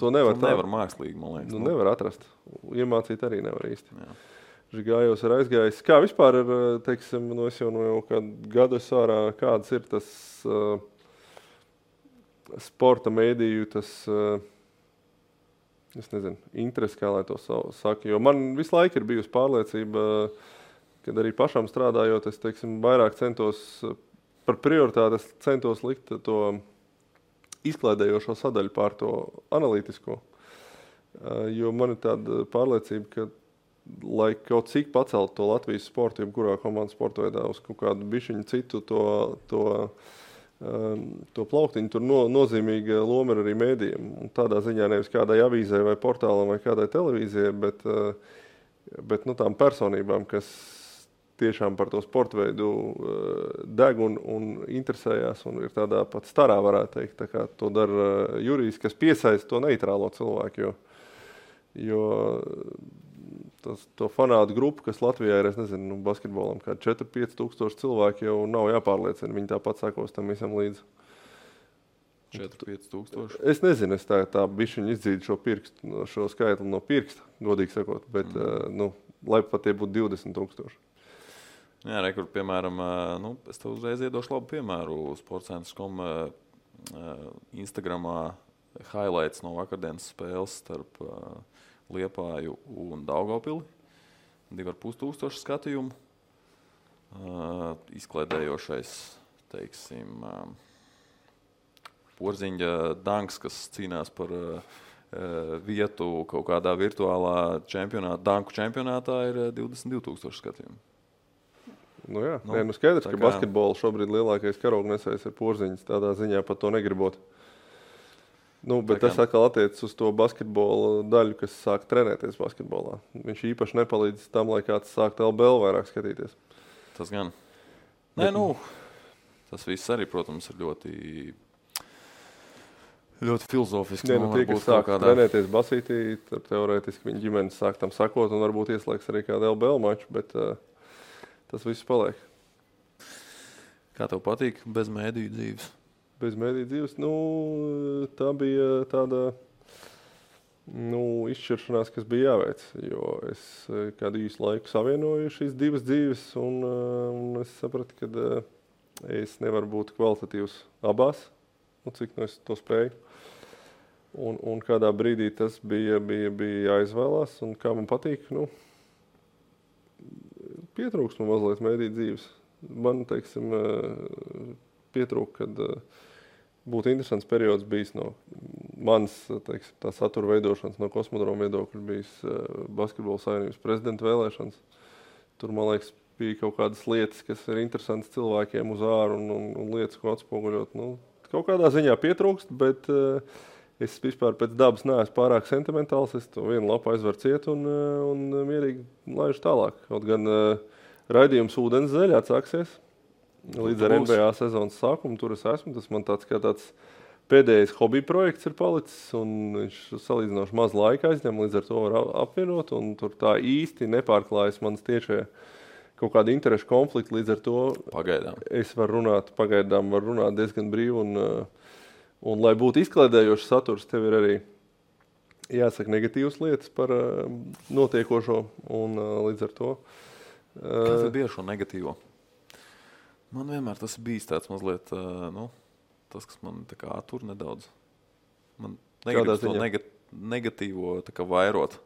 Speaker 2: to nevar
Speaker 1: mākslīgi, man liekas.
Speaker 2: Nevar atrast. Iemācīt arī nevar īsti. Jā. Žigājevs ir aizgājis. Kā vispār ir, teiksim, es jau kādu gadu ārā, kāds ir tas sporta mēdīju, tas, es nezinu, interesi, kā lai to saka. Jo man visu laiku ir bijusi pārliecība, kad arī pašam strādājot, es, teiksim, vairāk par prioritāti centos likt to izklaidējošo sadaļu pār to analītisko. Jo man ir tāda pārliecība, ka, lai kaut cik pacelt to Latvijas sportu, kurā komandas sporta veidā uz kaut kādu bišķiņu citu to plauktiņu, tur nozīmīga loma ir arī mēdījiem. Un tādā ziņā nevis kādai avīzē vai portālam vai kādai televīzijai, bet tām personībām, kas tiešām par to sporta veidu deg un interesējās un ir tādā pat starā, varētu teikt. Tā kā to dara Jurijs, kas piesaista to neitrālo cilvēku, jo to fanātu grupu, kas Latvijā ir, es nezinu, basketbolam, kā 4-5 tūkstoši cilvēki jau nav jāpārliecina. Viņi tāpat sakos tam visam līdzi.
Speaker 1: 4-5 tūkstoši.
Speaker 2: Es nezinu, es tā bišķiņu izdzīdu šo skaitli no pirksta, godīgi sakot, bet, lai pat tie būtu 20,000.
Speaker 1: Jā, kur, piemēram, es tev uzreiz iedošu labu piemēru. Sportcentrs.com Instagramā highlights no vakardienas spēles starp Liepāju un Daugavpili. 2,5 skatījumu. Izklaidējošais, teiksim, Porziņa danks, kas cīnās par vietu kaut kādā virtuālā danku čempionātā, ir 22,000 skatījumu.
Speaker 2: Nu jā, skaidrs, ka basketbola šobrīd lielākais karognesējs ir Porziņš, tādā ziņā pat to negribot. Bet tas atkal attiecas uz to basketbola daļu, kas sāk trenēties basketbolā. Viņš īpaši nepalīdz tam, lai kāds sāktu LBL vairāk skatīties.
Speaker 1: Tas gan. Tas viss arī, protams, ir ļoti filozofiski.
Speaker 2: Tie, kas sāk trenēties basītī, tad teorētiski viņa ģimenes sāk tam sakot un varbūt ieslēgs arī kādu LBL maču, bet tas viss paliek.
Speaker 1: Kā tev patīk bez mēdīju dzīves?
Speaker 2: Bez mēdīju dzīves? Tā bija tāda izšķiršanās, kas bija jāveic, jo es kādu īsu laiku savienoju šīs divas dzīves un es sapratu, ka es nevaru būt kvalitatīvs abās, cik es to spēju. Un kādā brīdī tas bija jāizvēlās, un kā man patīk, pietrūks man mazliet mēdīju dzīves. Man, teiksim, pietrūk, kad būtu interesants periods bijis no manas, teiksim, tā satura veidošanas, no Kosmodroma viedokļa bijis Basketbola savienības prezidenta vēlēšanas. Tur, man liekas, bija kaut kādas lietas, kas ir interesantas cilvēkiem uz āru un lietas, ko atspoguļot. Kaut kādā ziņā pietrūkst, bet es vispār pēc dabas neesmu pārāk sentimentāls. Es to vienu lapu aizveru ciet un mierīgi laižu tālāk. Kaut gan raidījums Ūdens zeļā atsāksies līdz ar NBA sezonas sākumu. Tur es esmu. Tas man tāds pēdējais hobija projekts ir palicis, un viņš salīdzinoši maz laika aizņem, līdz ar to var apvienot, un tur tā īsti nepārklājas manas tiešie kaut kāda interešu konflikta, līdz ar to
Speaker 1: pagaidām.
Speaker 2: Es varu runāt diezgan brīvi, un lai būtu izklaidējošs saturs, tev ir arī jāsaka negatīvas lietas par notiekošo, un līdz ar to.
Speaker 1: Kas ir bieži šo negatīvo? Man vienmēr tas ir bijis tāds mazliet, tas, kas man tā kā attur nedaudz. Man negribas to negatīvo tā kā vairot.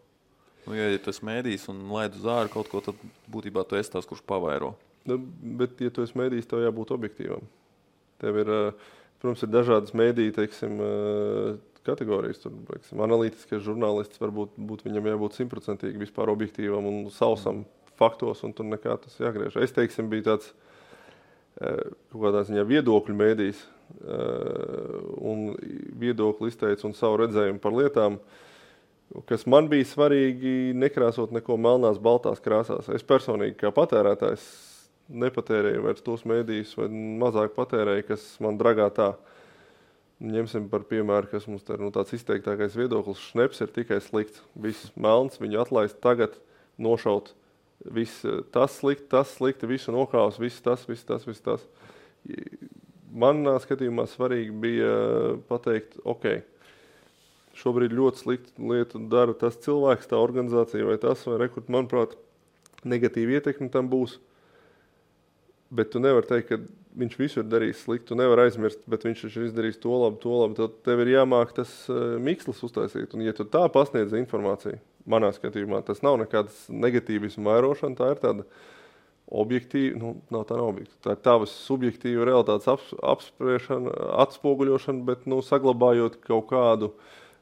Speaker 1: Ja tu esi mēdījis un laid uz āru kaut ko, tad būtībā tu esi tās, kurš pavairo.
Speaker 2: Bet, ja tu esi mēdījis, tev jābūt objektīvam. Tev ir, protams, ir dažādas mēdīju, teiksim, kategorijas. Tur, teiksim, analītiskais žurnālists varbūt viņam jābūt 100% vispār objektīvam un sausam faktos, un tur nekā tas jāgriež. Es, teiksim, biju tāds kaut kādā ziņā viedokļu mēdījis un viedokli izteicu un savu redzējumu par lietām, kas man bija svarīgi nekrāsot neko melnās, baltās krāsās. Es personīgi kā patērētājs nepatērēju vairs tos mēdījus vai mazāk patērēju, kas man dragā tā. Ņemsim par piemēru, kas mums tā ir tāds izteiktākais viedoklis. Šneps ir tikai slikts. Viss melns, viņu atlaist tagad, nošaut. Viss tas slikti, visu nokāvs, viss tas. Manā skatījumā svarīgi bija pateikt, šobrīd ļoti sliktu lietu dara tas cilvēks, tā organizācija vai tas, vai rekrut, manuprāt, negatīva ietekme tam būs. Bet tu nevari teikt, ka viņš visu ir darījis slikti, tu nevari aizmirst, bet viņš ir izdarījis to labi, tad tev ir jāmāk tas mikslis uztaisīt. Un ja tu tā pasniedz informāciju, manā skatījumā, tas nav nekāds negatīvismu vairošana, tā ir tāda objektīva, nav objektīva, tā ir tavas subjektīva realitātes apspriešana, atspoguļošana, bet saglabājot kaut kādu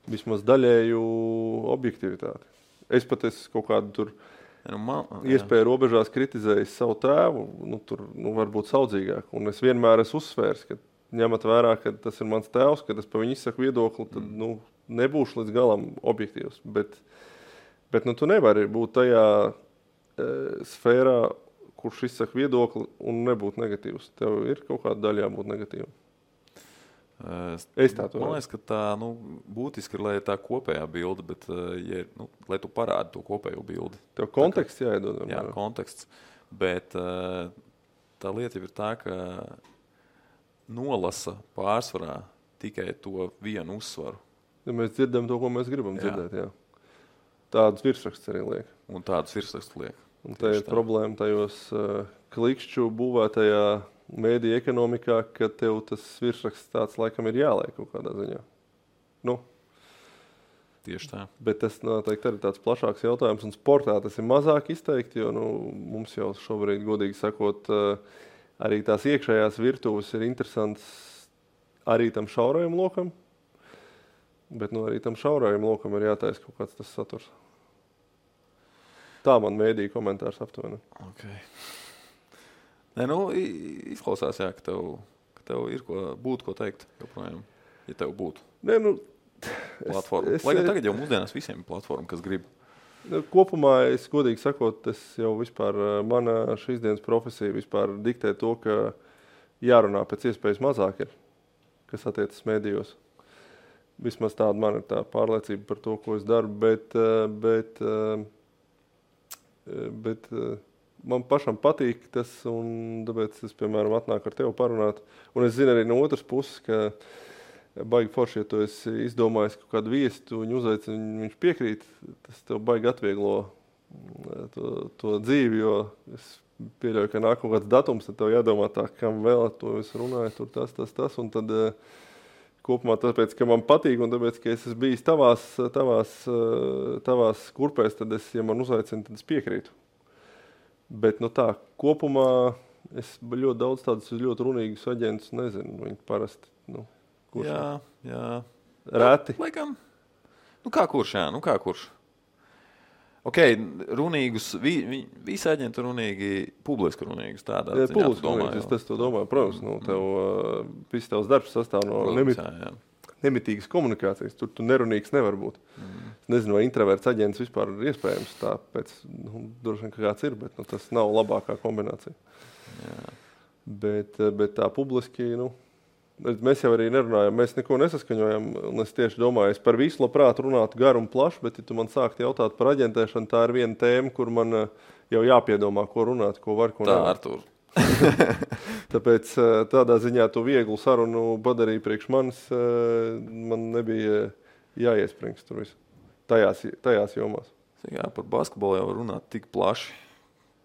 Speaker 2: vismaz daļēju objektivitāti. Es pat esmu kaut kādu tur iespēju robežās kritizējis savu tēvu, tur varbūt saudzīgāk. Un es vienmēr esmu uzsvērs, ka ņemat vērā, ka tas ir mans tēvs, kad es pa viņu izsaku viedokli, tad nebūšu līdz galam objektīvs. Bet tu nevari būt tajā sfērā, kurš izsaka viedokli un nebūt negatīvs. Tev ir kaut kāda daļa jābūt negatīva.
Speaker 1: Man liekas, ka tā būtiski ir, lai ir tā kopējā bilde, bet lai tu parādi to kopējo bildi.
Speaker 2: Tev konteksts jāiedod.
Speaker 1: Jā, konteksts. Bet tā lieta jau ir tā, ka nolasa pārsvarā tikai to vienu uzsvaru.
Speaker 2: Ja mēs dzirdam to, ko mēs gribam dzirdēt, jā. Tādus virsrakstus arī liek.
Speaker 1: Un tādus virsrakstus liek.
Speaker 2: Un tā ir problēma tajos klikšķu būvētajā mēdīja ekonomikā, ka tev tas virsraksts tāds laikam ir jāliek kaut kādā ziņā. Nu.
Speaker 1: Tieši tā.
Speaker 2: Bet tas noteikti arī tāds plašāks jautājums, un sportā tas ir mazāk izteikti, jo mums jau šobrīd, godīgi sakot, arī tās iekšējās virtuves ir interesants arī tam šaurajam lokam, bet arī tam šaurajam lokam ir jātaisa kaut kāds tas saturs. Tā man mēdīja komentārs aptuveni.
Speaker 1: Okay. Nē, izklausās, jā, ka tev ir būtu ko teikt joprojām, ja tev būtu.
Speaker 2: Nē,
Speaker 1: platforma. Lai gan tagad jau mūsdienās visiem ir platforma, kas grib.
Speaker 2: Kopumā, es godīgi sakot, jau vispār mana šīs dienas profesija vispār diktē to, ka jārunā pēc iespējas mazāk ir, kas attiecas mēdījos. Vismaz tāda man ir tā pārliecība par to, ko es daru, bet man pašam patīk tas, un tāpēc es, piemēram, atnāku ar tevi parunāt. Un es zinu arī no otras puses, ka baigi forši, ja tu esi izdomājis kaut kādu viesi, tu viņu uzaicini, viņš piekrīt, tas tev baigi atvieglo to dzīvi, jo es pieļauju, ka nāk kaut kāds datums, tad tev jādomā tā, kam vēl to es runāju, tur tas, un tad kopumā tāpēc, ka man patīk, un tāpēc, ka es esmu bijis tavās kurpēs, tad ja man uzaicina, tad es piekrītu. Bet tā, kopumā es ļoti daudz tādus ļoti runīgus aģentus nezinu, viņi parasti, kurš?
Speaker 1: Jā.
Speaker 2: Rēti?
Speaker 1: Laikam. Kā kurš, jā, kā kurš. Ok, runīgus, visi aģenti runīgi, publiski runīgus tādā ziņā,
Speaker 2: publiski runīgus, es to domāju. Protams, tev viss tavs darbs sastāv no nemitīgas komunikācijas. Tur tu nerunīgs nevar būt. Es nezinu, vai introverts aģents vispār ir iespējams, tāpēc, droši vien, ka kāds ir, bet tas nav labākā kombinācija.
Speaker 1: Jā.
Speaker 2: Bet tā publiski, mēs jau arī nerunājam, mēs neko nesaskaņojam, un es tieši domāju, es par visu labprāt runātu garu un plašu, bet ja tu man sāktu jautāt par aģentēšanu, tā ir viena tēma, kur man jau jāpiedomā, ko runāt, ko var, ko nevar.
Speaker 1: Artur.
Speaker 2: Tāpēc tādā ziņā tu vieglu sarunu padarīja priekš manis, man nebija jāiespringst tur visu, tajās jomās.
Speaker 1: Jā, par basketbolu jau runāt tik plaši.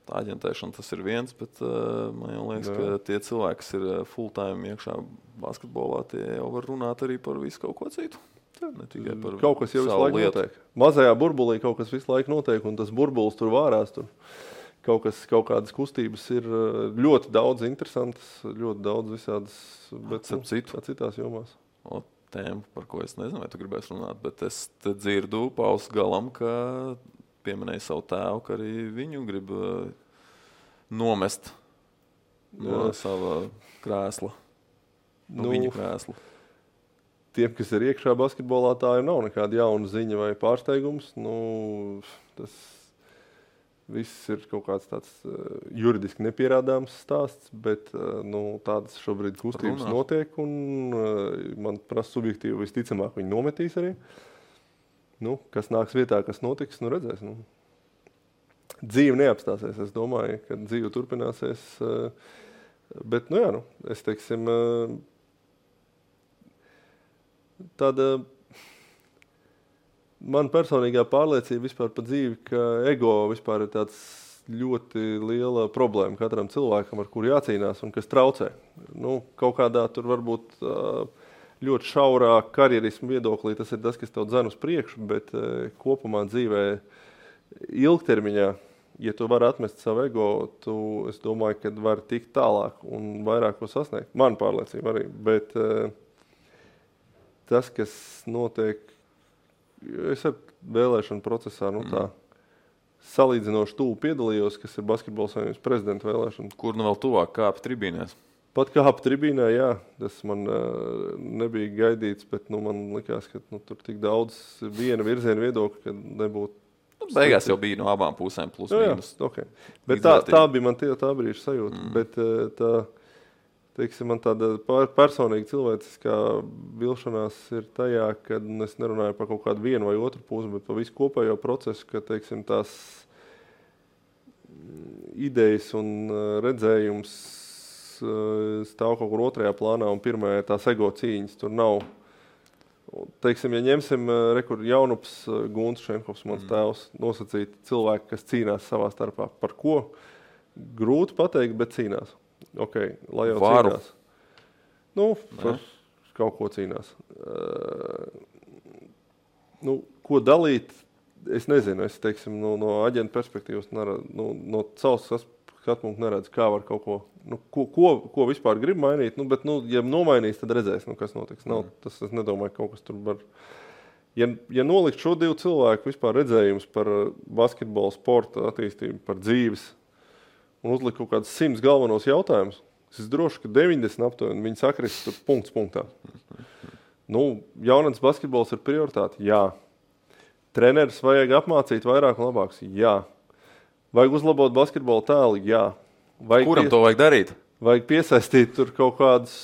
Speaker 1: Tā aģentēšana tas ir viens, bet man jau liekas, ka tie cilvēki, kas ir full-time iekšā basketbolā, tie jau var runāt arī par visu kaut ko citu. Ne tikai par
Speaker 2: kaut kas jau visu laiku notiek. Mazajā burbulī kaut kas visu laiku notiek, un tas burbulis tur vārās. Tur kaut kādas kustības ir ļoti daudz interesantas, ļoti daudz visādas, bet citās jomās.
Speaker 1: Tēma, par ko es nezinu, vai tu gribēsi runāt, bet es te dzirdu Pauls galam, ka pieminēja savu tēvu, ka arī viņu grib nomest no sava krēsla, viņa krēsla.
Speaker 2: Tiem, kas ir iekšā basketbolā, tā nav nekāda jauna ziņa vai pārsteigums. Tas viss ir kaut kāds tāds juridiski nepierādāms stāsts, bet tādas šobrīd kustības notiek, un man prasa subjektīvi visticamāk viņi nometīs arī. Kas nāks vietā, kas notiks, redzēs. Dzīve neapstāsies, es domāju, ka dzīve turpināsies. Bet, es teiksim, tāda man personīgā pārliecība vispār par dzīvi, ka ego vispār ir tāds ļoti liela problēma katram cilvēkam, ar kuru jācīnās un kas traucē. Kaut kādā tur varbūt ļoti šaurā karjerismu viedoklī tas ir tas, kas tev dzen uz priekšu, bet kopumā dzīvē ilgtermiņā, ja tu vari atmest savu ego, es domāju, ka vari tikt tālāk un vairāk ko sasniegt. Man pārliecība arī, bet tas, kas notiek, es ar vēlēšanu procesā, tā salīdzinoši tuvu piedalījos, kas ir Basketbola savienības prezidenta vēlēšana.
Speaker 1: Kur vēl tuvāk kāp tribīnēs?
Speaker 2: Pat kāp tribīnē, jā, tas man nebija gaidīts, bet man likās, ka tur tik daudz viena virziena viedokļa, ka nebūtu.
Speaker 1: Beigās jau bija no abām pusēm plus mīnus.
Speaker 2: Okay. Bet tā bija man tā brīža sajūta, bet tā, teiksim, man tāda personīga cilvēciskā vilšanās ir tajā, kad es nerunāju par kaut kādu vienu vai otru pusi, bet par visu kopējo procesu, ka, teiksim, tās idejas un redzējums stāv kaut kur otrajā plānā un pirmajā ir tās ego cīņas. Tur nav, teiksim, ja ņemsim Jaunups Gunts Šenkovs, mans tēvs, nosacīt cilvēki, kas cīnās savā starpā. Par ko? Grūti pateikt, bet cīnās. Ok, lai jau
Speaker 1: Varu.
Speaker 2: cīnās. Nu, par kaut ko cīnās. Ko dalīt, es nezinu. Es, teiksim, no aģenta perspektīvas no savas skatpunkta neredzu, kā var kaut ko, ko vispār grib mainīt. Bet, ja nomainīs, tad redzēs, kas notiks. Tas, es nedomāju, kaut kas tur var. Ja nolikt šo divu cilvēku vispār redzējums par basketbolu, sporta attīstību, par dzīves un uzlikt kaut kādus 100 galvenos jautājumus, es droši, ka 90 aptuveni viņi sakrist tur punkts punktā. Jaunatnes basketbols ir prioritāte? Jā. Treneris vajag apmācīt vairāk un labāks? Jā. Vajag uzlabot basketbola tēlu? Jā.
Speaker 1: Kuram to vajag darīt?
Speaker 2: Vajag piesaistīt tur kaut kādus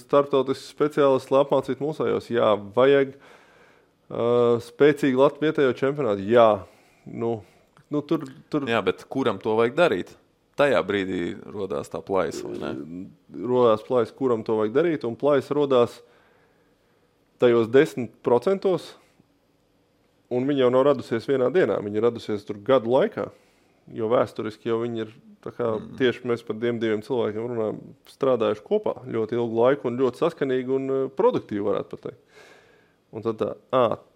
Speaker 2: starptautiskus speciālistus, lai apmācītu mūsējos? Jā. Vajag spēcīgi Latvijas vietējo čempionātu? Jā. Tur...
Speaker 1: Jā, bet kuram to vajag darīt? Tajā brīdī rodās tā plaisa, vai ne?
Speaker 2: Rodās plaisa, kuram to vajag darīt, un plaisa rodās tajos 10%, un viņa jau nav radusies vienā dienā, viņa ir radusies tur gadu laikā, jo vēsturiski jau viņi ir, tā kā tieši mēs par diviem cilvēkiem runājam, strādājuši kopā ļoti ilgu laiku un ļoti saskanīgi un produktīvi varētu pateikt. Un tad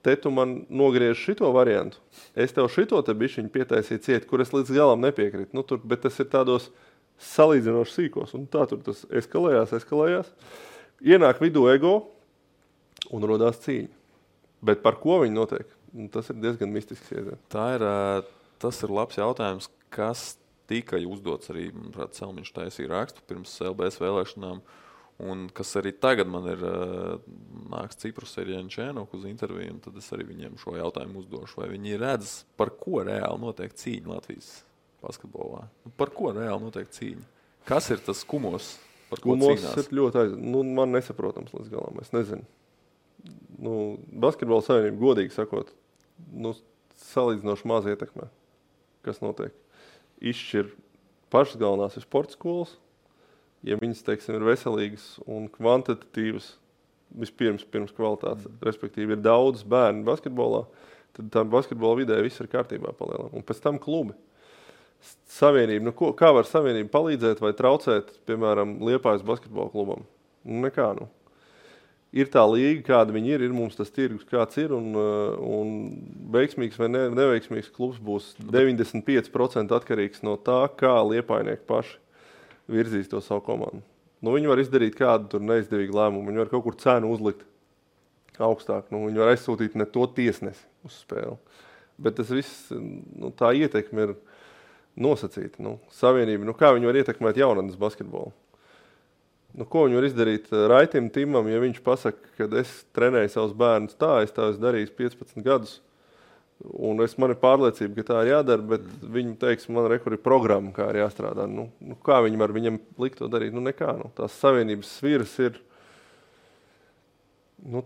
Speaker 2: te tu man nogriež šito variantu, es tev šito te bišķiņu pietaisīju ciet, kur es līdz galam nepiekrītu, bet tas ir tādos salīdzinoši sīkos, un tā tur tas eskalējās, ienāk vidū ego, un rodās cīņa. Bet par ko viņi notiek? Tas ir diezgan mistisks iedziens.
Speaker 1: Tas ir labs jautājums, kas tika uzdots arī, manuprāt, Selmiņš taisīja rakstu pirms LBS vēlēšanām, un kas arī tagad man ir nāks Ciprus Erjančēnok uz interviju, un tad es arī viņiem šo jautājumu uzdošu. Vai viņi redz, par ko reāli notiek cīņa Latvijas basketbolā? Par ko reāli notiek cīņa? Kas ir tas kumos, par ko cīnās?
Speaker 2: Kumos ir ļoti man nesaprotams līdz galam, es nezinu. Basketbola savienība, godīgi sakot, salīdzinoši maz ietekmē, kas notiek. Izšķir pašas galvenās ir sporta skolas, ja viņas, teiksim, ir veselīgas un kvantitatīvas, vispirms kvalitātes, respektīvi ir daudz bērnu basketbolā, tad tā basketbola vidē viss ir kārtībā palielam. Un pēc tam klubi. Savienība, kā var savienība palīdzēt vai traucēt, piemēram, Liepājas basketbola klubam? Nekā, Ir tā līga, kāda viņi ir mums tas tirgus, kāds ir, un veiksmīgs vai neveiksmīgs klubs būs 95% atkarīgs no tā, kā liepājnieki paši virzīs to savu komandu. Viņi var izdarīt kādu tur neizdevīgu lēmumu, viņi var kaut kur cenu uzlikt augstāk, viņi var aizsūtīt ne to tiesnesi uz spēli. Bet tas viss, tā ietekme ir nosacīta. Savienība, kā viņi var ietekmēt jaunatnes basketbolu? Ko viņi var izdarīt Raitim Timam, ja viņš pasaka, ka es trenēju savus bērnus es tā esmu darījis 15 gadus, un man ir pārliecība, ka tā ir jādara, bet viņi teiks, man ir programma, kā ir jāstrādā. Kā viņi var viņam likt to darīt? Nekā. Tās savienības sviras ir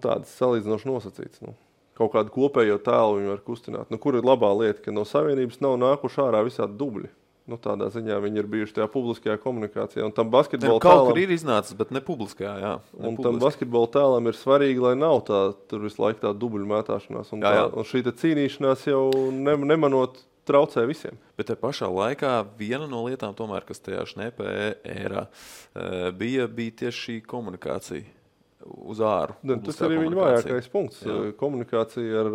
Speaker 2: tādas salīdzinoši nosacītas. Kaut kādu kopējo tēlu viņi var kustināt. Kur ir labā lieta, ka no savienības nav nākuši ārā visādi dubļi? Tādā ziņā viņi ir bijuši tajā publiskajā komunikācijā. Un tam basketbola
Speaker 1: tēlam... Kaut kur ir iznācis, bet ne publiskajā, jā.
Speaker 2: Un tam basketbola tēlam ir svarīgi, lai nav tur visu laiku tā dubļu mētāšanās. Un šī cīnīšanās jau nemanot traucē visiem.
Speaker 1: Bet te pašā laikā viena no lietām, tomēr, kas tajā šnepē ērā, bija tieši šī komunikācija uz āru.
Speaker 2: Tas arī viņa vājākais punkts. Jā. Komunikācija ar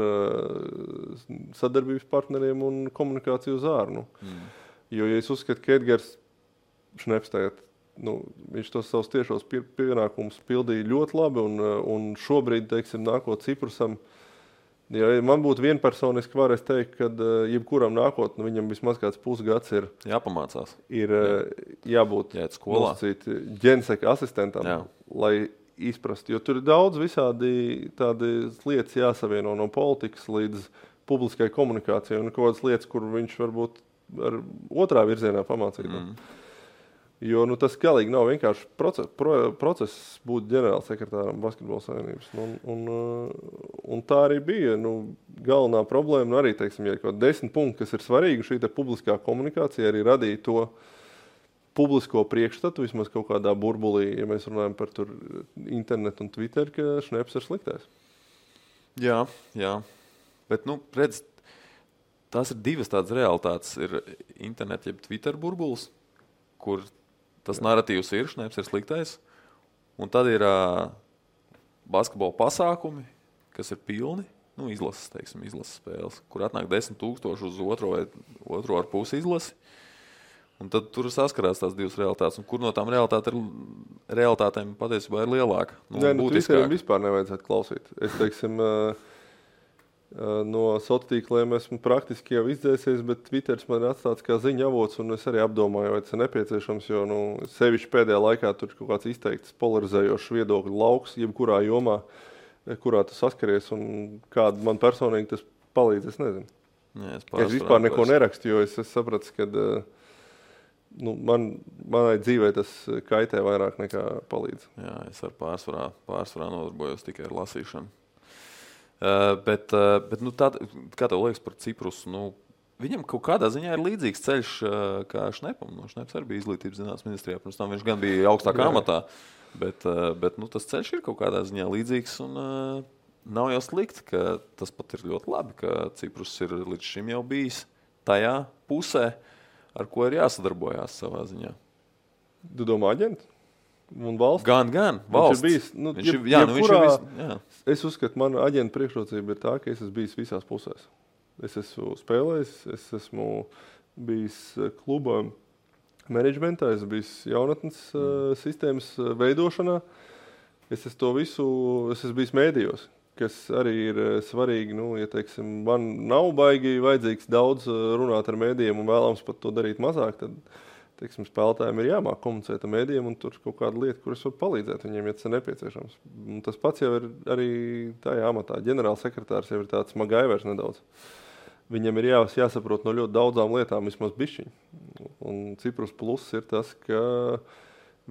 Speaker 2: sadarbības partneriem un komunikācija uz āru. Jo, ja es uzskatu, ka Edgars Šneps tagad, viņš tos savus tiešos pienākumus pildīja ļoti labi, un šobrīd, teiksim, nākot Ciprusam, ja man būtu vienpersoniski var, es teiktu, ka jebkuram nākot, viņam vismaz kāds pusgads ir
Speaker 1: jāpamācās.
Speaker 2: Ir jābūt ģenseka asistentam, lai izprastu, jo tur ir daudz visādi tādas lietas jāsavieno no politikas līdz publiskai komunikācijai, un kaut kādas lietas, kur viņš varbūt ar otrā virzienā pamācīt. Jo tas galīgi nav vienkārši process būt ģenerālsekretāram basketbola savienības. Un tā arī bija galvenā problēma. Arī, teiksim, ja kaut 10 punkti, kas ir svarīgi, šī publiskā komunikācija arī radīja to publisko priekšstatu, vismaz kaut kādā burbulī, ja mēs runājam par tur internetu un Twitter, ka Šneps ir sliktais.
Speaker 1: Jā. Bet, redz, tās ir divas tādas realitātes. Ir internet, jeb Twitter burbulis, kur tas narratīvs ir, Šneps ir sliktais. Un tad ir basketbola pasākumi, kas ir pilni, izlases spēles, kur atnāk 10,000 uz otro ar pusi izlasi. Un tad tur saskarās tās divas realitātes. Un kur no tām realitātēm patiesībā ir lielāka?
Speaker 2: Twitterim vispār nevajadzētu klausīt. Es, teiksim, no sociāliem tīkliem esmu praktiski jau izdzēsies, bet Twitters man ir atstāts kā ziņa avots, un es arī apdomāju, vai tas ir nepieciešams, jo, sevišķi pēdējā laikā tur kaut kāds izteikts polarizējošs viedokļu lauks, jebkurā jomā, kurā tu saskaries, un kāda man personīgi tas palīdz, es nezinu.
Speaker 1: Jā,
Speaker 2: es vispār neko nerakstu, jo es sapratu, ka manai dzīvē tas kaitē vairāk nekā palīdz.
Speaker 1: Jā, es ar pārsvarā nodarbojos tikai ar lasīšanu. Bet tad, kā tev liekas par Ciprusu? Viņam kaut kādā ziņā ir līdzīgs ceļš kā Šnepam. Šneps arī bija izglītības zinātnes ministrijā. Pirms tam viņš gan bija augstākā amatā. Bet tas ceļš ir kaut kādā ziņā līdzīgs. Un nav jau slikti, ka tas pat ir ļoti labi, ka Ciprus ir līdz šim jau bijis tajā pusē, ar ko ir jāsadarbojās savā ziņā.
Speaker 2: Tu domā aģenti? Un valsts?
Speaker 1: Gan valsts.
Speaker 2: Viņš ir bijis, es uzskatu, mana aģenta priekšrocība ir tā, ka es esmu bijis visās pusēs. Es esmu spēlējis, es esmu bijis kluba menedžmentā, es esmu bijis jaunatnes sistēmas veidošanā. Es esmu bijis mēdījos, kas arī ir svarīgi, ja, teiksim, man nav baigi vajadzīgs daudz runāt ar mēdījiem un vēlams pat to darīt mazāk, tad, teiksim, spēlētājiem ir jāmāk komunicēt ar mēdījiem un tur kaut kāda lieta, kuras var palīdzēt viņiem, ja tas ir nepieciešams. Un tas pats jau ir arī tajā amatā. Ģenerālsekretārs jau ir tāds magaivers nedaudz. Viņam ir jāsaprot no ļoti daudzām lietām vismaz bišķiņ. Un Ciprus plus ir tas, ka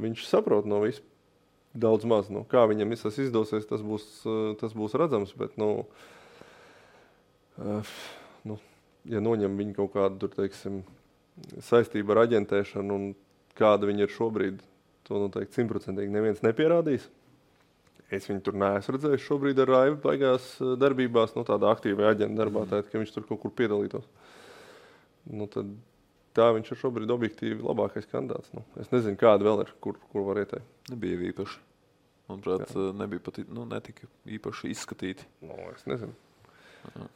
Speaker 2: viņš saprot no visu daudz maz. Kā viņam visas izdosies, tas būs redzams, bet, ja noņem viņu kaut kādu, tur, teiksim, saistību ar aģentēšanu un kāda viņa ir šobrīd, to noteikti 100% neviens nepierādīs. Es viņu tur neesmu redzējis šobrīd ar Raivu baigās darbībās, tādā aktīvajā aģenta darbā, tā, ka viņš tur kaut kur piedalītos. Tad tā viņš ir šobrīd objektīvi labākais kandidāts. Es nezinu, kāda vēl ir, kur var ieteikt.
Speaker 1: Nebija īpaši. Manuprāt, nebija pat, netika īpaši izskatīti.
Speaker 2: Es nezinu. Jā.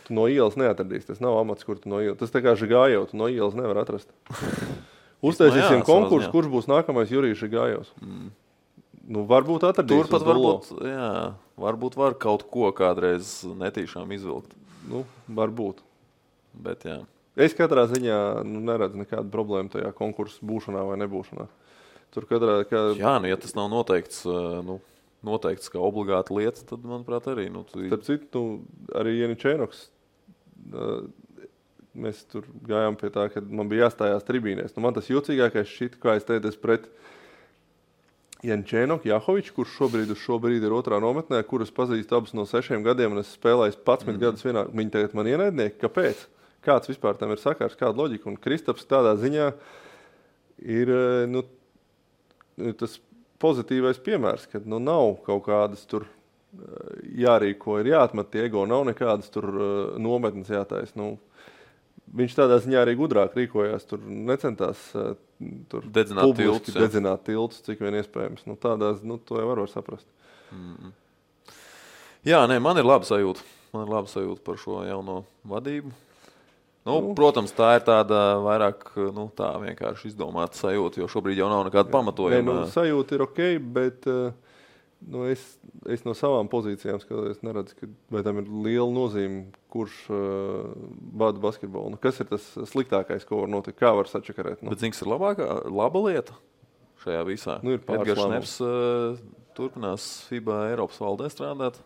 Speaker 2: Tu no ielas neatradīsi. Tas nav amats, kur tu no ielas. Tas tā kā Žigājov, tu no ielas nevar atrast. Uztaisīsim konkursu, kurš būs nākamais Jurijs Žigājovs. Varbūt atradīs.
Speaker 1: Turpat varbūt var kaut ko kādreiz netīšām izvilkt.
Speaker 2: Varbūt.
Speaker 1: Bet jā.
Speaker 2: Es katrā ziņā neredzu nekādu problēmu tajā konkursu būšanā vai nebūšanā. Tur
Speaker 1: Jā, ja tas nav noteikts kā obligāta lieta, tad, manuprāt, arī.
Speaker 2: Starp citu, arī Janičēnoks, mēs tur gājām pie tā, ka man bija jāstājās tribīnēs. Man tas jocīgākais šķita, kā es teicu, pret Janičēnoku, Jahoviču, kurš šobrīd ir otrā nometnē, kurus pazīstu abus no 6 gadiem, un es spēlēju 11 gadus vienā. Viņi tagad man ienaidnieki. Kāpēc? Kāds vispār tam ir sakars, kāda loģika? Un Kristaps tādā ziņā ir tas pozitīvais piemērs, ka nav kaut kādas tur jārīko, ir jāatmet tie ego, nav nekādas tur nometnes jātais. Viņš tādā ziņā arī gudrāk rīkojās, tur necentās tur dedzināt tiltus, cik vien iespējams. To jau var saprast.
Speaker 1: Jā, man ir laba sajūta. Par šo jauno vadību. Protams, tā ir tāda vairāk tā vienkārši izdomāta sajūta, jo šobrīd jau nav nekāda pamatojuma.
Speaker 2: Sajūta ir ok, bet es no savām pozīcijām skatos, neredzu, vai tam ir liela nozīme, kurš vada basketbolu. Kas ir tas sliktākais, ko var notikt? Kā var sačakarēt?
Speaker 1: Bet zini, kas ir laba lieta šajā visā? Edgars Šneps turpinās FIBA Eiropas valdē strādāt.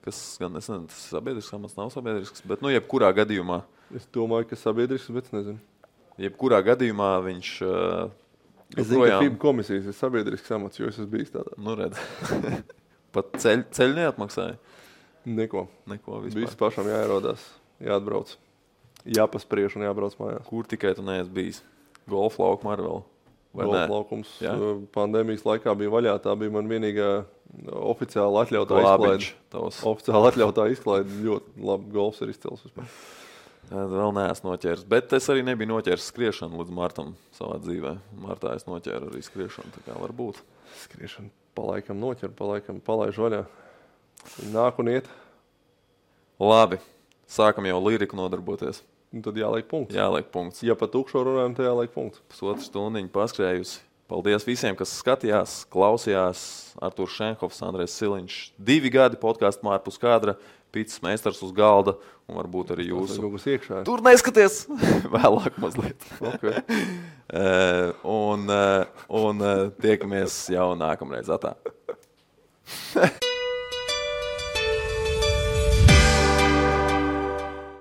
Speaker 1: Kas gan, es nezinu, tas ir sabiedrisks amats, nav sabiedrisks, bet jebkurā gadījumā.
Speaker 2: Es domāju, ka sabiedrisks, bet es nezinu.
Speaker 1: Jebkurā gadījumā viņš
Speaker 2: es zinu, ka FIBA komisijas ir sabiedrisks amats, jo es esmu bijis tādā.
Speaker 1: Redz. Pat ceļu neatmaksāja?
Speaker 2: Neko
Speaker 1: vispār.
Speaker 2: Viss pašam jāierodās, jāatbrauc. Jāpaspriež un jābrauc mājās.
Speaker 1: Kur tikai tu neesi bijis? Golfa laukuma arī vēl.
Speaker 2: Golfa laukums pandēmijas laikā bija vaļā. Tā bija man vienīgā oficiāli atļautā izklaide. Oficiāli atļautā izklaide. Ļoti labi golfs ir izcils vispār.
Speaker 1: Vēl neesmu noķēris, bet es arī nebiju noķēris skriešanu līdz martam savā dzīvē. Martā es noķēru arī skriešanu, tā kā var būt.
Speaker 2: Skriešanu palaikam noķer, palaikam palaiž vaļā. Nāk un iet.
Speaker 1: Labi, sākam jau liriku nodarboties.
Speaker 2: Un tad jāliek punkts.
Speaker 1: Jāliek punkts.
Speaker 2: Ja pa tukšo runājam, tad jāliek punkts.
Speaker 1: Pusotru stundiņu paskrējusi. Paldies visiem, kas skatījās, klausījās. Artūrs Šenhofs, Andrejs Siliņš. 2 gadi podkāstu Mārpus kadra. Pīcis meistars uz galda un varbūt arī jūsu. Tur neskaties! Vēlāk mazliet.
Speaker 2: Okay.
Speaker 1: un tiekamies jau nākamreiz. Atā.